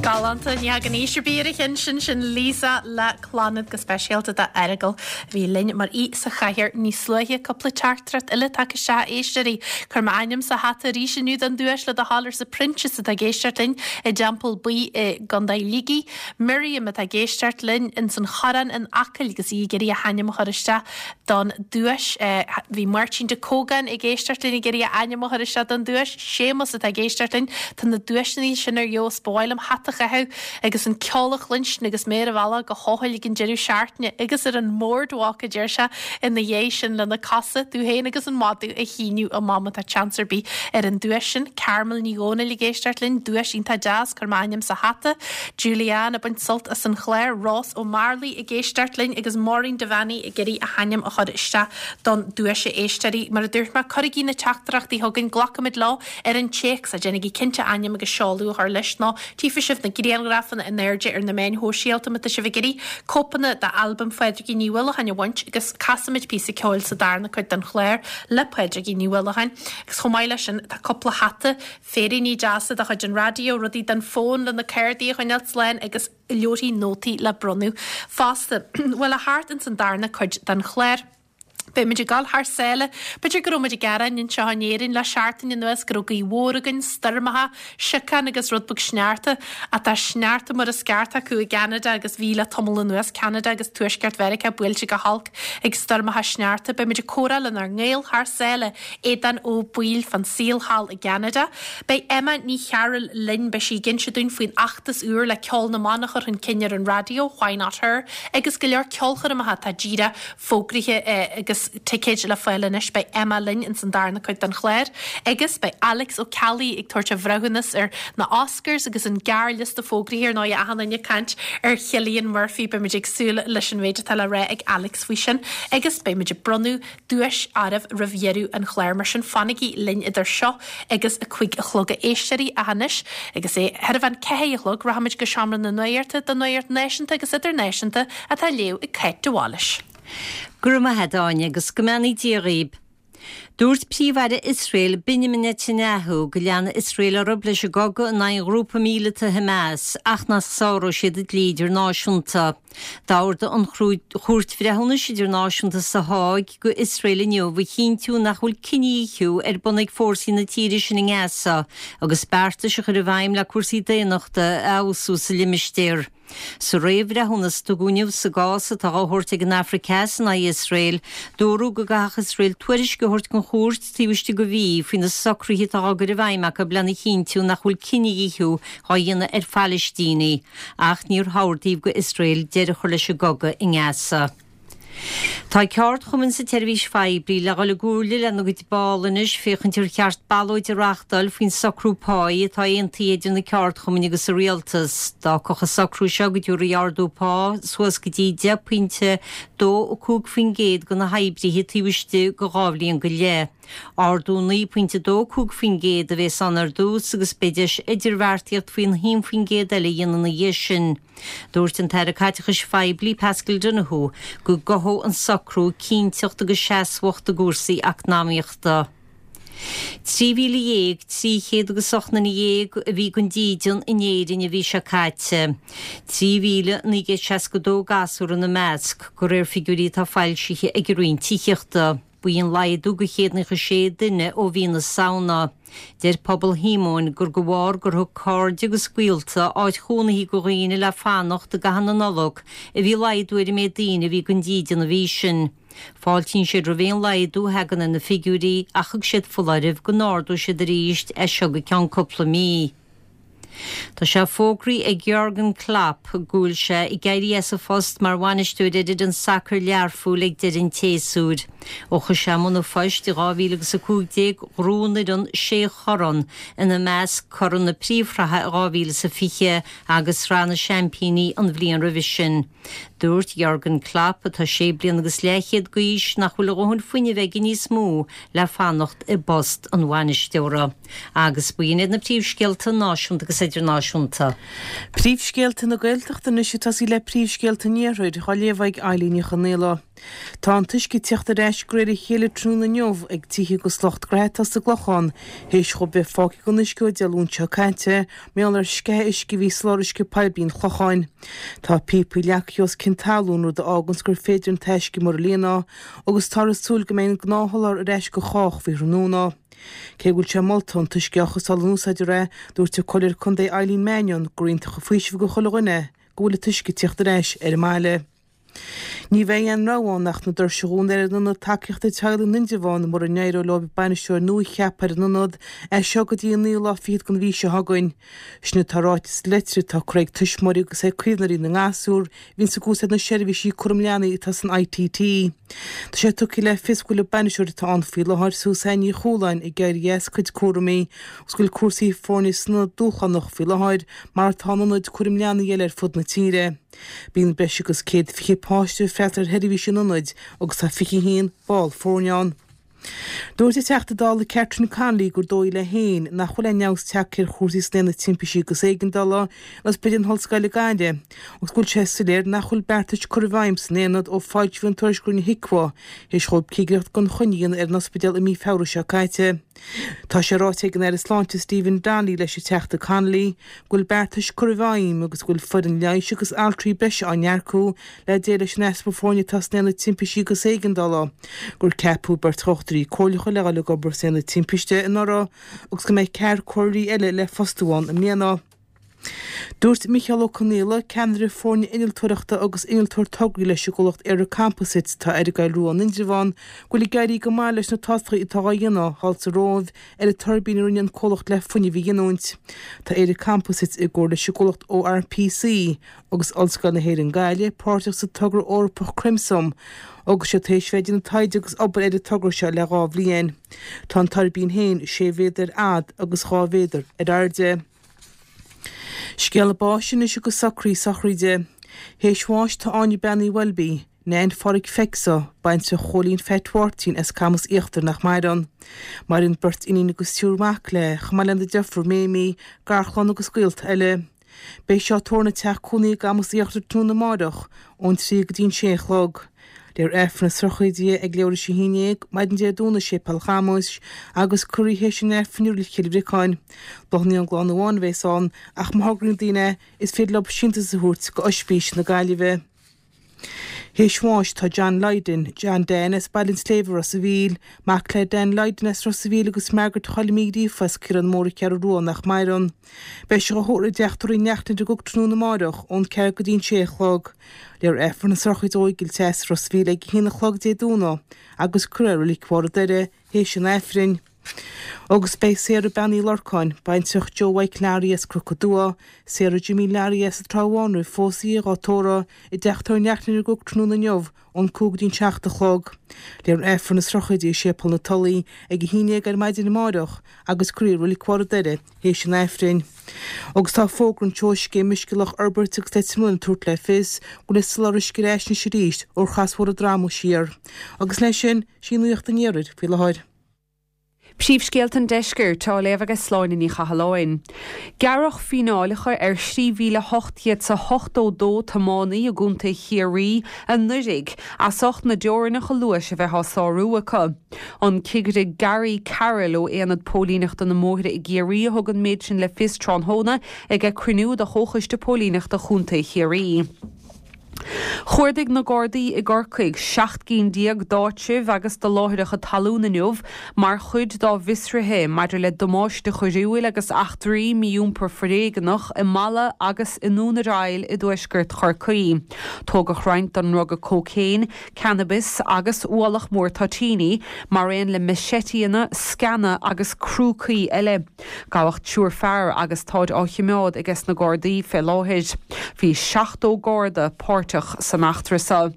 Galánta, ní thagann aois ar bith ar an cheann sin, sin Lisa le Clannad go speisialta do Fheargal a bhí linn mar aoi sa chathaoir níos luaithe. Cúpla teachtaireacht eile tagtha isteach, a éisteoirí. Cuir m'ainm sa hata arís inniu don duais le do thoil arsa Proinsias atá ag éisteacht linn i dTeampall Buí i gContae Shligigh. Miriam atá ag éisteacht linn ins an Chorrán in Acaill agus í ag iarraidh a hainm a chur isteach don duais. Bhí Máirtín de Cógáin ag éisteacht linn ag iarraidh a ainm a chur isteach don duais. Séamus atá ag éisteacht linn. Tá na duaiseanna sin ar fheabhas. Ba mhaith liom hata a chaitheamh agus an ceol a chluinstin agus mé ar an bhealach go hEochaill ag an deireadh seachtaine agus ar an mboardwalk, a deir sé, ina dhiaidh sin lena cosa, tú féin agus an madadh a shíneadh amach má tá seans ar bith ar an duais sin. Carmel Ní Dhomhnaill ag éisteacht linn, duais iontach deas, cuir m'ainm sa hata. Julianne ag baint sult as an chlár, Rós Ó Mearlaí ag éisteacht linn agus Maureen Devaney ag iarraidh a hainm a chur isteach don duais a éisteoirí. Mar a dúirt mé, cuirigí na teachtaireachtaí chugainn, glacfaimid leo ar an téacs, ach déanaigí cinnte ainm agus seoladh a chur leis nó Tchífidh sibh na grianghrafanna in airde ar na meáin shóisialta má tá sibh ag iarraidh cóipeanna d'albam Phádraigín Ní Uallacháin a bhaint agus casfaimid píosa ceoil sa darna cuid den chlár le Pádraigín Ní Uallacháin. Agus chomh maith leis sin tá cúpla hata, féiríní deasa de chuid an raidió, rudaí don fón le na cártaí a choinneáil slán agus leabharthaí nótaí le bronnadh fosta. Bhuel, a theacht ins an darna cuid den chlár. Beidh muid ag dul thar sáile. B'fhéidir go raibh muid ag gearán anseo in Éirinn le seachtain anuas go raibh gaoth mhór againn, stoirmeacha, siocán agus rud beag sneachta. Ach tá sneachta mar is ceart acu i gCeanada agus bhí le tamall anuas, Ceanada agus Tuaisceart Mheiriceá buailte go holc ag stoirmeacha sneachta. Beidh muid ag comhrá lenár ngaol thar sáile, Aodán Ó Baoill fán saol thall i gCeanada. Beidh Emma Ní Chearúil linn, beidh sí ag inse dúinn faoin fheachtas úr le ceol na mban a chur chun cinn ar an raidió, Why Not Her, agus go leor ceolchoirmeacha atá díreach fógraithe agus ticéid le fáil anois. Beidh Emma linn ins an darna cuid den chlár agus beidh Alex Ó Ceallaigh ag tabhairt a bhreithiúnas ar na Oscars agus an gearrliosta fógraithe ar ndóigh achan duine ag caint ar Chillian Murphy. Beidh muid ag súil leis an mhéid atá le rá ag Alex faoi sin agus beidh muid ag bronnadh duais oraibh roimh dheireadh an chláir. Mar sin fanaigí linn idir seo agus 5 a chlog a éisteoirí ach anois agus é thar a bhean 4 a chlog rachaimid go Seomra na Nuachta don Nuacht Náisiúnta agus Idirnáisiúnta atá á léamh ag Cáit de Bhailís. Go raibh maith a't, Áine, agus go mbeannaí Dia dhaoib. Dúirt Príomh-Aire Iosrael, Benjamin Netanyahu, go leanfaidh Iosrael orthu leis an gcogadh in aghaidh an ghrúpa míleata Hamas ach nach sáróidh siad an dlí idirnáisiúnta. D'ordaigh an Chúirt Bhreithiúnais Idirnáisiúnta sa Háig go Iosrael inniu a chinntiú nach bhfuil cinedhíothú ar bun ag fórsaí na tíre sin i nGaza agus beartais a chur i bhfeidhm le cúrsaí daonnachta a fheabhsú sa limistéar. Sa réamhbhreithiúnas a tugadh inniu sa gcás atá á thabhairt ag an Afraic Theas in aghaidh Iosrael, dúradh go gcaithfeadh Iosrael tuairisc a thabhairt don chúirt taobh istigh de mhí faoi na socruithe atá á gcur i bhfeidhm acu lena chinntiú nach bhfuil cinedhíothú á dhéanamh ar Phalaistínigh ach níor hordaíodh do Iosrael deireadh a chur leis an gcogadh i nGaza. Tá ceardchumainn sa tseirbhís phoiblí le dhul i gcomhairle lena gcuid ball anois féachaint ar cheart ballóid a reáchtáil faoin socrú páí atá aontaithe idir na ceardchumainn agus an rialtas. D'fhágfadh an socrú seo go dtabharfaí ardú pá suas go dtí 10.25% do na hoibrithe taobh istigh de dhá bhliain go leith. Ardú 9.25% a bhéas ann ar dtús agus beidh deis idirbheartaíocht faoin 1% eile a dhéanamh ina dhiaidh sin. Dúirt an tAire Caiteachais Phoiblí Paschal Donohoe go gcothódh an socrú cinnteacht agus seasmhacht i gcúrsaí eacnamaíochta. 13,300 agus 18 nduine a bhí gan dídean in Éirinn an mhí seo caite, 3,962 gasúr ina measc, de réir figiúirí atá foilsithe ag an Roinn Tithíochta. Ba í an laghdú de 196 duine ó mhí na Samhna. Deir Pobal Shíomóin gur de bharr gur thug cairde agus gaolta áit chónaithe do dhaoine le fanacht i gcaitheamh na Nollag a bhí laghdú ar an méid daoine a bhí gan dídean an mhí sin. Fáiltíonn siad roimh aon laghdú a thagann ar na figiúirí ach thug siad foláireamh go n-ardóidh siad arís as seo go ceann cúpla mí. Tá sé fógraithe ag Jurgen Klopp go bhfuil sé ag éirí as a phost mar bhainisteoir ar fhoireann sacair Learphoill ag deireadh an tséasúir. Ó chuaigh sé i mbun an phoist i 2015 ghnóthaigh an fhoireann sé chorn, ina measc corn na Príomhshraithe i 2020 agus Sraith na Seaimpíní an bhliain roimhe sin. Dúirt Jurgen Klopp, atá sé bliana agus leathchéad d'aois, nach bhfuil a dhóthain fuinnimh aige níos mó le fanacht i bpost an bhainisteora. Agus b'in iad na príomhscéalta náisiúnta agus idirnáisiúnta. Príomhscéalta na Gaeltachta anois ag tosaí le príomhscéalta an Iarthair, á léamh ag Eilín Ní Chonaola. Tá an t-uisce ag tíocht ar ais de réir a chéile tráthnóna inniu ag tithe agus lucht gnaithe atá sa gClochán théis dhóibh bheith fágtha gan uisce ó Dé Luain seo caite mar gheall ar sceitheadh uisce a bhí i soláthar uisce poiblí an Chlocháin. Tá píopaí leagtha os cionn talún rud a fháganns gur féidir an t-uisce muir a líonadh agus táthar ag súil go mbeidh an gnáthsholáthar ar ais go chách faoi thráthnóna. Cé go bhfuil sé molta an t-uisce a chothabháil in úsáid a rith, dúirt an Comhairleoir Contae Eileen Mannion gur iontach an faoiseamh do chuile dhuine go bhfuil an t-uisce ag tíocht ar ais ar an mbaile. Ní bheidh aon rogha ann ach na doirse a dhúnadh ar an Ionad Tacaíochta Teaghlaigh in Indreabhán mura n-éireoidh leo bainisteoir nua a cheapadh ar an ionad as seo go dtí an naoú lá fichead den mhí seo chugainn. Sin atá ráite sa leitir atá curtha ag tuismitheoirí agus ag caomhnóirí na ngasúr a bhíonns ag úsáid na seirbhísí cúram leanaí atá san ITT. Tá sé tugtha le fios go bhfuil an bainisteoir atá ann faoi láthair, Suzanne Ní Chualáin, ag éirí as a cuid cúraimí agus go bhfuil cúrsaí foirne san ionad dúshlánach faoi láthair, mar atá in ionaid cúraim leanaí eile ar fud na tíre. Bíonn breis agus 120 páiste ag freastal ar sheirbhísí an ionaid agus tá 21 ball foirne ann. Dúirt an Teachta Dála Catherine Connolly gur dóigh léi féin nach bhfuil aon fheabhas tagtha ar chúrsaí san Aonad Timpistí agus Éigeandála in Ospidéal na hOllscoile Gaillimh agus go bhfuil sé soiléir nach bhfuil beartais curtha i bhfeidhm san Aonad ó foilsíodh an tuairisc a rinne HIQA théis dhóibh cigireacht gan choinne a dhéanamh ar an ospidéal i mí Feabhra seo caite. Tá sé ráite ag an Aire Sláinte Stephen Donnelly leis an Teachta Connolly go bhfuil beartais curtha i bhfeidhm agus go bhfuil foireann leighis agus altraí breise á n-earcú le déileáil leis an easpa foirne atá san Aonad Timpistí agus Éigeandála, gur ceapadh beirt dhochtúirí comhairleacha le dhul ag obair san Aonad Timpiste anuraidh agus go mbeidh ceathrar comhairleoirí eile le fostú ann i mbliana. Dúirt Micheál Ó Conaola, ceannaire foirne innealtóireachta agus innealtóir tograí leis an gcomhlacht ÉireComposites atá ar an gCoill Rua in Indreabhán, go bhfuil ag éirí go maith leis na tástálacha atá á dhéanamh thall sa Róimh ar an tuirbín a rinne an comhlacht le fuinneamh a ghiniúint. Tá ÉireComposites i gcomhar leis an gcomhlacht ORPC agus Ollscoil na hÉireann Gaillimh páirteach sa togra Eorpach Crimsum agus iad tar éis bheith ag déanamh taighde agus obair ar an togra seo le 2 bhliain. Tá an tuirbín féin 6 mhéadar ar fhad agus 2 mhéadar ar airde. Scéala báis anois agus socruithe sochraide. Théis bháis tá Áine Bean Uí Bheilbí, Neain Pháraic Fecso, baintreach Chóilín Pheait Mháirtín as Camas Íochtar nach maireann. Maireann beirt iníon agus triúr mac léi, chomh maith lena deirfiúr Méimí, garchlann agus gaolta eile. Beidh sí á tórramh ina teach cónaí i gCamas Íochtar tráthnóna amáireach ón 3 go dtí an 6 a chlog. Léifear Aifreann na sochraide ag leathuair théis a haon dhéag, maidin Dé Domhnaigh i Séipéal Chamuis agus cuirfear í théis an Aifrinn i Reilig Chill Bhriocáin. Bláthanna ón gclann amháin a bheas ann ach má thograíonn daoine é, is féidir leo síntiús a thabhairt go Oispís na Gaillimhe. Théis bháis tá John Lydon, John Dan as Baile an tSléibhe, Ros a' Mhíl, mac le Dan Lydon as Ros a' Mhíl agus Margaret Choilm Uí Ghríofa as Caorán Mór an Cheathrú Rua nach maireann. Beidh sé dhá thórramh i dteach tórraimh Uí Neachtain i gCnoc tráthnóna amáireach ón 4 go dtí an 6 a chlog. Léifear Aifreann na sochraide ó Fheigeall Theas, Ros a' Mhíl ag a haon a chlog Dé Domhnaigh agus cuirfear i Reilig Bharr an Doire théis an Aifrinn. Agus beidh Sarah Bean Uí Lorcáin, baintreach Joe Mhaidhc Learaí as Cnoc an Dua, Sarah Jimmy Learaí as an Trá Bháin roimh phósadh í dhá tórramh i dteach tórraimh Uí Neachtain i gCnoc tráthnóna inniu ón 5 go dtí an 7 a chlog. Léifear Aifreann na sochraide i Séipéal na Tulaí ag 11 ar maidin amáireach agus cuirfear í i Reilig Bharr an Doire théis an Aifrinn. Agus tá fógra anseo ó Scéim Uisce Loch Iorbaird agus Leitir Mealláin ag tabhairt le fios go bhfuil an soláthar uisce ar ais anois arís ó thrasbhóthar an Droma siar. Agus leis sin, sí nuacht an iarthair faoi láthair. Príomhscéalta an Deiscirt á léamh ag Sláine Ní Chathalláin. Gearradh fíneálacha ar 3,882 tiománaí i gContae Chiarraí anuraidh as ucht na dteorainneacha luais a bheith á sárú acu. An Cigire Gary Carroll ó Aonad Póilíneachta na mBóithre i gCiarraí a thug an méid sin le fios tráthnóna ag cruinniú de Chomhchoiste Póilíneachta Chontae Chiarraí. Chuardaigh na Gardaí i gCorcaigh 17 gcinn d'áitribh agus de láithreacha talún inniu mar chuid dá bhfiosruithe maidir le damáiste coiriúil agus eachtraí mí-iompar foréigeanach i Mala agus i nDún ar Aill i dtuaisceart Chorcaí. Tógadh roinnt den ndruga cócaon, cannabis agus ualach mór toitíní, mar aon le maiséitíanna, sceana agus crúcaí eile. Gabhadh triúr fear agus táid á choimeád ages na Gardaí fé láthair. Bhí 70 Garda páirteach san eachtra seo.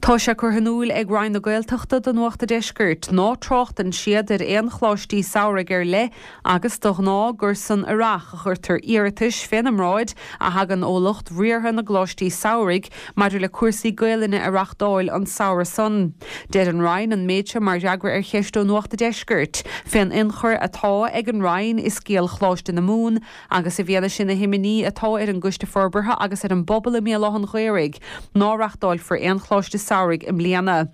Tá sé curtha in iúil ag Roinn na Gaeltachta do Nuacht a' Deiscirt ná tráchtann siad ar aon choláistí samhraidh ar leith agus de ghnáth gur san Earrach a chuirtear iarratais féna mbráid a thagann ó lucht riartha na gcoláistí samhraidh maidir le cúrsaí Gaelainne a reachtáil an samhradh san. Deir an Roinn an méid seo mar fhreagra ar cheist ó Nuacht a' Deiscirt fén ionchur atá ag an Roinn i scéal Choláiste na Mumhan agus i bhfianaise na himní atá ar an gCoiste Forbartha agus ar an bpobal i mBéal Átha'n Ghaorthaidh ná reachtáilfear aon Choláiste Samhraidh i mbliana.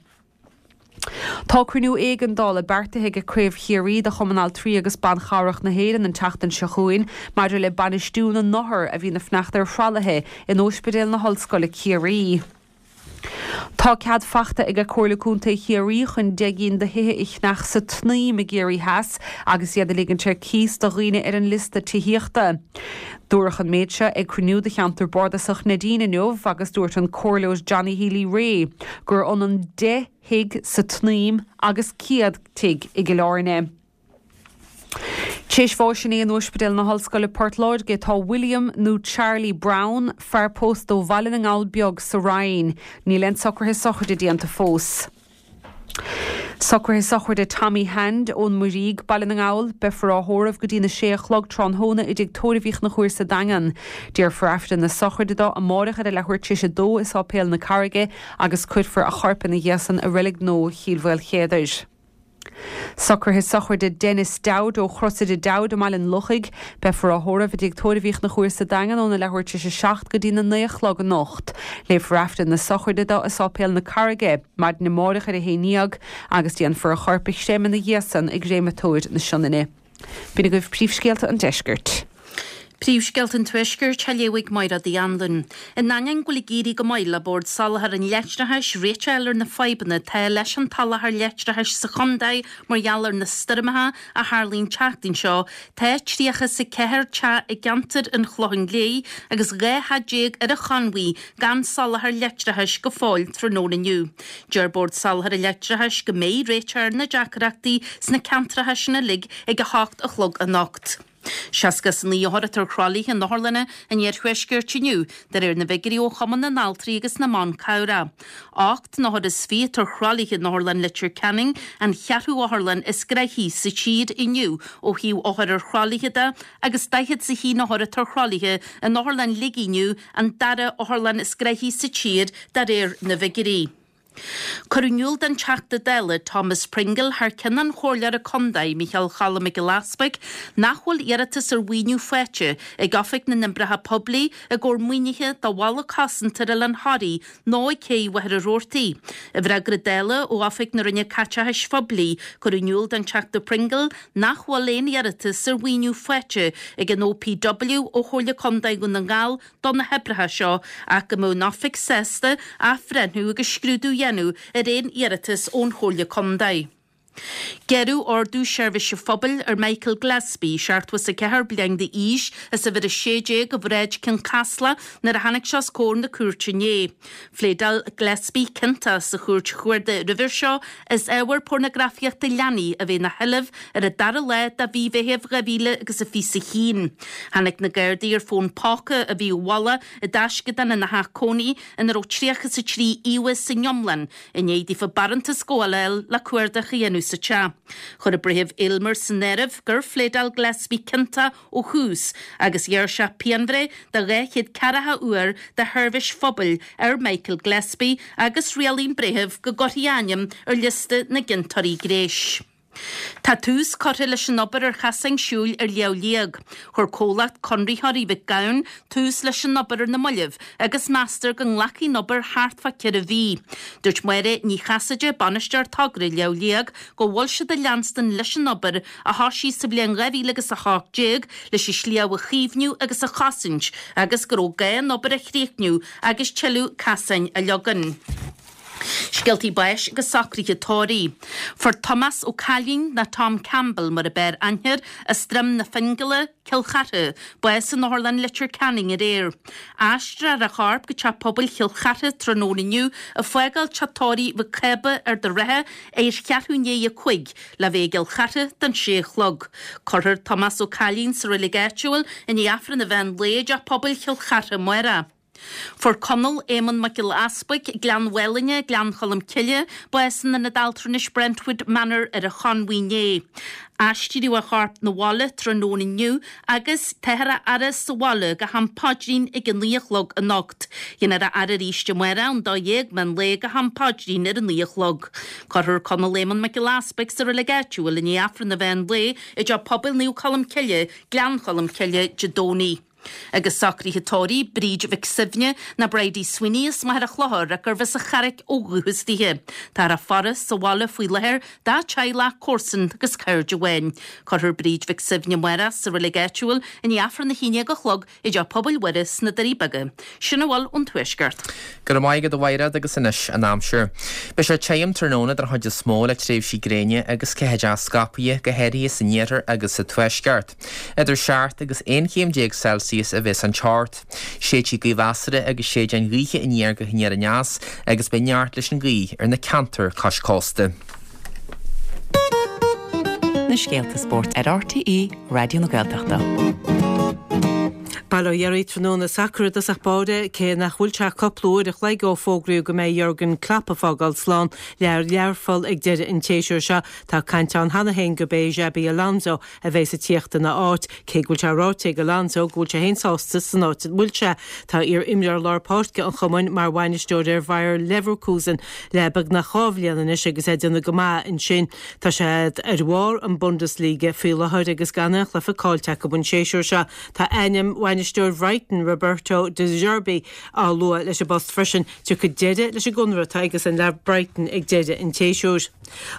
Tá cruinniú éigeandála beartaithe ag Craobh Chiarraí de Chumann Altraí agus Ban Chabhrach na hÉireann an tseachtain seo chugainn maidir le bainistiú na n-othar a bhíonn ag fanacht ar thralaithe in Óispidéal na hOllscoile Ciarraí. Tá cead fachta ag Comhairle Contae Chiarraí chun 10 gcinn de thithe a cheannach sa tSnaidhm i gCiarraí Theas agus iad a ligint ar cíos do dhaoine ar an liosta tithíochta. Dúradh an méid seo ag cruinniú de cheantar bardasach Neidín inniu agus dúirt an Comhairleoir Johnny Healy-Rae gur ionann 10 thigh sa tSnaidhm agus 100 tigh i gCill Airne. Tréis bháis inné in Ospidéal na hOllscoile Port Láirge tá William nó Charlie Brown, fear pósta ó Bhaile na nGall Beag sa Rinn. Níl aon socruithe sochraide déanta fós. Socruithe sochraide Tommy Hand ón Muirígh, Baile na nGall. Beifear á thórramh go dtína sé a chlog tráthnóna i dTigh Tórraimh Uí Chonchúir sa Daingean. Déarfar Aifreann na sochraide dó amáireach ar a leathuair tar éis a dó i Sáipéal na Carraige agus cuirfear a chorp ina dhiaidh san i Reilig Nua Chill Mhaoilchéadair. Socruithe sochraide Denis Dowd ó Chrosaire Dowd i mBaile an Lochaigh. Beifear á thórramh i dTigh Tórraimh Uí Chonchúir sa Daingean óna leathuair tar éis a 7 go dtí na 9 a chlog anocht. Léifear Aifreann na sochraide dó i Sáipéal na Carraige maidin amáireach ar a haon dhéag agus déanfar a chorp a chreimeadh ina dhiaidh san i gCréamatóir na Sionainne. B'in agaibh príomhscéalta an deiscirt. Príomhscéalta an Tuaiscirt á léamh ag Máire Uí Anluain. In ainneoin go bhfuil ag éirí go maith le Bord Soláthair an Leictreachais réiteach a fháil ar na fadhbanna atá leis an tsoláthar leictreachais sa chontae mar gheall ar na stoirmeacha a tharlaigh an tseachtain seo, tá 34 teach i gceantar an Chlocháin Léith agus 12 theach ar an Chonmhaigh gan soláthar leictreachais go fóill tráthnóna inniu. Deir Bord Soláthair an Leictreachais go mbeidh réiteach ar na deacrachtaí sna ceantracha sin uilig ag 8 a chlog anocht. 69 othar atá ar thralaithe in otharlanna an iarthuaiscirt inniu, de réir na bhfigiúirí ó Chumann na nAltraí agus na mBan Cabhrach. Ocht n-othar is fiche atá ar thralaithe in Otharlann Leitir Ceanainn, an cheathrú otharlann is gnoithí sa tír inniu ó thaobh othair ar thralaithe de, agus 41 othar atá ar thralaithe in Otharlann Shligigh inniu, an dara otharlann is gnoithí sa tír de réir na bhfigiúirí. Cuireadh in iúl don Teachta Dála Thomas Pringle thar ceann an Chomhairleora Contae, Micheál Choilm Mac Giolla Easbuig, nach bhfuil iarratas ar mhaoiniú faighte ag Oifig na nOibreacha Poiblí i gcomhair maoinithe do bhalla cosanta ar Oileán Thoraí nó ag Céidh Mhachaire Rabhartaigh. I bhfreagra Dála ó Oifig na Roinne Caiteachais Phoiblí, cuireadh in iúl don Teachta Pringle nach bhfuil aon iarratas ar mhaoiniú faighte ag an OPW ó Chomhairle Contae Dhún na nGall do na hoibreacha seo ach go mbeadh an Oifig sásta athbhreithniú agus scrúdú a dhéanamh ar aon iarratas ón Chomhairle Contae. Gearradh Ordú Seirbhíse Phobail ar Michael Gillespie, 74 bliain d'aois, as uimhir 16 de Bhráid Cionn Caslach nuair a tháinig sé os comhair na cúirte inné. Phléadáil Gillespie ciontach sa Chúirt Chuarda roimhe seo as ábhar pornagrafaíochta leanaí a bheith ina sheilbh ar an dara lá de mhí Mheithimh 2021. Tháinig na Gardaí ar fón póca a bhí i bhfolach i dtaisceadán ina theach cónaí ina raibh 33 íomhá san iomlán i ndiaidh daofa barántas gabhála a fháil le cuardach a dhéanamh sa teach. Chuir an Breitheamh Aylmer san áireamh gur phléadáil Gillespie ciontach ó thús agus ghearr sé pianbhreith de 240 uair de sheirbhís phobail ar Michael Gillespie agus rialaigh an breitheamh go gcuirfí a ainm ar liosta na gciontóirí gnéis. Tá tús curtha leis an obair ar chasáin siúil ar Shliabh Liag. Chuir comhlacht Conraitheoirí Mhic Gabhann tús leis an obair ar na mallaibh agus meastar go nglacfaidh an obair thart fá cheithre mhí. Dúirt Máire Ní Chasaide, Bainisteoir Togra Shliabh Liag, go bhfuil siad ag leanstan leis an obair a thosaigh sa bhliain 2018 leis an sliabh a chaomhnú agus a chosaint agus go raibh gá an obair a chríochnú agus tuilleadh casáin a leagan. Scéaltaí báis agus socruithe tórraimh. Fuair Tomás Ó Cailín, nó Tom Campbell mar a b'fhearr aithne air, as Droim na Fingile, Cill Chartha, bás in Otharlann Leitir Ceanainn aréir. Aistreofar a chorp go Teach Pobail Chill Chartha tráthnóna inniu, ag fágáil Teach Tórraimh Mhic Cába, Ard an Rátha, ar cheathrú i ndiaidh a 5, le bheith i gCill Chartha don sé a chlog. Cuirfear Tomás Ó Cailín sa reilig áitiúil i ndiaidh Aifreann an mheán lae i dTeach Pobail Chill Chartha amárach. Fuair Conall Éamonn Mac Giolla Easbuig, Gleann Mhálainne, Gleann Cholm Cille, bás in Ionad Altranais Brentwood Manor ar an Chonmhaigh inné. Aistríodh a chorp 'na bhaile tráthnóna inniu agus táthar á fhaire sa bhaile go ham paidrín ag a 9 a chlog anocht. Déanfar a fhaire arís amárach ón 12 meán lae go ham paidrín ar a 9 a chlog. Cuirfear Conall Éamonn Mac Giolla Easbuig sa reilig áitiúil i ndiaidh Aifreann an mheán lae i dTeach Pobail Naomh Colm Cille, Gleann Cholm Cille, Dé Domhnaigh. Agus socruithe tórraimh Bríd Mhic Suibhne, nó Bridie Sweeney as Machaire Chlochair ach gurbh as an Charraic ó dhúchas dithe. Táthar á faire sa bhaile faoi láthair dá teaghlach, comharsan agus cairde amháin. Cuirfear Bríd Mhic Suibhne amárach sa reilig áitiúil i ndiaidh Aifreann a 11 a chlog i dTeach Pobail Mhuire sna Doirí Beaga. Sin a bhfuil ón Tuaisceart. Go raibh maith agat a Mhaighread agus anois an aimsir. Beidh sé tirim tráthnóna den chuid is mó le tréimhsí gréine agus ceathaideacha scaipthe, go háirithe san iarthar agus sa tuaisceart. Idir 7 agus 11 chéim Celsius a bheas an teocht. Séidfidh gaoth mheasartha agus séideáin ghaoithe aniar go haniar aneas agus beidh neart leis an ghaoth ar na ceantair cois cósta. Na scéalta spóirt ar RTÉ Raidió na Gaeltachta. Bail ó Dhia oraibh tráthnóna sacair i dtosach báire, cé nach bhfuil sé ach cúpla uair a chloig ó fógraíodh go mbeidh Jurgen Klopp ag fágáil slán le Learpholl ag deireadh an tséasúir seo, tá caint ann cheana féin gurb é Xabi Alonso a bheas ag tíocht ina áit, cé go bhfuil sé ráite ag Alonso go bhfuil sé féin sásta san áit a bhfuil sé. Tá iar-imreoir lár páirce an chumainn mar bhainisteoir ar Bhayer Leverkusen le beagnach 2 bhliain anois agus é ag déanamh go maith ansin. Tá siad ar bharr an Bundesliga faoi láthair agus gan aon chluiche caillte acu an séasúr seo. Tá ainm bhainisteoir Bhrighton, Roberto De Zerbi, á lua leis an bpost freisin. Tiocfaidh deireadh leis an gconradh atá aigesan le Brighton ag deireadh an tséasúir.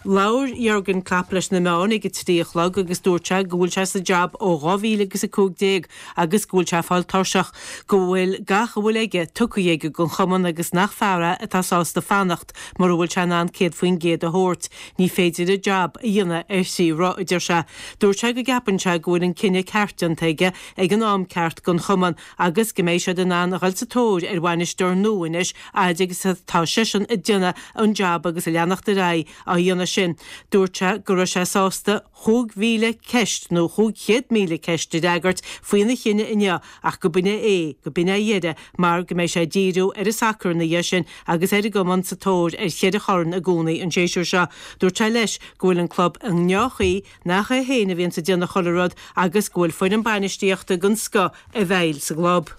Labhair Jurgen Klopp leis na meáin ag a 3 a chlog agus dúirt sé go bhfuil sé sa jab ó 2015 agus go bhfuil sé ag fáil tuirseach, go bhfuil gach a bhfuil aige tugtha aige don chumann agus nach fear é atá sásta fanacht mura bhfuil sé in ann 100% a thabhairt. Ní féidir an jab a dhéanamh ar thrí roth, a deir sé. Dúirt sé go gceapann sé go bhfuil an cinneadh ceart déanta aige ag an am ceart don chumann agus go mbeidh siad in ann a dhul sa tóir ar bhainisteoir nua anois fhaid agus atá seisean ag déanamh an jab agus ag leanacht ar aghaidh á dhéanamh sin. Dúirt sé go raibh sé sásta 5,000 ceist nó 500,000 ceist a fhreagairt faoina chinneadh inniu ach go b'in é, go b'in é a dheireadh mar go mbeidh sé ag díriú ar an sacar ina dhiaidh sin agus ar an gcumann sa tóir ar cheithre chorn i gcónaí an séasúr seo. Dúirt sé leis go bhfuil an club i ndea-chaoi, nach é féin a bhíonns ag déanamh chuile rud agus go bhfuil foireann bainistíochta den scoth i bhfeighil sa gclub.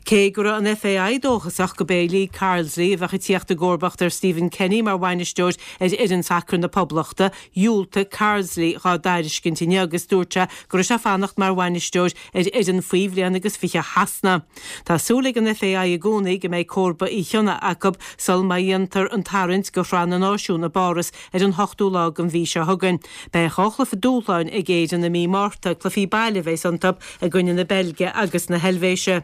Cé go raibh an FAI dóchasach go b'é Lee Carsley a bheadh ag tíocht i gcomharbacht ar Stephen Kenny mar bhainisteoir ar fhoireann sacair na Poblachta, dhiúltaigh Carsley dhá dtairiscint inniu agus dúirt sé go raibh sé fanacht mar bhainisteoir ar fhoireann faoi bhliain agus 20 Shasana. Tá súil ag an FAI i gcónaí go mbeidh comharba Uí Chionnaith acu sul má dhéantar an tarraingt do Shraith na Náisiún i bPáras ar an hochtú lá den mhí seo chugainn. Beidh 2 chluiche dúshláin ag Éirinn i mí Márta, cluichí baile a bheas iontu i gcoinne na Beilge agus na hEilvéise.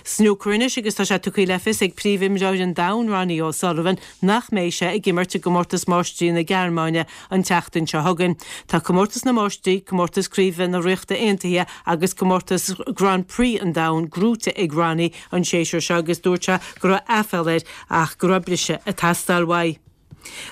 Snúcar anois agus tá sé tugtha le fios ag príomhimreoir an domhain Ronnie O'Sullivan nach mbeidh sé ag imirt i gComórtas Máistrí na Gearmáine an tseachtain seo chugainn. Tá Comórtas na Máistrí, Comórtas Craoibhe na Ríochta Aontaithe agus Comórtas Grand Prix an Domhain gnóite ag Ronnie an séasúr seo agus dúirt sé go raibh aiféala air ach go raibh briseadh ag teastáil uaidh.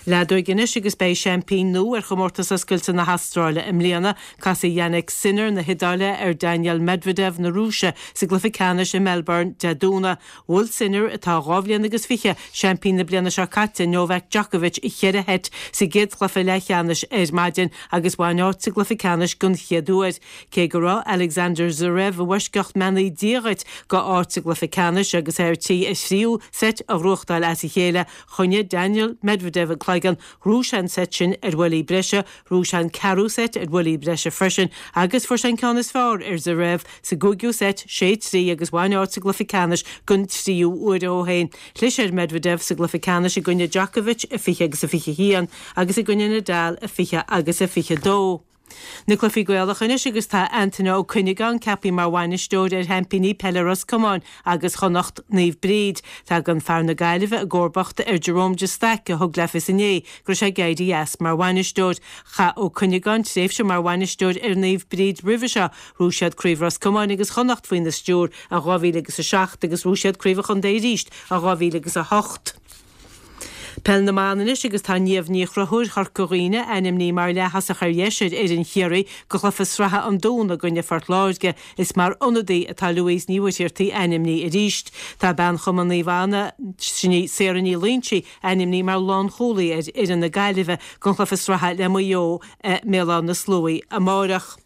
Leadóig anois agus beidh seaimpín nua ar Chomórtas Oscailte na hAstráile i mbliana. Casfaidh Jannik Sinner na hIodáile ar Daniil Medvedev na Rúise sa gcluiche ceannais i Melbourne Dé Domhnaigh. Bhuail Sinner, atá 2 bhliain agus fiche, seaimpín na bliana seo caite, Novak Djokovic i cheithre sheit sa gcéad chluiche leathcheannais ar maidin agus bhain áit sa gcluiche ceannais den chéad uair. Cé go raibh Alexander Zverev i bhfoisceacht mbeannaí Dia dhuit go áit sa gcluiche ceannais agus é ar tí a thríú seit a ghnóthachtáil as a chéile, Choinnigh Daniil Medvedev an cloigeann, ghnóthaigh sé an seit sin ar bhuillí breise, ghnóthaigh sé an ceathrú seit ar bhuillí breise freisin agus fuair sé an ceann is fearr ar Zverev sa gcúigiú seit, 6, 3, agus bhain áit sa gcluiche ceannais den tríú huair ó shin. Chlis ar Medvedev sa gcluiche ceannais i gcoinne Djokovic, a 20 agus a 21, agus i gcoinne Nadal, a 20 agus a 22. Na cluichí Gaelacha anois agus tá Antaine Ó Cuinneagáin ceaptha mar bhainisteoir ar sheaimpíní peile Ros Comáin agus Chonnacht, Naomh Bríd. Tagann fear na Gaillimhe i gcomharbacht ar Jerome de Staic a thug le fios inné go raibh sé ag éirí as mar bhainisteoir. Chaith Ó Cuinneagáin tréimhse mar bhainisteoir ar Naomh Bríd roimhe seo. Ghnóthaigh siad Craobh Ros Comáin agus Chonnacht faoina stiúir i 2007 agus ghnóthaigh siad Craobh an Chontae arís i 2008. Peil na mBan anois agus tá Niamh Ní Chonchúir Chorca Dhuibhne ainmnithe mar leath-thosach ar dheis ar fhoireann Chiarraí go chluiche sraithe an Dúna i gcoinne Phort Láirge. Is mar ionadaí atá Louise Ní Mhuircheartaigh ainmnithe arís. Tá bean Chumann Naomh Anna, sin í Sarah Ní Loingsigh, ainmnithe mar lánchúlaí ar fhoireann na Gaillimhe don chluiche sraithe le Maigh Eo i mBéal Átha na Sluaighe amárach.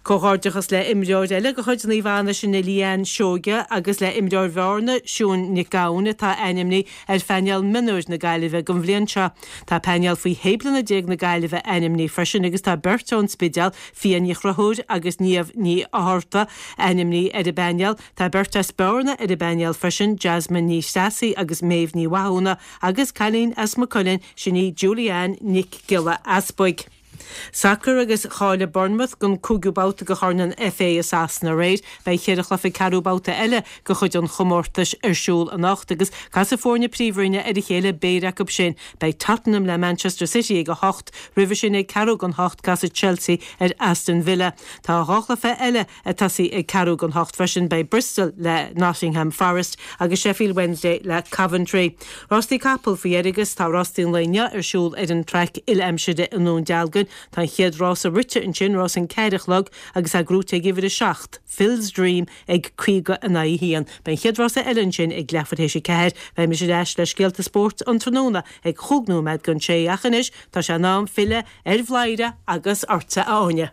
Comhghairdeachas le imreoir eile de chuid Naomh Anna, sin í Leanne Seoige, agus le imreoir Bhearna, Siún Nic Gabhann, atá ainmnithe ar phainéal mionúir na Gaillimhe don bhliain seo. Tá painéal faoi shé bliana déag na Gaillimhe ainmnithe freisin agus tá beirt ón Spidéal, Fia Ní Chonchúir agus Niamh Ní Fhátharta, ainmnithe ar an bpainéal. Tá beirt as Bearna ar an bpainéal freisin, Jasmine Ní Threasaigh agus Méabh Ní Mhathúna, agus cailín as Maigh Cuilinn, sin í Julie-Ann Nic Giolla Easbuig. Sacar agus cháiligh Bournemouth don cúigiú babhta de Chorn an FA i Sasana aréir. Beidh cheithre chluiche ceathrú babhta eile de chuid an chomórtais ar siúl anocht agus casfaidh foirne Príomhroinne ar a chéile péire acu sin. Beidh Tottenham le Manchester City ag 8, roimhe sin ag ceathrú don hocht casfaidh Chelsea ar Aston Villa. Tá 2 chluiche eile ag tosaí ag ceathrú don hocht freisin, beidh Bristol le Nottingham Forest agus Sheffield Wednesday le Coventry. Rástaí capall faoi dheireadh agus tá rástaí an lae inniu ar siúl ar an traic uile-aimsire i nDún Dealgan. Tá an chéad rása rite ansin, rás an ceathair a chlog agus é gnóite ag uimhir 7, Phil's Dream ag 50 in aghaidh 1. Beidh an chéad rása eile ansin ag leathuair théis a ceathair. Beidh mise ar ais le scéalta spóirt an tráthnóna ag chúig nóiméad don sé ach anois tá sé in am filleadh ar Bhladhaire agus ortsa a Áine.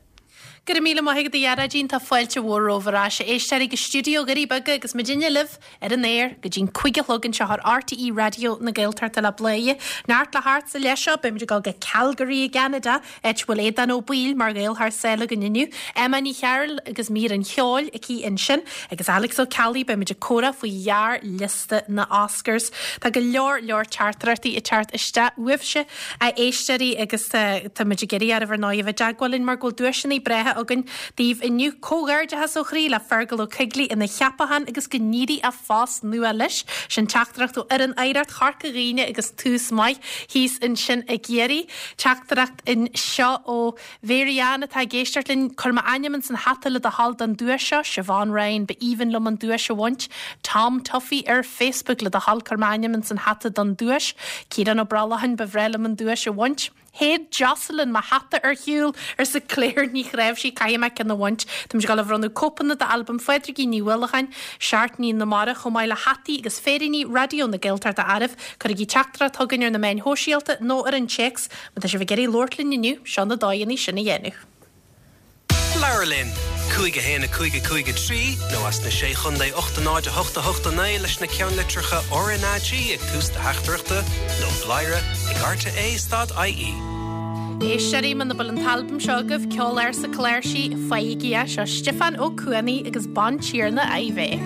Go raibh míle maith agat a Ghearóidín, tá fáilte mhór romhaibh ar ais, a éisteoirí, go stiúideo Dhoirí Beaga agus muidinne libh ar an aer go dtí'n cúig a chlog anseo ar RTÉ Raidió na Gaeltachta le Bladhaire. Neart le theacht sa leath seo, beimid ag dul go Calgary i gCeanada, áit a bhfuil Aodán Ó Baoill mar Ghael thar sáile againn inniu, Emma Ní Chearúil agus mír an cheoil aici ansin, agus Alex Ó Ceallaigh, beimid ag comhrá faoi ghearrliosta na Oscars. Tá go leor leor teachtaireachtaí ag teacht isteach uaibhse. A éisteoirí, agus tá muid ag iarraidh oraibh ar ndóigh a bheith i dteagmháil linn mar go bhfuil duaiseanna breátha againn daoibh inniu. Comhghairdeachas ó chroí le Fergal Ó Coigligh ina cheapachán agus go n-éirí a phost nua leis. Sin teachtaireacht ó fhoireann Oidhreacht Chorca Dhuibhne agus tús maith thíos ansin i gCiarraí. Teachtaireacht anseo ó Mhary Ann atá ag éisteacht linn, cuir m'ainm ins an hata le do thoil don duais seo, Siobhán Ryan, ba aoibhinn liom an duais a bhaint. Tom Tuffy ar Facebook, le do thoil cuir m'ainm ins an hata don duais. Ciarán Ó Brollacháin, ba bhreá liom an duais a bhaint. Shéid Jocelyn mo hata ar shiúl, arsa Claire Ní Chnáimhsí, caithfidh mé ceann a bhaint. Táimid ag dul a bhronnadh cóipeanna d'albam Phádraigín Ní Uallacháin, Seachtainí na Mara, chomh maith le hataí agus féiríní Raidió na Gaeltachta oraibh. Cuirigí teachtaireacht chugainn ar na meáin shóisialta nó ar an téacs Má tá sibh ag iarraidh labhairt linn inniu, seo na dóigheanna sin a dhéanamh. Labhair linn! 5 1 5 5 3 nó as na Sé Chondae 8 0 8 8 9 leis na ceannlitreacha RnaG ag tús do theachtaireachta nó bladhaire ag rte stad ie. Éisteoirí, muna bhfuil an t-albam seo agaibh, Ceol Ársa Cláirsí, faighigí é. Seo Stiofán Ó Cuanaigh agus Bantiarna Iveagh.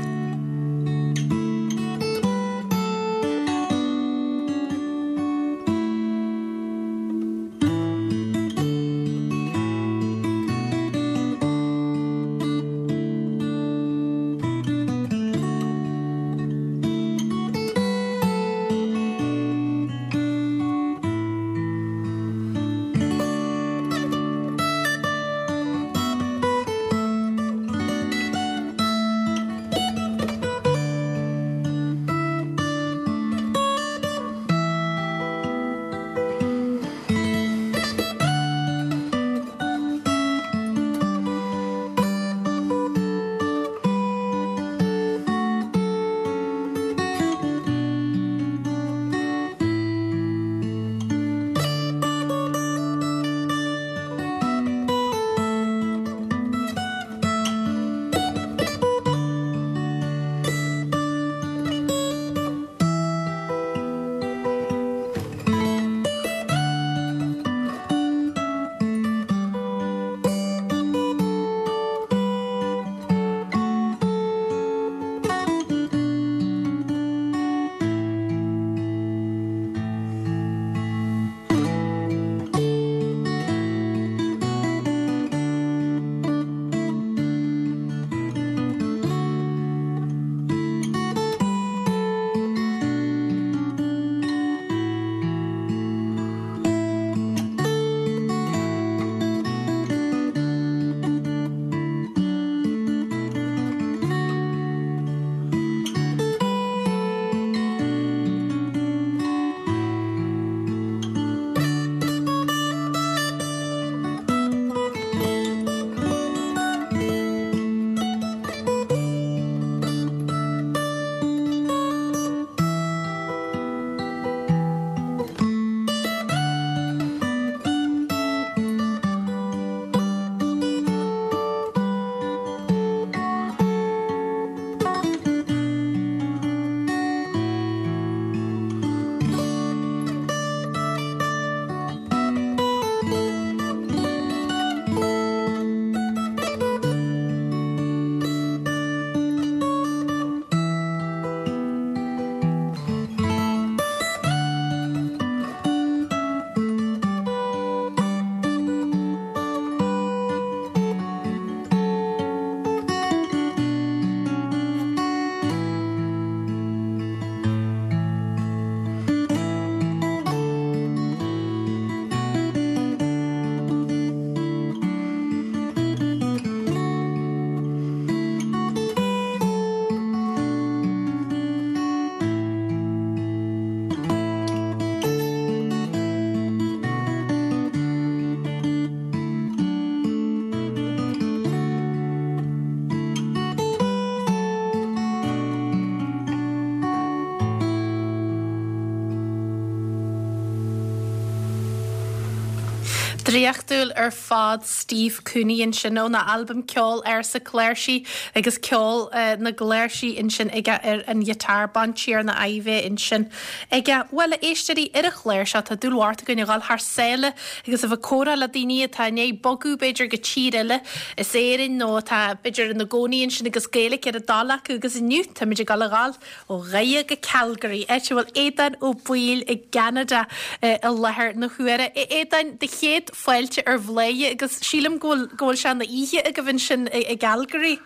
Draíochtúil ar fad Steve Cooney ansin óna albam Ceol Ársa Cláirsí agus ceol na gcláirsí ansin aige ar an ghiotár, Bantiarna Iveagh ansin aige. Bhuel, a éisteoirí, ar an chlár seo tá dúil mhór againn a dhul thar sáile agus a bheith ag comhrá le daoine atá i ndiaidh bogadh b'fhéidir go tír eile as Éirinn nó atá b'fhéidir ina gcónaí ansin agus Gaeilge ar a dtoil acu agus inniu táimid ag dul a dhul ó Dhoire go Calgary, áit a bhfuil Aodán Ó Baoill i gCeanada i láthair na huaire. A Aodáin, do chéad fáilte ar Bhladhaire agus sílim go bhfuil go bhfuil sé ina oíche agaibh ansin i gCalgary.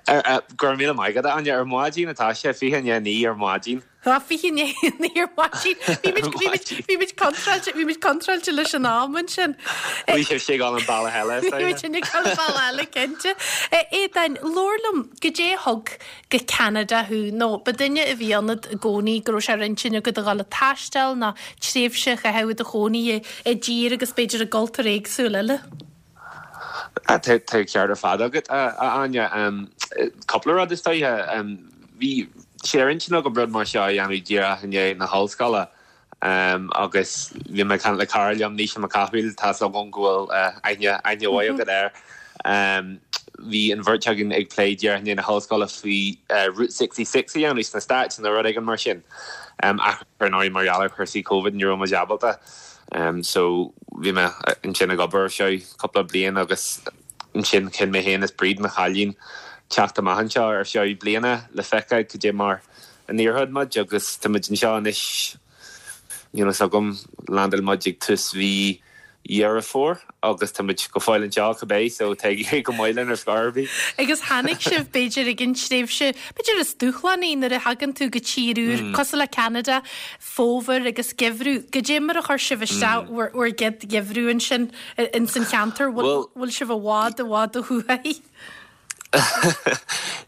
Go raibh míle maith agat, a Áine. Ar maidin atá sé, 8:40 ar maidin. Tá, 8:40 ar maidin. Bhí muid, bhí muid, bhí muid contráilte, bhí muid contráilte leis an am ansin. Bhí sibhse ag dul an bealach eile, is dóigh. Bhí muid ag dul an bealach eile, cinnte. A Aodáin, labhair liom, goidé a thug go Ceanada thú, nó ba duine a bhí ionat i gcónaí go raibh sé ar intinn agat a dhul ag taisteal nó tréimhse a chaitheamh i do chónaí i dtír agus b'fhéidir i gcultúr éagsúil eile? Tá an ceart ar fad agat, a Áine. Cúpla rud is dóiche. Bhí sé ar intinn agam rud mar seo a dhéanamh díreach i ndiaidh na hollscoile agus bhí mé ag caint le cara liom, Naoise Mac Cathmhaoil, tá's agam go bhfuil aithne, aithne mhaith agat air. Bhí an bheirt againn ag plé díreach i ndiaidh na hollscoile faoi Route 66 a dhéanamh sna Stáit nó rud éigin mar sin. Ach ar ndóigh mar gheall ar chúrsaí Covid ní raibh muid ábalta. So bhí mé ansin ag obair ar feadh cúpla bliain agus ansin chinn mé féin is Bríd, mo chailín, teacht amach anseo ar feadh bliana le feiceáil cad é mar a n-éireodh muid agus tá muid anseo anois. Níl fhios agam, landáil muid ag tús mhí Dheireadh Fómhair agus tá muid go fóill anseo, cibé, so tá ag éirí go maith linn ar scor ar bith. Agus tháinig sibh, b'fhéidir, ag an tréimhse, b'fhéidir is dúshlánaí nuair a thagann tú go tír úr, cosúil le Ceanada, fómhar agus geimhreadh. Goidé mar a chuir sibh isteach bhur bhur gcéad gheimhreadh ansin ins an cheantar? Bhfuil bhfuil sibh i bhfad i bhfad ó thuaidh?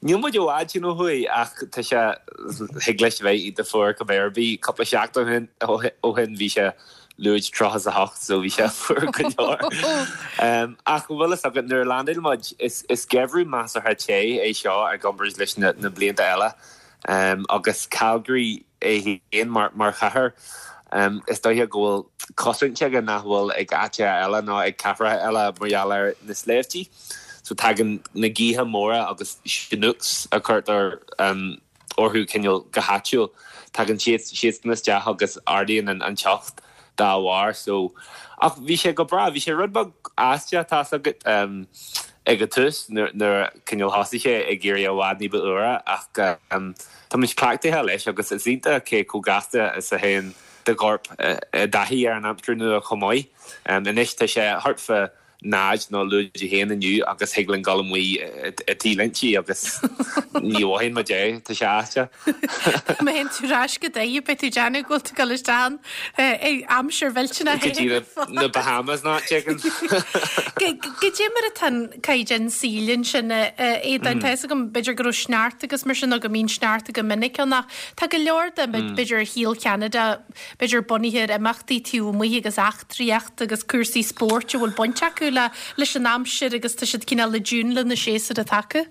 Níl muid i bhfad sin ó thuaidh ach tá sé, thig leis a bheith iontach fuar cibé ar bith. Cúpla seachtain ó shin bhí sé lúide 38 so bhí sé fuar go leor. Ach an bhfuil fhios agat nuair a landáil muid, is geimhreadh measartha te é seo i gcomparáid leis na blianta eile agus Calgary, é féin mar chathair. Is dóiche go bhfuil cosaint aige nach bhfuil ag áiteacha eile nó ag cathracha eile mar gheall ar na sléibhtí. So tagann na gaotha móra agus chinooks a chuirtear orthu cineál go háitiúil, tagann siadsan isteach agus ardaíonn an teocht dá bharr. So, ach bhí sé go breá, bhí sé rud beag aisteach, tá's agat, ag an tús nuair a cineál thosaigh sé ag éirí i bhfad ní ba fhuaire ach tá muid cleachtaithe leis agus is iontach cé chomh gasta is a théann do chorp i dtaithí ar an aimsir nua chomh maith. Anois tá sé thart fá 0 nó lúide 1 inniu agus thig linn dul amuigh i T-léintí agus ní mhothaíonn muid é, tá sé aisteach. Má théann tú ar ais go Doire beidh tú ag déanamh go bhfuil tú ag dul isteach in aimsir mhillteanach Go dtí na Bahamas nó áit éigin. Goidé mar atá an caighdeán saoil ansin a Aodáin? Tá fhios agam b'fhéidir go raibh sneachta agus mar sin nó go mbíonn sneachta go minic ann ach tá go leor de b'fhéidir shaol Cheanada b'fhéidir bunaithe ar imeachtaí taobh amuigh agus eachtraíocht agus cúrsaí spóirt a bhfuil baint acu le leis an aimsir agus tá siad cineál i dtiún le na séasúir atá acu.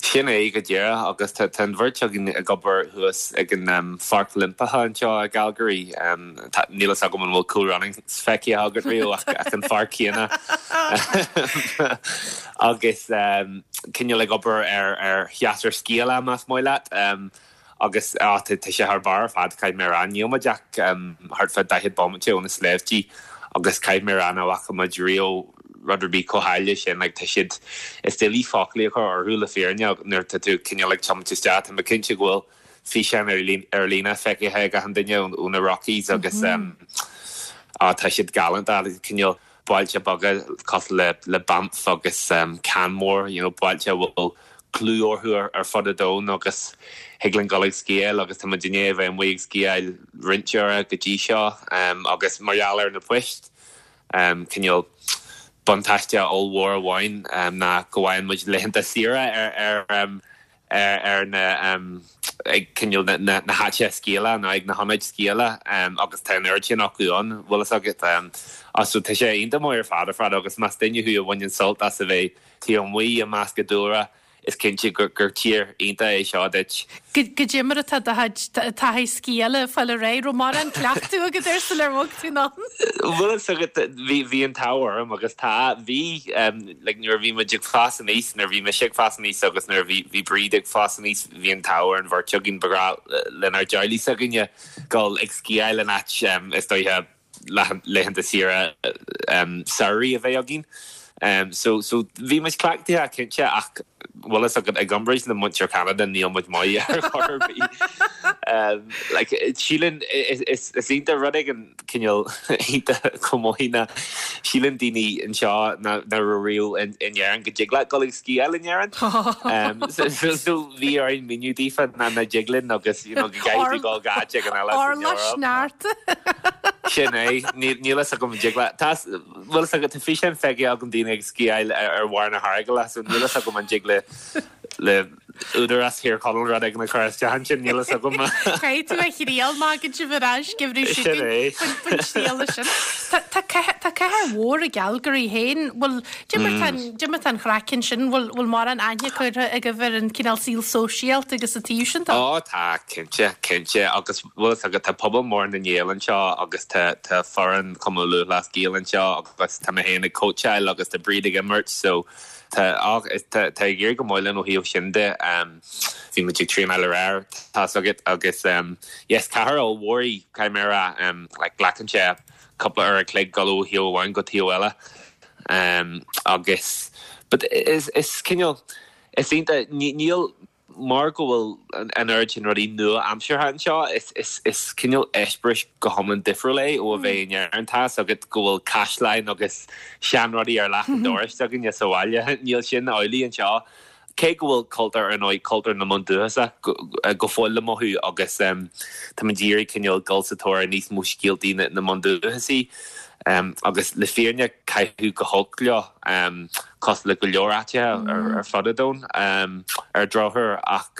Sin é go díreach agus tá an bheirt againn ag obair thuas ag an Pháirc Oilimpeach anseo i gCalgary. Níl fhios agam an bhfuil Cool Runnings feicthe agat riamh ach an pháirc chéanna. Agus cineál ag obair ar shéasúr sciála más maith leat. Agus á, tá sé thar barr ar fad, caithfidh mé a rá. Níl muid ach thart fá 40 bomaite ó na sléibhtí agus caithfidh mé a rá nach bhfaca muid riamh rud ar bith chomh háille sin. Like, tá siad, is doiligh foclaí a chur orthu le fírinne nuair atá tú cineál ag tiomáint isteach. Tá mé cinnte go bhfuil físeáin ar líne feicthe ag achan duine ó na Rockies agus á, tá siad galánta, cineál bailte beaga cosúil le le Banff agus Canmore, you know, bailte a bhfuil clú orthu ar fud an domhain agus thig linn dul ag sciáil agus tá muid i ndiaidh a bheith amuigh ag sciáil roinnt uaire go dtí seo agus mar gheall ar na poist, cineál buntáiste ollmhór amháin ná go bhfaigheann muid laethanta saoire ar ar ar na ag cineál na na háiteacha sciála nó ag na hionaid sciála agus tá an oiread sin acu ann, bhfuil fhios agat. So tá sé iontach maith ar fad ar fad agus más duine thú a bhaineann sult as a bheith taobh amuigh i measc an dúlra, is cinnte gur tír iontach é seo duit. Goidé mar atá do chuid taithí sciála ag fáil ar aghaidh? Raibh mórán cleachtadh agat air sular bhog tú anonn? Bhfuil fhios agat, bhí, bhí an t-ádh orm agus tá, bhí, like nuair a bhí muid ag fás aníos, nuair a bhí mise ag fás aníos agus nuair a bhí, bhí Bríd ag fás aníos, bhí an t-ádh ar an bheirt againn, ba ghnách lenár dteaghlaigh s'againne dul ag sciáil in áit, is dóiche, laethanta saoire samhraidh a bheith againn. So so bhí muid cleachtaithe cinnte ach bhfuil fhios agat i gcomparáid le muintir Cheanada níl muid maith ar chor ar bith. Like síleann is is iontach rud éigin cineál iontach chomh maith ná síleann daoine anseo nach raibh riamh in in Éirinn go dtig leat dul ag sciáil in Éirinn. So so so bhí orainn míniú daofa nach nach dtig linn agus you know go gcaithfidh tú dul go áit éigin eile san Orlach Eoraip. sneachta. Sin é, níl fhios agam an dtig leat. Tá, bhfuil fhios agat, tá físeáin feicthe agam daoine ag sciáil ar bharr na hEargaile, so níl fhios agam an dtig le, le. Údarás Thír Chonaill rud éigin a chur isteach ansin, níl fhios agam. Caithfidh tú a thriail má thagann sibh ar ais geimhreadh seo chugainn faoin triail sin. Tá cathair mhór i gCalgary féin, bhfuil, cad é mar tá an chraic ansin, bhfuil bhfuil mórán aithne curtha agaibh ar an cineál saol sóisialta agus an taobh sin de? Ó tá, cinnte, cinnte agus bhfuil fhios agat tá pobal mór na nGael anseo agus tá tá foireann Chumann Lúthchleas Gael anseo agus tá mé féin ag cóitseáil agus tá Bríd ag imirt so Tá, ach tá ag éirí go maith linn ó thaobh sin de. Bhí muid ag traenáil aréir, tá's agat, agus yes, cathair ollmhór í, caithfidh mé a rá. Like, glacann sé cúpla uair a chloig dul ó thaobh amháin go taobh eile. Agus, but is, is cineál, is iontach, níl, Mar go bhfuil an oiread sin rudaí nua-aimseartha anseo, is cineál eispéireas go hiomlán difriúil é ó a bheith in Éirinn. Tá's agat go bhfuil caisleáin agus seanrudaí ar leac an dorais againne sa bhaile. Níl sin amhlaidh anseo. Cé go bhfuil cultúr, ar ndóigh, cultúr na mbundúchasach go fóill le mothú agus táimid ag iarraidh cineál dul sa tóir ar níos mó scéaltaí na mbundúchasaigh. Agus le fírinne, caitheadh go holc leo, cosúil le go leor áiteacha ar fud an domhain, ar drochuair. Ach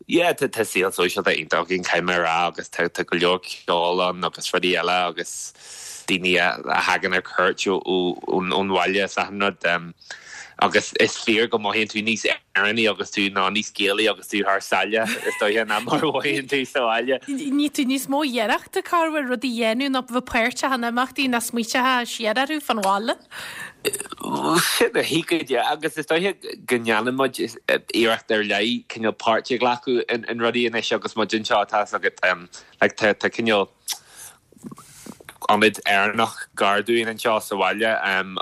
yeah, tá saol sóisialta iontach againn, caithfidh mé a rá, agus tá go leor ceoil ann agus rudaí eile agus daoine a thagann ar cuairt ón bhaile is achan rud. Agus is fíor go mothaíonn tú níos Éireannaí agus tú, nó níos Gaelaí agus tú thar sáile, is dóiche, ná mar a mhothaíonn tú sa bhaile. Ní tú níos mó iarrachta corruair rudaí a dhéanamh ná bheith páirteach in imeachtaí ná smaoiteachá siar orthu fán bhaile. Sin é go díreach, agus is dóiche go ndéanann muid iarracht ar leith cineál páirt a ghlacadh in rudaí anois agus muid anseo, tá's agat, like tá cineál ionad Éireannach gar dúinn anseo sa bhaile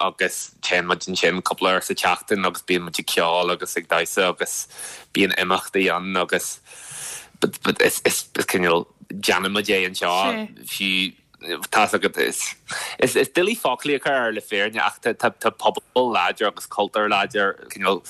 agus téann muid ansin cúpla uair sa tseachtain agus bíonn muid ag ceol agus ag damhsa agus bíonn imeachtaí ann agus but is is cineál déanann muid é anseo fiú tá's agat is is is doiligh foclaí a chur air le fírinne ach tá tá tá pobal láidir agus cultúr láidir cineál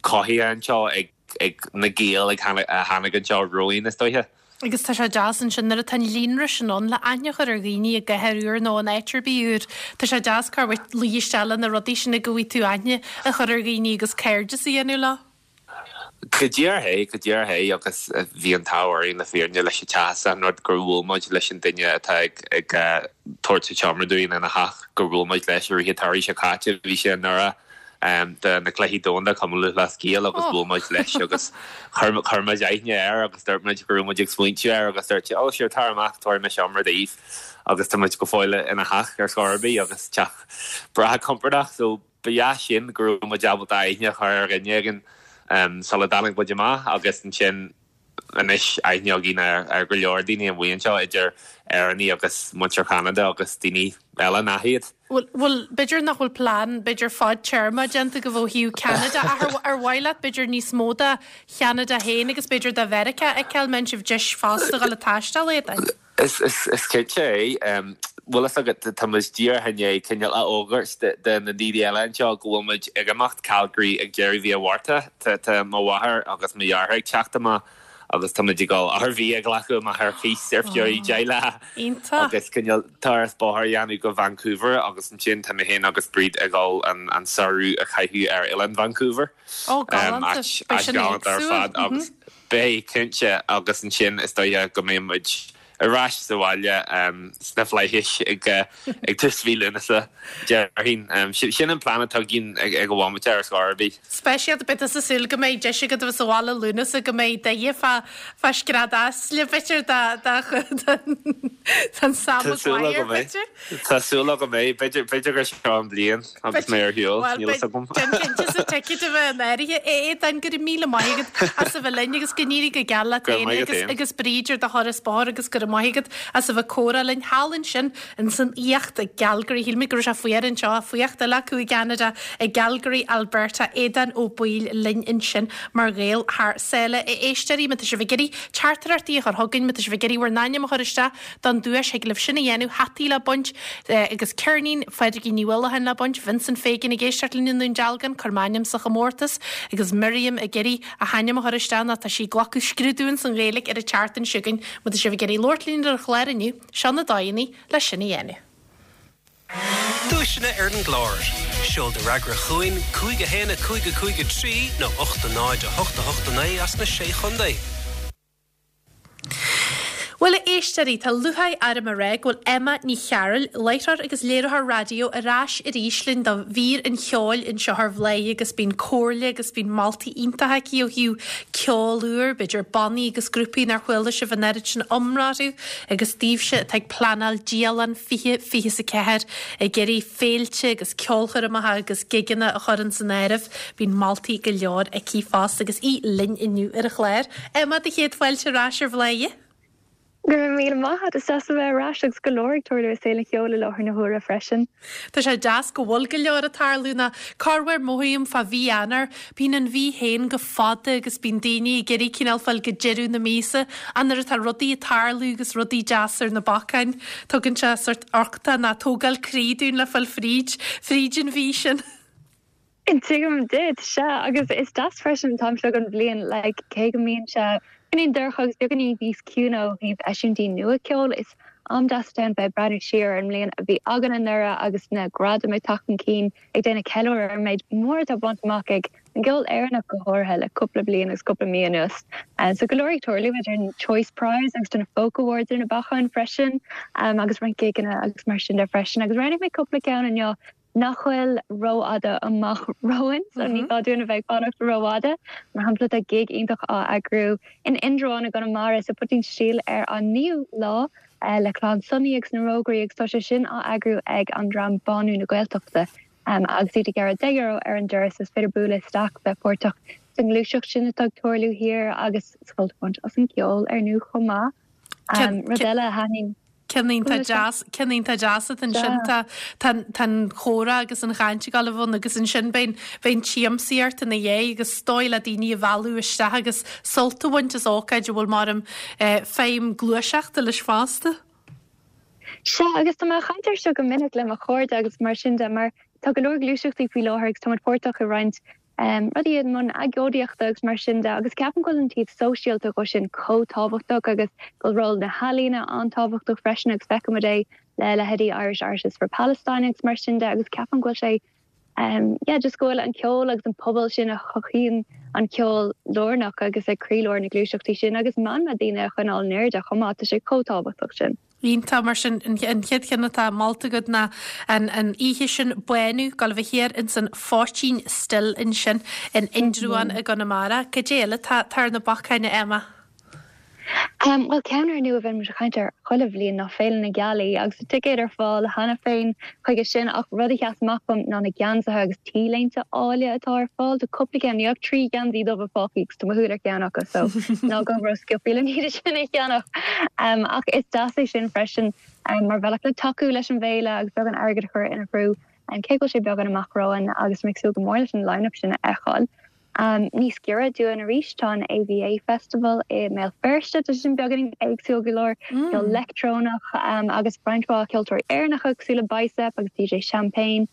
cothaithe anseo ag ag na Gaeil a tháinig anseo romhainn is dóiche. Agus tá sé deas ansin nuair atá an líonra sin ann le aithne a chur ar dhaoine i gcathair úr nó in áit ar bith úr. Tá sé deas corruair luí isteach le na rudaí sin go bhfaighidh tú aithne a chur ar dhaoine agus cairdeas a dhéanamh leo. Go díreach é, go díreach é agus bhí an t-ádh orainn le fírinne leis an teach is an rud gur bhuail muid leis an duine atá ag ag tabhairt an tseomra dúinn ina theach, gur bhuail muid leis i rith an tsamhraidh seo caite, bhí sé i nDoire. do na Cluichí Domhanda Cumann Lúthchleas Gael agus bhuail muid leis agus chuir muid aithne air agus dúirt muid go raibh muid ag smaointiú air agus dúirt sé oh sure tar amach tabharfaidh mé seomra daoibh agus tá muid go fóill ina theach ar scor ar bith agus teach breá compordach so ba dheas sin go raibh muid ábalta aithne a chur ar dhuine éigin sula dtáinig muid amach agus ansin anois aithne againn ar go leor daoine amuigh anseo, idir Éireannaigh agus muintir Cheanada agus daoine eile nach iad. Bhuel, bhuel, b'fhéidir nach bhfuil plean, b'fhéidir fadtéarma déanta agaibh ó thaobh Ceanada ach ar, ar mhaith leat b'fhéidir níos mó de Cheanada féin agus b'fhéidir de Mheiriceá a fheiceáil, mbeidh sibh deis fosta dhul ag taisteal Aodáin? Is cinnte é. Bhfuil fhios agat, tá muid díreach i ndiaidh cineál a fhógairt do na daoine eile anseo go bhfuil muid ag imeacht Calgary ag deireadh mhí an Mhárta. Tá mo mháthair agus mo dheartháir ag teacht amach agus tá muid ag dul RV a ghlacadh amach ar cíos ar feadh 10 lá agus cineál turas bóthair a dhéanamh go Vancouver agus ansin tá mé féin agus Bríd ag dul an samhradh a chaitheamh ar Oileán Vancouver. Ó, galánta. Beidh sin éagsúil. Beidh, cinnte, agus ansin is dóiche go mbeidh muid ar ais sa bhaile sna flaithis ag tús mhí Lúnasa, déarfainn. Sin an plean atá againn ag an bhomaite ar scor ar bith. Speisialta, beidh tusa ag súil go mbeidh deis agat a bheith sa bhaile Lúnasa, go mbeidh do fá fá scread easla, b'fhéidir, don Sam Maguire, b'fhéidir. Tá súil agam é. B'fhéidir b'fhéidir gur seo an bhliain agus mé ar shiúl, Bhuel, níl fhios agam. Déan cinnte is an ticéad a bheith in áirithe. A Aodáin, go raibh míle maith agat as a bheith linn agus go n-éirí go geal leat Go raibh féin maith agat agus féin. agus Bríd ar do thuras bóthair agus go raibh maith agat as a bheith ag comhrá linn thall ansin ins an fhuíocht i gCalgary. Shíl mé go raibh sé fuar anseo, fuíocht eile acu i gCeanada, i gCalgary, Alberta. Aodán Ó Baoill linn ansin mar Ghael thar sáile. A éisteoirí, má tá sibh ag iarraidh teachtaireachtaí a chur chugainn, má tá sibh ag iarraidh bhur n-ainm a chur isteach, Don duais, thig libh sin a dhéanamh, hataí le baint, agus ceirnín Phádraigín Ní Uallacháin le baint, Vincent Fagan ag éisteacht linn i nDún Dealgan, cuir m'ainm sa chomórtas, agus Miriam ag iarraidh a hainm a chur isteach nó tá sí ag glacadh scrúdú ins an Ghaeilge ar an tseachtain seo chugainn. Má tá sibh ag iarraidh labhairt linn ar an chlár inniu, seo na dóigheanna le sin a dhéanamh. Duaiseanna ar an gclár. Seol do fhreagra chugainn, 5 1 5 5 3 nó 8 0 8 8 9 as na Sé Chontae. Bhuel, a éisteoirí, tá lúcháir orm a rá go bhfuil Emma Ní Chearúil, láithreoir agus léiritheoir raidió, ar ais arís linn do mhír an cheoil anseo ar Bhladhaire agus bíonn comhairle agus bíonn moltaí iontacha aici ó thaobh ceol úr, b'fhéidir bannaí agus grúpaí nár chuala sibh an oiread sin iomrá orthu agus daoibhse atá ag pleanáil dialann 2024 ag iarraidh féilte agus ceolchoirmeacha agus gigeanna a chur ins an áireamh. Bíonn moltaí go leor aici fosta agus í linn inniu ar an chlár. Emma, do chéad fáilte ar ais ar Bhladhaire. Go raibh míle maith agat, is deas a bheith ar ais agus go leor ag tarlú i saol an cheoil i láthair na huaire freisin. Tá sé deas go bhfuil go leor ag tarlú nó corruair mothaím fá mhí Eanáir, bíonn an mhí féin go fada agus bíonn daoine ag iarraidh cineál fáil go deireadh na míosa ach nuair atá rudaí ag tarlú agus rudaí deasa ar na bacáin, tugann sé sort uchtach nó tógáil croí dúinn le fáil fríd, fríd an mhí sin. Tuigim duit, sea, agus is deas freisin an t-am seo den bhliain, like, cé go mbíonn sé beagáinín dorcha agus beagáinín níos ciúine ó thaobh eisiúintí nua ceoil, is am deas atá ann bheith ag breathnú siar ar an mbliain a bhí againn anuraidh agus na gradaim ag teacht chun cinn, ag déanamh ceiliúradh ar an méid mór atá bainte amach ag an gceol Éireannach go háirithe le cúpla bliain agus cúpla mí anuas. So go leor ag tarlú idir an Choice Prize agus na Folk Awards ar na bacáin freisin agus roinnt gigeanna agus mar sin de freisin agus roghnaigh mé cúpla ceann inniu nach bhfuil rófhada amach romhainn, so ní gá dúinn a bheith ag fanacht rófhada. Mar shampla, tá gig iontach á eagrú in Indreabhán i gConamara sa Poitín Stil ar an 9ú lá le Clann Sonaí agus na Rógairí agus tá sé sin á eagrú ag an dream Bánú na Gaeltachta agus iad ag gearradh €10 ar an doras. Is féidir bualadh isteach, bheith páirteach sa ngluaiseacht sin atá ag tarlú thiar agus sult a bhaint as an gceol ar ndóigh chomh maith. Rud eile a thaitníonn. Ceann iontach deas, ceann iontach deas atá ansin. Tá, tá, tá an chomhrá agus an chaint ag gabháil a bheith ann agus ansin beidh an, beidh an tsiamsaíocht ina dhiaidh agus is dóigh le daoine a mhealladh isteach agus sult a bhaint as ócáid a bhfuil mar feidhm gluaiseachta leis fosta. Sea, agus tá mé ag caint air seo go minic le mo chairde agus mar sin de, mar tá go leor gluaiseachtaí faoi láthair agus tá muid páirteach i roinnt rudaí i mbun agóidíochta agus mar sin de agus ceapaim go bhfuil an taobh sóisialta dhó sin chomh tábhachtach agus go bhfuil ról na healaíne an-tábhachtach freisin agus feicimid é le leithéidí Irish Artists for Palestine agus mar sin de agus ceapaim go bhfuil sé yeah just go bhfuil an ceol agus an pobal sin a chothaíonn an ceol lárnach agus ag croílár na gluaiseachtaí sin agus meanma daoine a choinneáil in airde chomh maith, tá sé chomh tábhachtach sin. Iontach, mar sin, an chéad cheann atá molta agat ná an oíche sin, Bánú, ag gabháil a bheith thiar ins an Phoitín Stil ansin in Indreabhán i gConamara. Cad é eile atá ar na bacáin, a Emma? Bhuel, ceann ar ndóigh a bhíonn muid ag caint air chuile bhliain ná Féile na Gealaí agus tá ticéid ar fáil cheana féin chuige sin ach rud a sheas amach dom ná na geansaithe agus T-léinte áille atá ar fáil. Tá cúpla ceann, níl ach 3 gheansaí dubha fágtha agus tá mo shúil ar cheann acu so ná gabh ró-sciobtha le iad sin a cheannach. Ach is deas é sin freisin mar bhealach le tacú leis an bhféile agus beagán airgid a chur ina threo cé go bhfuil sé beagán amach romhainn agus mé ag súil go mór leis an line-up sin a fheiceáil. Níos giorra dúinn arís tá an AVA Festival i mBéal Feirste, tá sé sin beagáinín éagsúil go leor, ceol leictreonach agus roinnt mhaith ceoltóirí Éireannacha cosúil le Bicep agus DJ Champagne,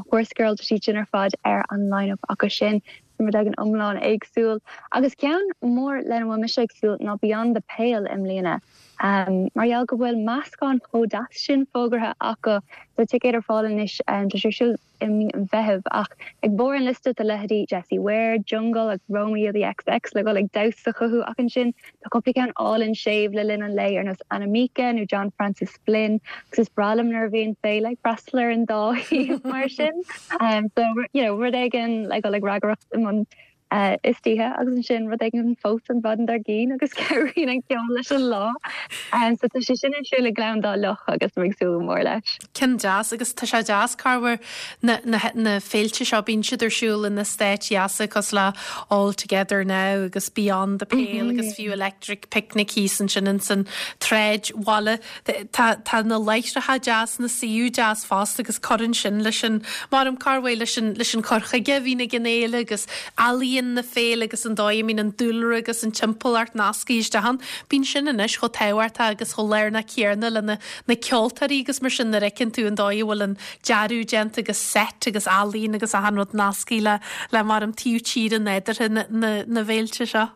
Horsegirl, tá siad sin ar fad ar an line-up acu sin. Sin rud éigin iomlán éagsúil. Agus ceann mór lena bhfuil mise ag súil ná Beyond the Pale i mbliana. Mar gheall go bhfuil meascán chomh deas sin fógartha acu, tá ticéid ar fáil anois, tá sé ar siúl i mí an Mheithimh ach ag barr an liosta tá leithéidí Jessie Ware, Jungle agus Romeo the XX le dhul ag damhsa chucu ach ansin tá cúpla ceann álainn séimh le linn an lae ar nós Anamika nó John Francis Flynn agus is breá liom nuair a bhíonn féile ag freastal ar an dá thaobh mar sin. So you know rud éigin le dhul ag ragaireacht i mbun istoíche agus ansin rud éigin fós an mhaidin dár gcionn agus cabhraíonn an ceol leis an lá. So tá sé sin ar siúl i nGleann Dá Loch agus mé ag súil go mór leis. Ceann deas agus tá sé deas corruair na, na, na féilte seo bíonn siad ar siúl in eastáit dheasa cosúil le All Together Now agus Beyond the Pale agus fiú Electric Picnic thíos ansin ins an tsráidbhaile. Tá, tá na láithreacha deas, na suíomh deas fosta agus cuireann sin leis an, maram corruair leis an, leis an cur chuige a bhíonn ag an fhéile agus ealaíon na féile agus an dóigh a mbíonn an dúlra agus an timpeallacht nasctha isteach ann. Bíonn sin anois chomh tábhachtach agus chomh lárnach céanna le na, na ceoltóirí agus mar sin nuair a fheiceann tú an dóigh a bhfuil an dearadh déanta agus seit agus ealaíon agus achan rud nasctha le, le maram taobh tíre nádúrtha na, na, na bhféilte seo.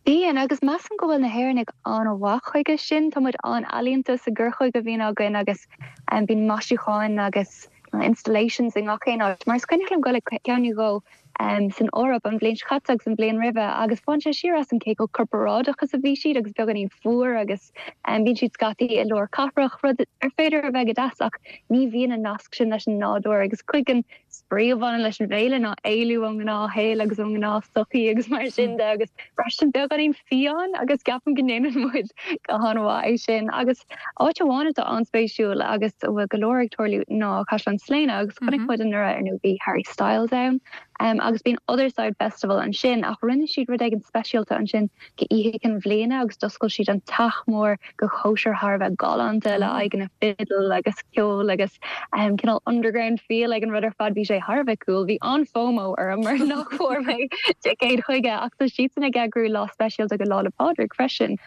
Bíonn, agus measaim go bhfuil na hÉireannaigh an-mhaith chuige sin. Tá muid an-ealaíonta sa gcur chuige a bhíonn againn agus bíonn maisiúcháin agus installations i ngach aon áit. Mar is cuimhneach liom dul ag ceann nó dhó san Eoraip an bhliain seo caite agus an bhliain roimhe agus bhain sé siar asam cé chomh corparáideach is a bhí siad agus beagáinín fuar agus bíonn siad scaití i lár cathrach, rud ar féidir a bheith go deas ach ní bhíonn an nasc sin leis an nádúr agus cuid den spraoi a bhaineann leis an bhféile ná éalú ón ngnáthshaol agus ón ngnáthsochaí agus mar sin de agus braistint beagáinín fiáin agus ceapaim go ndéanann muid go han-mhaith é sin. Agus áit amháin atá an-spéisiúil agus a bhfuil go leor ag tarlú ná Caisleán Sléine agus chonaic muid anuraidh ar ndóigh bhí Harry Styles ann agus bíonn Otherside Festival ansin ach rinne siad rud éigin speisialta ansin go Oíche Chinn Bhliana agus d'oscail siad an teach mór go chóisir thar a bheith galánta le aghaidheanna fidil agus ceol agus cineál underground feel ag an rud ar fad. Bhí sé thar a bheith cool. Bhí an-FOMO orm mar nach bhfuair mé ticéad chuige ach tá siadsan ag eagrú lá speisialta go Lá 'le Pádraig freisin.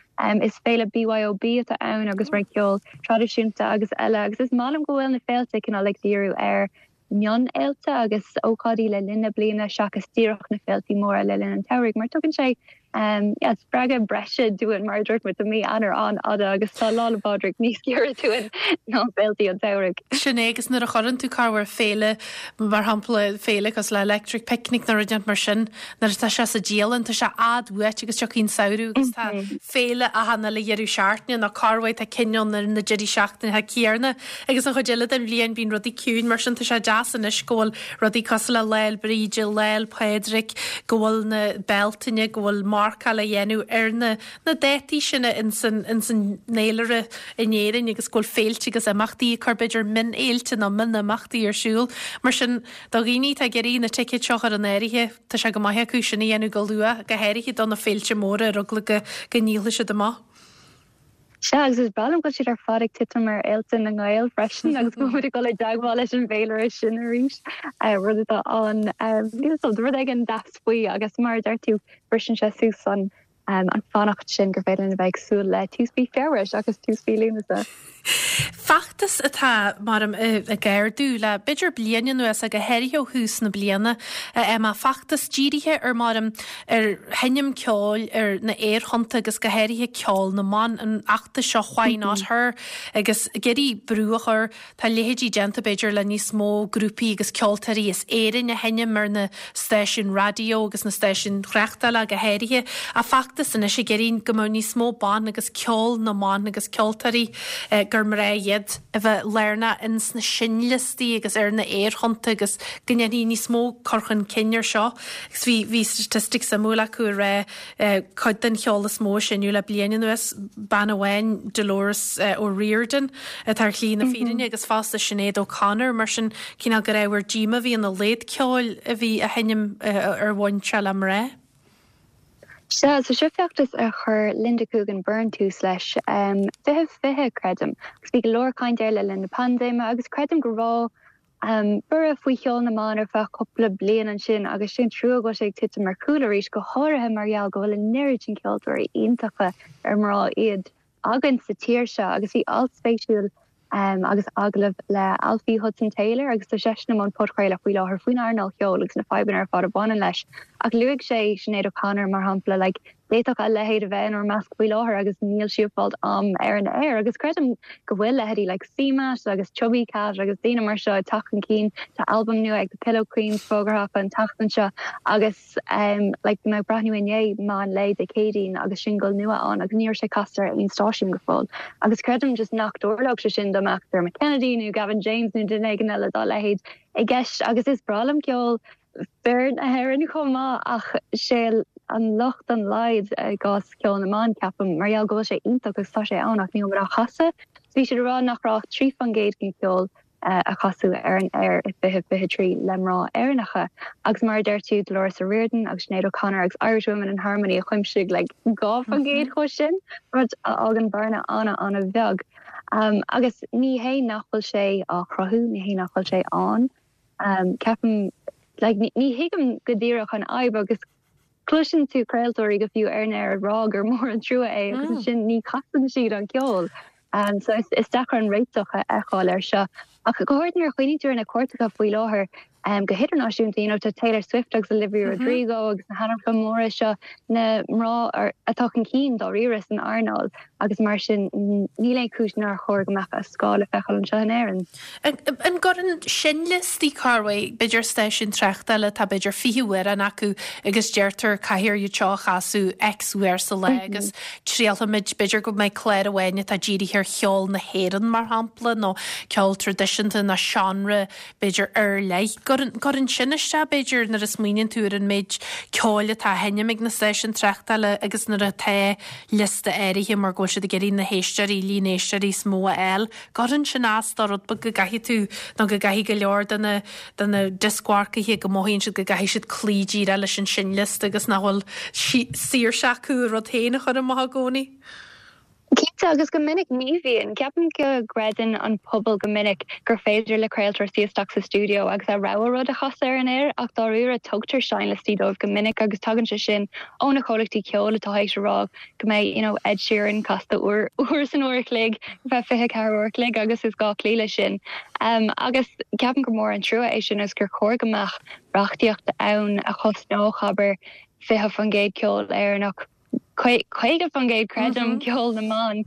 Is féile BYOB atá ann agus roinnt ceol traidisiúnta agus eile agus is maith liom go bhfuil na féilte cineál ag díriú ar mionfhéilte agus ócáidí le linn na bliana seachas díreach na féiltí móra le linn an tsamhraidh mar tugann sé yeah, spreagadh breise dúinn mar a dúirt muid tá mí Eanáir an-fhada agus tá Lá 'le Pádraig níos giorra dúinn ná féiltí an tsamhraidh. Sin é agus nuair a chuireann tú corruair féile mar shampla féile cosúil le Electric Picnic nó rud inteacht mar sin nuair atá sé sa dialann tá sé i bhfad uait agus tiocfaidh an samhradh agus tá féile achan uile dheireadh seachtaine nó corruair tá cinn ann ar na deirí seachtaine céanna Agus an chuid eile den bhliain bíonn rudaí ciúin, mar sin tá sé deas anois go bhfuil rudaí cosúil le Lá 'le Bríde, Lá 'le Pádraig, go bhfuil na Bealtaine, go bhfuil marcáil á dhéanamh ar na na dátaí sin ins an ins an fhéilire in Éirinn agus go bhfuil féilte agus imeachtaí ag cur b'fhéidir mionfhéilte nó mionimeachtaí ar siúl. Mar sin do dhaoine atá ag iarraidh na ticéid seo a chur in áirithe, tá sé go maith acu sin a dhéanamh go luath, go háirithe do na féilte móra ar eagla go go ndíolfaidh siad amach. Sea, agus is breá liom go bhfuil siad ar fad ag titim ar fhéilte na nGael freisin agus go bhfuil muid ag dul i dteagmháil leis an bhféilire sin arís, rud atá an, níl 'fhios a'm, rud éigin deas faoi agus mar a deir tú, briseann sé suas an an fanacht sin gur féidir linn a bheith ag súil le tús mhí Feabhra seachas tús mhí Lúnasa. Feachtas atá, mar ag ardú le b'fhéidir bliain anuas, go háirithe ó thús na bliana, Emma, feachtas dírithe ar mar ar sheinm ceoil ar na aerthonnta agus go háirithe ceol na mban, an feachtas seo Why Not Her agus ag iarraidh brú a chur, tá leithéidí déanta b'fhéidir le níos mó grúpaí agus ceoltóirí as Éirinn a sheinm ar na stáisiúin raidió agus na stáisiúin thráchtála go háirithe. Ach feachtas anois ag iarraidh go mbeadh níos mó ban agus ceol na mban agus ceoltóirí gur mná iad a bheith lárnach ins na seinnliostaí agus ar na aerthonnta agus go ndéanfaí níos mó cur chun cinn ar seo. Agus bhí, bhí statistic suimiúil acu ag rá cuid den cheol is mó a seinneadh le bliain anuas, bean amháin, Dolores O'Riordan, atá ar shlí na fírinne agus fosta Sinéad O'Connor, mar sin cineál gur ábhar díoma a bhí ina laghad ceoil a bhí á sheinm ar bhain sé le mná. Sea, so seo feachtas a chuir Linda Coogan Byrne tús leis, 2020, creidim, agus bhí go leor caint air le linn na paindéime agus creidim go raibh Borradh faoi cheol na mban ar feadh cúpla bliain ansin agus sé an trua go bhfuil sé ag titim ar chúl arís, go háirithe mar gheall go bhfuil an oiread sin ceoltóirí iontacha ar mná iad againn sa tír seo. Agus bhí alt spéisiúil agus agallamh le Alfie Hudson Taylor agus tá seisean i mbun podchraoladh faoi láthair faoin earnáil cheoil agus na fadhbanna ar fad a bhaineann leis. Ach luaigh sé Sinéad O'Connor mar shampla, like, D'fhéadfadh a leithéid a bheith inár measc faoi láthair agus níl sí ag fáilt am ar an aer agus creidim go bhfuil leithéidí like CMAT agus Chubby Cat agus daoine mar seo ag teacht chun cinn. Tá albam nua ag The Pillow Queens fógartha acu an tseachtain seo agus um like bhí mé ag breathnú inné meán lae Dé Céadaoin agus singil nua ann agus ní raibh sé casta ar aon stáisiún go fóill agus creidim just nach dtarlódh sé sin dá mbeadh Dermot Kennedy nó Gavin James nó duine éigin eile dá leithéid i gceist agus is breá liom ceol fir na hÉireann chomh maith ach sé an locht an laghad i gcás ceol na mban, ceapaim, mar gheall go bhfuil sé iontach agus tá sé ann ach níl muid á chasadh. So bhí siad ag rá nach raibh ach 3% den cheol a casadh ar an aer i 2023 le mná Éireannacha agus mar a deir tú Dolores O'Riordan agus Sinéad O'Connor agus Irish Women in Harmony a chuimsigh like 2% dhe sin, rud a fhágann bearna an-an-bheag. Agus ní hé nach bhfuil sé á chruthú, ní hé nach bhfuil sé ann. Ceapaim, like, ní thuigim go díreach an fhadhb agus cloiseann tú craoltóirí go fiú ar an aer ag rá gur mór an trua é agus ansin ní chasann siad an ceol. So is deacair an réiteach a fheiceáil air seo. Ach go háirithe nuair a chuimhníonn tú ar na cairteacha faoi láthair. Go hidirnáisiúnta, you know, tá Taylor Swift agus Olivia Rodrigo agus na hainmneacha móra seo, na mná atá chun cinn dáiríre san earnáil agus mar sin níl aon chúis nár chóir go mbeadh a scáth le feiceáil anseo in Éirinn. An gcuireann seinnliostaí corruair, b'fhéidir stáisiún tráchtála atá b'fhéidir 20 amhrán acu agus deirtear caithfear iad seo a chasadh X uair sa lá agus triailfimid, b'fhéidir go mbeidh clár amháin atá dírithe ar cheol na hÉireann mar shampla nó ceol traidisiúnta nó seánra b'fhéidir, ar leith. Cuireann sin isteach, b'fhéidir, nuair a smaoiníonn tú ar an méid ceoil atá á sheinm ag na stáisiúin tráchtála agus nuair atá liosta áirithe mar go bhfuil siad ag iarraidh na héisteoirí, líon éisteoirí is mó a fháil. Cuireann sin as do rud beag go gcaithfidh tú nó go gcaithfidh go leor de na, de na dioscmharcaithe go mothaíonn siad go gcaithfidh siad cloí díreach leis an seinnliosta agus nach bhfuil saoirse acu a rud féin a chur amach i gcónaí. Cinnte, agus go minic ní bhíonn. Ceapaim go gcreideann an pobal go minic gur féidir le craoltóir suí isteach sa stiúideo agus a rogha rud a chasadh ar an aer ach dáiríre tugtar seinnliostaí dóibh go minic agus tagann sé sin ó na comhlachtaí ceoil atá théis a rá go mbeidh you know Ed Sheeran casta uair uair san uair a chloig ar feadh 24 uair a chloig agus is gá cloí leis sin. Agus ceapaim gur mór an trua é sin agus gur chóir go mbeadh reachtaíocht ann a chosnódh abair 20% ceol Éireannach. 50% creidim, ceol na mban.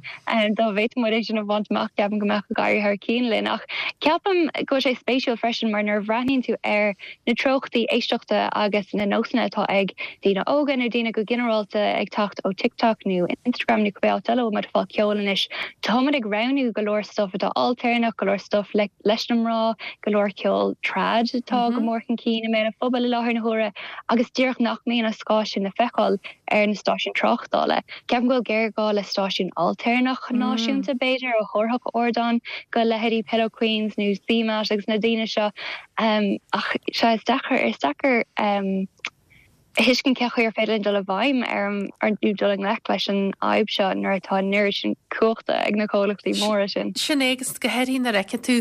Dá bhféadfadh muid é sin a bhaint amach, ceapaim go mbeadh ag éirí thar cionn linn. Ach ceapaim go bhfuil sé spéisiúil freisin mar nuair a bhreathnaíonn tú ar na treochtaí éisteachta agus na nósanna atá ag daoine óga nó daoine go ginearálta ag teacht ó TikTok nó Instagram nó cibé áit eile a bhfuil muid ag fáil ceoil anois, tá muid ag roghnú go leor stuif atá ailtéarnach, go leor stuif leis na mná, go leor ceol trad atá go mór chun cinn i mbéal an phobail i láthair na huaire agus díreach nach mbíonn an scáth sin le feiceáil. ar na stáisiúin tráchtála. Ceapaim go bhfuil géarghá le stáisiún ailtéarnach náisiúnta, b'fhéidir, a thabharfadh ardán go leithéidí Pillow Queens nó CMAT agus na daoine seo. Ach sea, is deacair, is deacair a thuiscint cén chaoi ar féidir linn dul i bhfeidhm ar an, nó dul i ngleic leis an fhadhb seo nuair atá an oiread sin cumhachta ag na comhlachtaí móra sin. Sin é, agus go háirithe nuair a fheiceann tú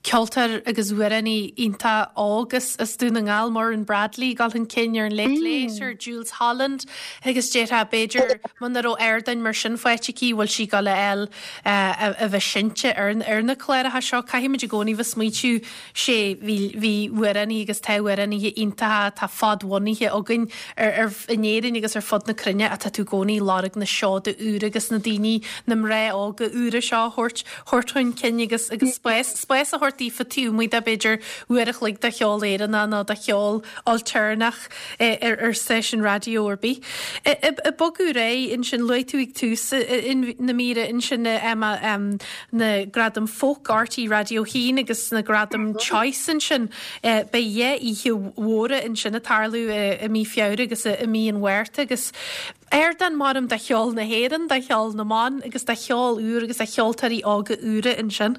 ceoltóir agus amhránaí iontach óg as Dún na nGall, Muireann Bradley, ag dul chun cinn ar an Late Late ar Jools Holland agus déarfá b'fhéidir muna raibh ardáin mar sin faighte aici bhfuil sí ag dul a fháil a bheith seinnte ar na cláracha seo. Caithfimid i gcónaí bheith smaointiú sé bhí bhí amhránaithe agus tá amhránaithe iontacha atá fadbhunaithe againn ar ar in Éirinn agus ar fud na cruinne ach tá tú i gcónaí ag lorg na seoda úra agus na daoine na mná óga úra seo a thabhairt thabhairt chun cinn agus agus spás spás a thabhairt daofa taobh amuigh de b'fhéidir uair a chloig de cheol Éireannach nó de cheol ailtéarnach ar ar stáisiún raidió ar bith. Ag bogadh ar aghaidh ansin luaigh tú ag tús na míre ansin Emma na Gradaim Folk RTÉ Raidió 1 agus na Gradaim Choice ansin. Beidh dhá oíche mhóra ansin ag tarlú i mí Feabhra agus i mí an Mhárta agus Ardán maram do cheol na hÉireann, do cheol na mban agus do cheol úr agus do cheoltóirí óga úra ansin.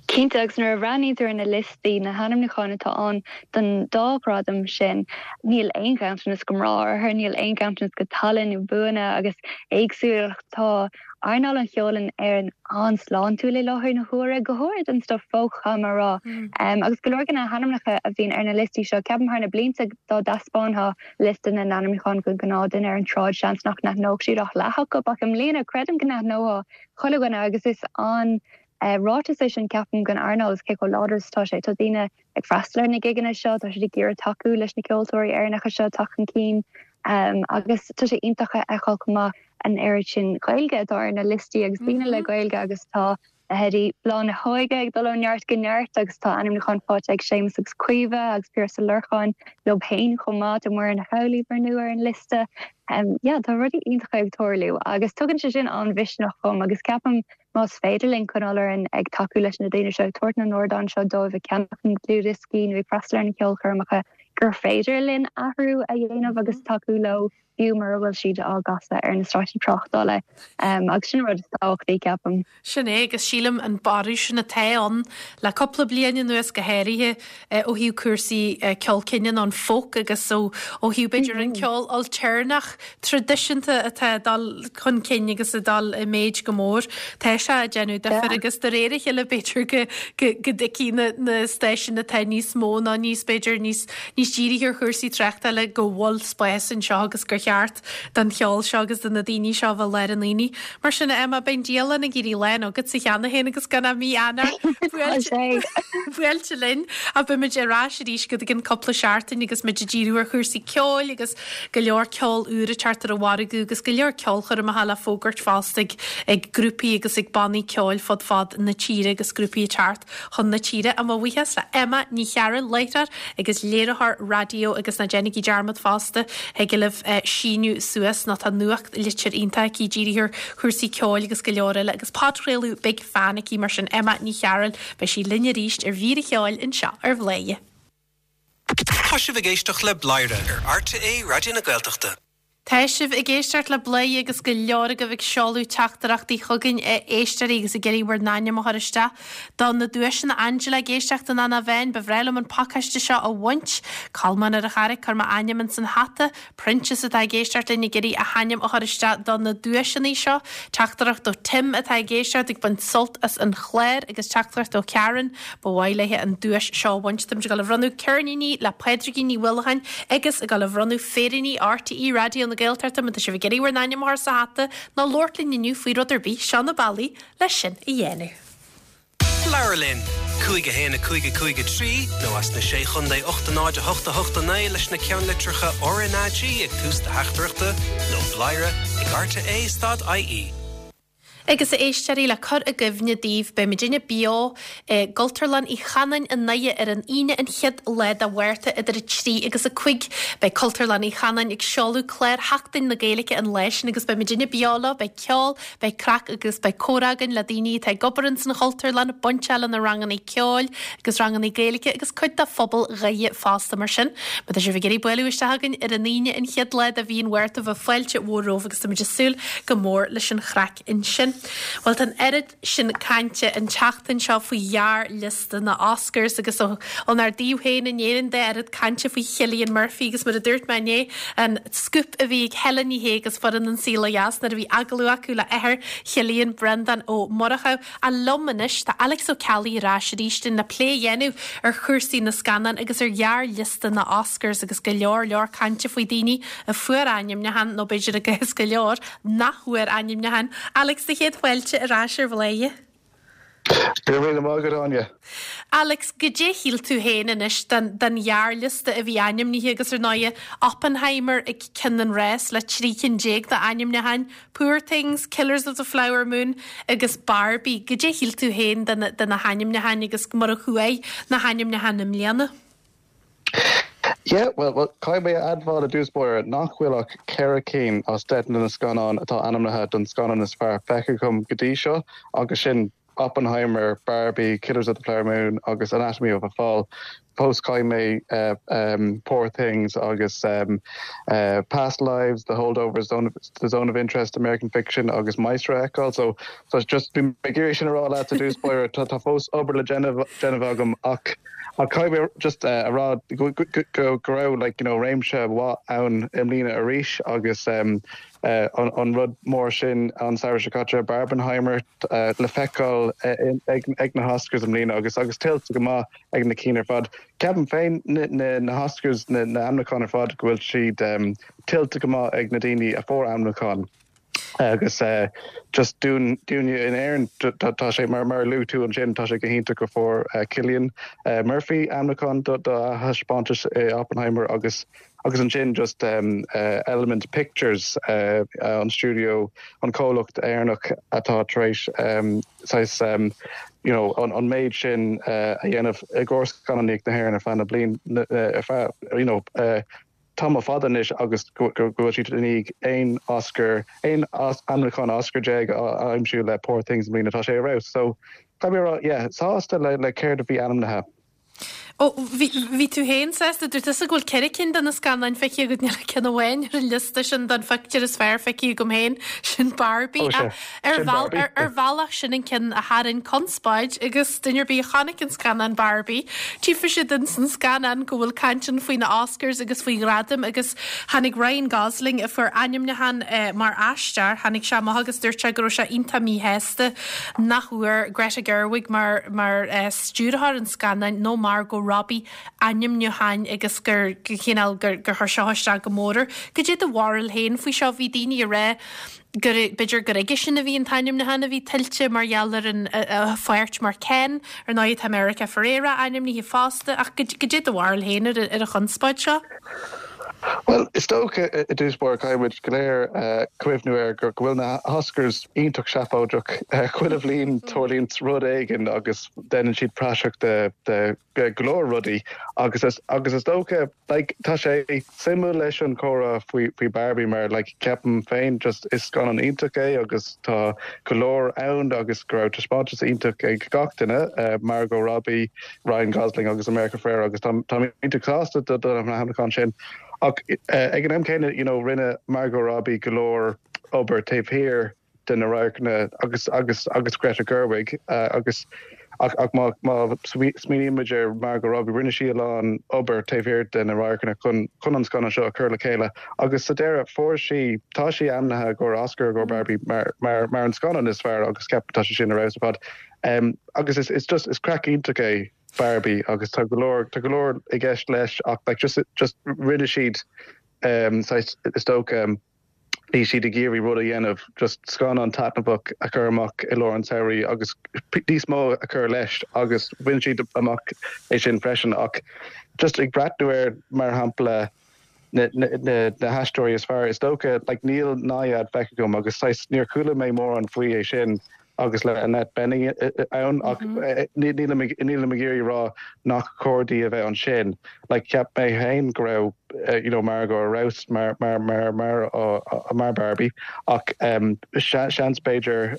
Cinnte, agus nuair a bhreathnaíonn tú ar na liostaí, na hainmniúcháin atá ann don dá ghradam sin, níl aon ghanntanas go mná orthu, níl aon ghanntanas go tallann nó buanna agus éagsúlacht. Tá earnáil an cheoil in Éirinn an-sláintiúil i láthair na huaire, go háirid an stuif folk, caithfidh mé a rá. Agus go leor de na hainmneacha a bhíonn ar na liostaí seo, ceapaim thar na blianta dá dtaispeánfá liosta na n-ainmniúchán don ghnáthduine ar an tsráid, seans nach n-aithneodh siad ach leath acu, ach i mbliana creidim go n-aithneoidh chuile dhuine agus is an-ráiteas é sin ceapaim don earnáil is cé chomh láidir is atá sé. Tá daoine ag freastal ar na gigeanna seo, tá siad ag iarraidh tacú leis na ceoltóirí Éireannacha seo teacht chun cinn agus tá sé iontach a fheiceáil chomh maith an oiread sin Gaeilge atá ar na liostaí agus daoine le Gaeilge agus tá Leithéidí Bláth na hÓige ag dul ó neart go neart agus tá ainmniúchán faighte ag Séamus agus Caoimhe agus Piaras Ó Lorcáin leo féin chomh maith. Tá Muireann Ní Amhlaoibh ar ndóigh ar an liosta. Yeah, tá rudaí iontacha ag tarlú agus tugann sé sin an-mhisneach dhom agus ceapaim más féidir linn coinneáil orainn ag tacú leis na daoine seo, ag tabhairt na n-ardán seo dóibh, ag ceannach na ndlúthdhioscaí nó ag freastal ar na ceolchoirmeacha, gur féidir linn athrú a dhéanamh agus tacú leo. fiú mura bhfuil siad á gcasadh ar na stáisiúin tráchtála. Agus sin an rud is tábhachtaí, ceapaim. Sin é, agus sílim an borradh sin atá ann le cúpla bliain anuas go háirithe ó thaobh cúrsaí ceol cine nó an folk agus ó thaobh b'fhéidir an ceol ailtéarnach traidisiúnta atá ag dul chun cinn agus ag dul i méid go mór. Tá sé ag déanamh difir agus de réir a chéile b'fhéidir go go dtuigfidh na stáisiúin atá níos mó nó níos b'fhéidir níos níos dírithe ar chúrsaí tráchtála go bhfuil spás anseo agus gur. cheart don cheol seo agus do na daoine seo a bheith i lár an aonaigh. Mar sin, a Emma, beidh an dialann ag éirí lán agatsa cheana féin agus gan ach mí Eanáir buailte linn. Ach beimid ar ais arís go gceann cúpla seachtain agus muid ag díriú ar chúrsaí ceoil agus go leor ceol úr ag teacht ar an mhargadh agus go leor ceolchoirmeacha le fógairt fosta ag grúpaí agus ag bannaí ceoil fud fad na tíre agus grúpaí ag teacht chun na tíre. Mo bhuíochas le Emma Ní Chearúil, láithreoir agus léiritheoir raidió agus ná déanaigí dearmad fosta, thig libh síniú suas nó tá nuachtlitir iontach aici dírithe ar chúrsaí ceoil agus go leor eile agus podchraoladh Big Fan aici mar sin Emma Ní Chearúil, beidh sí linn arís ar mhír an cheoil anseo ar Bhladhaire. Tá sibh ag éisteacht le Bladhaire ar RTÉ Raidió na Gaeltachta. Tá sibh ag éisteacht le Bladhaire agus go leor agaibh ag seoladh teachtaireachtaí chugainn, a éisteoirí, agus ag iarraidh bhur n-ainm a chur isteach do na duaiseanna. Angela ag éisteacht in Eanach Mheáin, ba bhreá liom an pacáiste seo a bhaint. Colmán ar an Charraic, cuir m'ainm ins an hata. Proinsias atá ag éisteacht linn ag iarraidh a hainm a chur isteach do na duaiseanna seo. Teachtaireacht ó Tim atá ag éisteacht ag baint sult as an chlár agus teachtaireacht ó Karen, Ba mhaith léi an duais seo a bhaint. Táimid ag dul a bhronnadh ceirníní le Pádraigín Ní Uallacháin agus ag dul a bhronnadh féiríní RTÉ Raidió na Gaeltachta. Má tá sibh ag iarraidh bhur n-ainm a chur sa hata nó labhairt linn inniu faoi rud ar bith, seo na bealaí le sin a dhéanamh. Labhair linn! 5 1 5 5 3 nó as na Sé Chontae 8 0 8 8 9 leis na ceannlitreacha RnaG ag tús do theachtaireachta nó bladhaire ag rte stad ie. Agus a éisteoirí, le cur i gcuimhne daoibh, beidh muidinne beo i gCultúrlann Uí Chanáin i nDoire ar an Aoine an chéad lá de Mhárta idir 3 agus 5. Beidh Cultúrlann Uí Chanáin ag seoladh clár Sheachtain na Gaeilge an lá sin agus beidh muidinne beo leo, beidh ceol, beidh craic agus beidh comhrá againn le daoine atá ag obair ins an Chultúrlann, bainteach le na ranganna ceoil agus ranganna Gaeilge agus cuid de phobal Dhoire fosta. Mar sin, má tá sibh ag iarraidh bualadh isteach chugainn ar an Aoine an chéad lá de mhí an Mhárta bheadh fáilte mhór romhaibh agus táimid ag súil go mór leis an chraic ansin. Bhuel, tá an oiread sin cainte an tseachtain seo faoi ghearrliosta na Oscars agus ónár dtaobh féin in Éirinn de, oiread cainte faoi Chillian Murphy agus mar a dúirt mé inné, an scúp a bhí ag Helen Ní Shé agus foireann An Saol Ó Dheas nuair a bhí agallamh acu le athair Chillian, Breandán Ó Murchú. Ach liom anois, tá Alex Ó Ceallaigh ar ais arís linn le plé a dhéanamh ar chúrsaí na scannán agus ar ghearrliosta na Oscars agus go leor leor cainte faoi daoine a fuair ainmniúchán, nó b'fhéidir i gcás go leor, nach bhfuair ainmniúchán. Alex, do chéad fáilte ar ais ar Bhladhaire. Go raibh míle maith agat, Áine. Alex, goidé a shíl tú féin anois den den ghearrliosta a bhí ainmnithe agus ar ndóighe Oppenheimer ag ceann an rás le 13 cinn d'ainmniúcháin, Poor Things, Killers of the Flower Moon agus Barbie. Goidé a shíl tú féin de na de na hainmniúcháin agus mar a chuaigh na hainmniúcháin i mbliana? Yeah, well, well, caithfidh mé a admháil i dtús báire nach bhfuil ach ceithre cinn as 10 de na scannáin atá ainmnithe don scannán is fearr feicthe agam go dtí seo, agus sin Oppenheimer, Barbie, Killers of the Flower Moon agus Anatomy of a Fall. Fós caithfidh mé Poor Things agus Past Lives, The Holdovers, The Zone of Interest, American Fiction agus Maestro a fheiceáil. So, so just bhí mé ag iarraidh sin a rá leat i dtús báire, tá fós obair le déanamh agam ach Ach caithfidh mé just a rá go raibh like you know réimse mhaith ann i mbliana arís agus an rud mór sin an samhradh seo caite, Barbenheimer, le feiceáil ag na hOscars i mbliana agus agus tuillte go maith ag na cinn ar fad. Ceapaim féin na hOscars, na hainmniúcháin ar fad go bhfuil siad tuillte go maith ag na daoine a fuair ainmniúchán. Agus just dúinne in Éirinn, tá sé, mar a luaigh tú ansin, tá sé go hiontach go fuair Cillian Murphy ainmniúchán do a thaispeántas i Oppenheimer agus agus ansin just Element Pictures, an stiúideo, an comhlacht Éireannach atá tar éis saghas you know an méid sin a dhéanamh i gcomhair scannánaíocht na hÉireann ar feadh na bliain, ar feadh you know tamall fada anois agus go bhfuil siad i ndiaidh aon Oscar, aon ainmniúchán Oscar a aimsiú le Poor Things i mbliana. Tá sé ar fheabhas. So, caithfidh mé a rá, yeah, sásta le céard a bhí ainmnithe. Ó, bhí, bhí tú féin sásta, dúirt tusa go bhfuil ceithre cinn de na scannáin feicthe agat, níl ach ceann amháin ar an liosta sin don phictiúr is fearr feicthe agam féin, sin Barbie. Ó, sea, Ar sin Barbie. ar bhealach sin an ceann a tharraing conspóid agus duine ar bith a chonaic an scannán Barbie, tchífidh siad ins an scannán go bhfuil caint ann faoi na Oscars agus faoi ghradaim agus tháinig Ryan Gosling a fuair ainmniúchán mar aisteoir, tháinig sé amach agus dúirt sé go raibh sé iontach míshásta nach bhfuair Greta Gerwig mar mar stiúrthóir an scannáin nó Margot. Margot Robbie ainmniúcháin agus gur chineál gur chuir seo isteach go mór air. Goidé do bharúil féin faoi seo? Bhí daoine ag rá gur b'fhéidir gur aigesean a bhí an t-ainmniúchán a bhí tuillte mar gheall ar an a pháirt mar Ken. Ar ndóigh tá America Ferrera ainmnithe fosta ach goidé do bharúil féin ar an chonspóid seo? Bhuel, is dócha i dtús báire caithfidh muid go léir cuimhniú air go bhfuil na hOscars iontach seafóideach. Chuile bhliain tarlaíonn rud éigin agus déanann siad praiseach de go leor rudaí agus agus is dócha like tá sé suimiúil leis an chomhrá faoi faoi Barbie mar like ceapaim féin just is scannán iontach é agus tá go leor ann agus go raibh taispeántas iontach ag gach duine, Margot Robbie, Ryan Gosling agus America Ferrera agus táim iontach sásta do na hainmniúcháin sin. Ach ag an am céanna you know rinne Margot Robbie go leor obair taobh thiar de na radharcanna agus agus agus Greta Gerwig agus ach ach má má smaoiníonn muid ar Margot Robbie rinne sí a lán obair taobh thiar de na radharcanna chun chun an scannán seo a chur le chéile agus sa deireadh fuair sí tá sí ainmnithe i gcomhair Oscar i gcomhair Barbie mar mar mar an scannán is fearr agus ceapaim tá sé sin ar fheabhas ar fad. Agus is is just is craic iontach é Barbie agus tá go leor tá go leor i gceist leis ach like just just rinne siad saghas is dócha bhí siad ag iarraidh rud a dhéanamh just scannán taitneamhach a chur amach i lár an tsamhraidh agus níos mó a chur leis agus bhain siad amach é sin freisin ach just ag breathnú ar mar shampla na na haisteoirí is fearr is dócha like níl Nyad feicthe agam agus saghas níor chuala mé mórán faoi é sin agus le Annette Bening ann ach nílim ag nílim ag iarraidh rá nach cóir di a bheith ansin like cheap mé féin go raibh you know Margot ar fheabhas mar mar mar mar mar Barbie ach seans b'fhéidir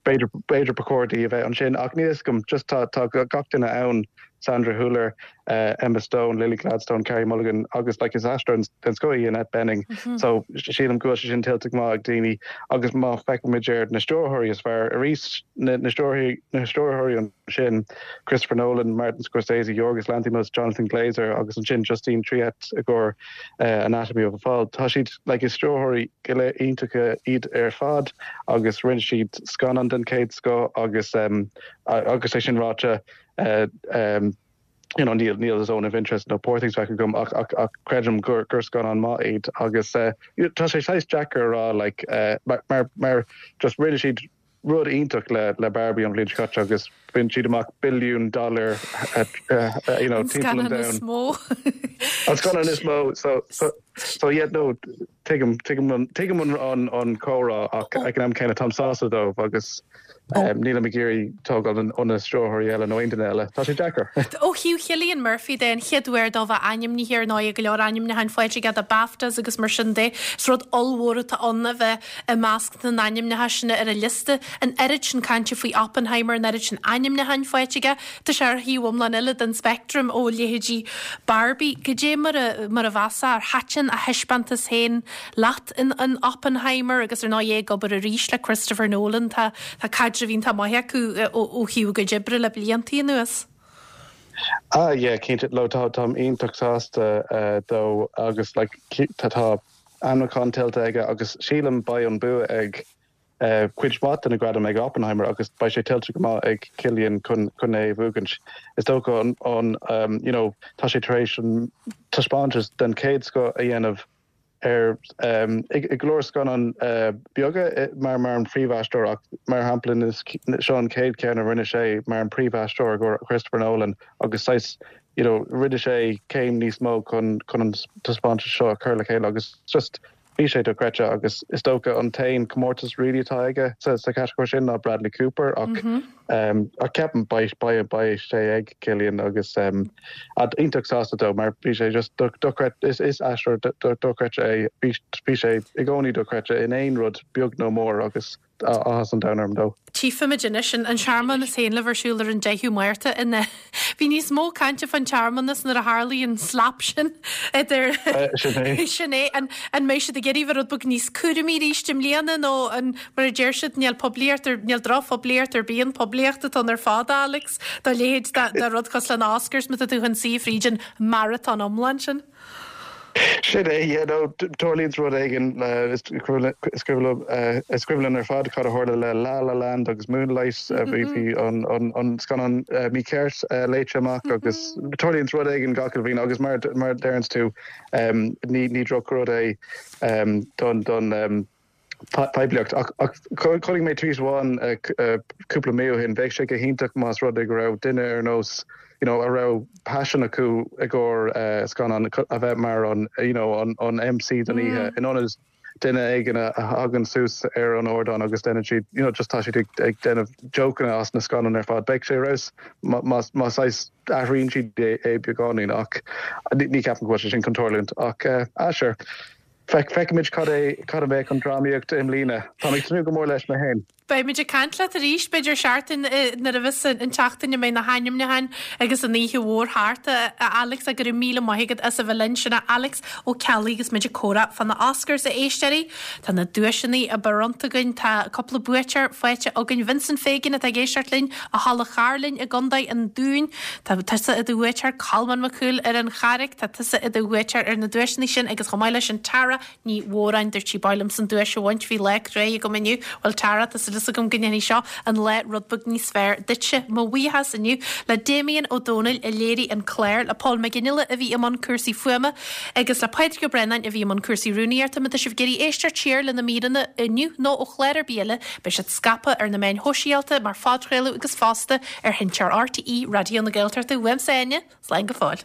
B'fhéidir, b'fhéidir ba chóir di a bheith ansin ach níl fhios agam, just tá, tá gach duine ann, Sandra Hüller, Emma Stone, Lily Gladstone, Carey Mulligan agus like is aisteoir den scoth í Annette Bening so sílim go bhfuil sé sin tuillte go maith ag daoine agus má feicimid ar na stiúrthóirí is fearr arís, na, na stiúrthóirí, na stiúrthóirí ansin, Christopher Nolan, Martin Scorsese, Yorgos Lanthimos, Jonathan Glazer agus ansin Justine Triet i gcomhair Anatomy of a Fall. Tá siad, like is stiúrthóirí go léir iontacha iad ar fad agus rinne siad scannán den chéad scoth agus agus é sin ráite you know níl níl Zone of Interest nó Poor Things feicthe agam ach ach ach creidim gur gur scannán maith iad agus tá sé saghas deacair a rá like mar mar mar just rinne siad rud iontach le le Barbie an bhliain seo caite agus bhain siad amach billiún dollar you know timpeall an domhain. An scannán is mó. An scannán is mó so so so yeah no tuigim tuigim an tuigim an an an comhrá ach ag an am céanna táim sásta dóibh agus nílim ag iarraidh tógáil ó na stiúrthóirí eile nó aon duine eile. Tá sé deacair. Ó thaobh Chillian Murphy de, an chéad uair dó bheith ainmnithe ar ndóigh go leor ainmniúcháin faighte aige do BAFTAs agus mar sin de. Is rud ollmhór atá ann a bheith i measc na n-ainmneacha sin ar an liosta, an oiread sin cainte faoi Oppenheimer, an oiread sin ainmniúcháin faighte aige, tá sé ar thaobh iomlán eile den speictream ó leithéidí Barbie. Goidé mar a mar a mheasfá, ar thaitin a thaispeántas féin leat in in Oppenheimer agus ar ndóigh é ag obair arís le Christopher Nolan, tá tá caidreamh iontach maith acu ó ó thaobh a gcuid oibre le bliantaí anuas. Ah yeah, cinnte, no tá táim iontach sásta dó agus like tá tá ainmniúchán tuillte aige agus sílim beidh an bua ag cuid mhaith de na gradaim ag Oppenheimer agus beidh sé tuillte go maith ag Cillian chun chun é a bhuachaint. Is dócha an an you know tá sé tar éis an taispeántas den chéad scoth a dhéanamh ar i go leor scannán beaga mar mar an phríomhaisteoir ach mar shampla seo an chéad cheann a rinne sé mar an príomhaisteoir i gcomhair Christopher Nolan agus saghas you know rinne sé céim níos mó chun chun an taispeántas seo a chur le chéile agus just bhí sé dochreidte agus is dócha an t-aon comórtas really atá aige sa sa chatagóir sin ná Bradley Cooper ach mm -hmm. um, ach ceapaim beidh beidh beidh sé ag Cillian agus um, iontach sásta dó mar bhí sé just dochreidte is is aisteoir dochreidte é bhí bhí sé i gcónaí dochreidte in aon rud beag nó mór agus áthas an domhain orm dó. Tchífimid anois an searmanas féin le bheith ar siúl ar an 10ú Márta in Bhí níos mó cainte fán tsearmanas nuair a tharlaigh an slap sin idir Sin é. Sin é. An an mbeidh siad ag iarraidh bheith rud beag níos cúramaí arís i mbliana nó an mar a deir siad níl poiblíocht ar níl drochphoiblíocht ar bith an poiblíocht atá ann ar fad Alex dá leithéid de rud cosúil le na Oscars má tá tú chun suí fríd an marathon iomlán sin. Sin é, yeah, no, tarlaíonns rud éigin le, is cuimhin linn ar fad cad a tharla le La La Land agus Moonlight, bhí, bhí an, an, an scannán mícheart léite amach agus tarlaíonns rud éigin gach uile bhliain agus mar, mar a deireanns tú, ní, ní drochrud é don, don, poiblíocht. Ach chonaic mé tweet amháin cúpla mí ó shin, bheadh sé go hiontach más rud é go raibh duine ar nós you know a raibh paisean acu i gcomhair scannán a bheith mar an you know an MC don oíche in ionad duine éigin a thagann suas ar an ardán agus déanann siad you know just tá siad ag déanamh jokeanna as na scannáin ar fad. Bheadh sé ar fheabhas má má saghas athraíonn siad é beagáinín ach ní ceapaim go bhfuil sé sin chun tarlúint ach ah sure. Feicfimid cad é cad a bheadh an drámaíocht i mbliana. Táim ag tnúth go mór leis mé féin. Beimid ag caint leat arís, b'fhéidir seachtain nuair a bheas an tseachtain a mbeidh na hainmniúcháin agus an oíche mhór thart, a Alex, go raibh míle maith agat as a bheith linn. Sin é Alex Ó Ceallaigh agus muid ag comhrá fá na Oscars, a éisteoirí. Tá na duaiseanna bronnta againn, tá cúpla buaiteoir faighte againn. Vincent Fagan atá ag éisteacht linn ó Thulach Chairlinn i gContae an Dúin. Tá tusa i do bhuaiteoir, Colmán Mac Cumhaill ar an Charraic. Tá tusa i do bhuaiteoir ar na duaiseanna sin agus chomh maith leis sin Tara Ní Mhóráin, dúirt sí, b'áil liomsa an duais a bhaint, bhí lá cruaidh agam inniu. Bhuel Tara, tá súil agam go ndéanfaidh seo an lá rud beag níos fearr duitse. Mo bhuíochas inniu le Damien Ó Dónaill a léirigh an clár, le Paul Mac Fhionnghaile a bhí i mbun cúrsaí fuaime agus le Pádraig Ó Braonáin a bhí i mbun cúrsaí rúnaíochta. Má tá sibh ag iarraidh éisteacht siar le na míreanna inniu nó ó chlár ar bith eile, beidh siad scaipthe ar na meáin shóisialta mar phodchraoladh agus fosta ar sheinnteoir RTÉ Raidió na Gaeltachta. Uaimse Áine, Slán go fóill.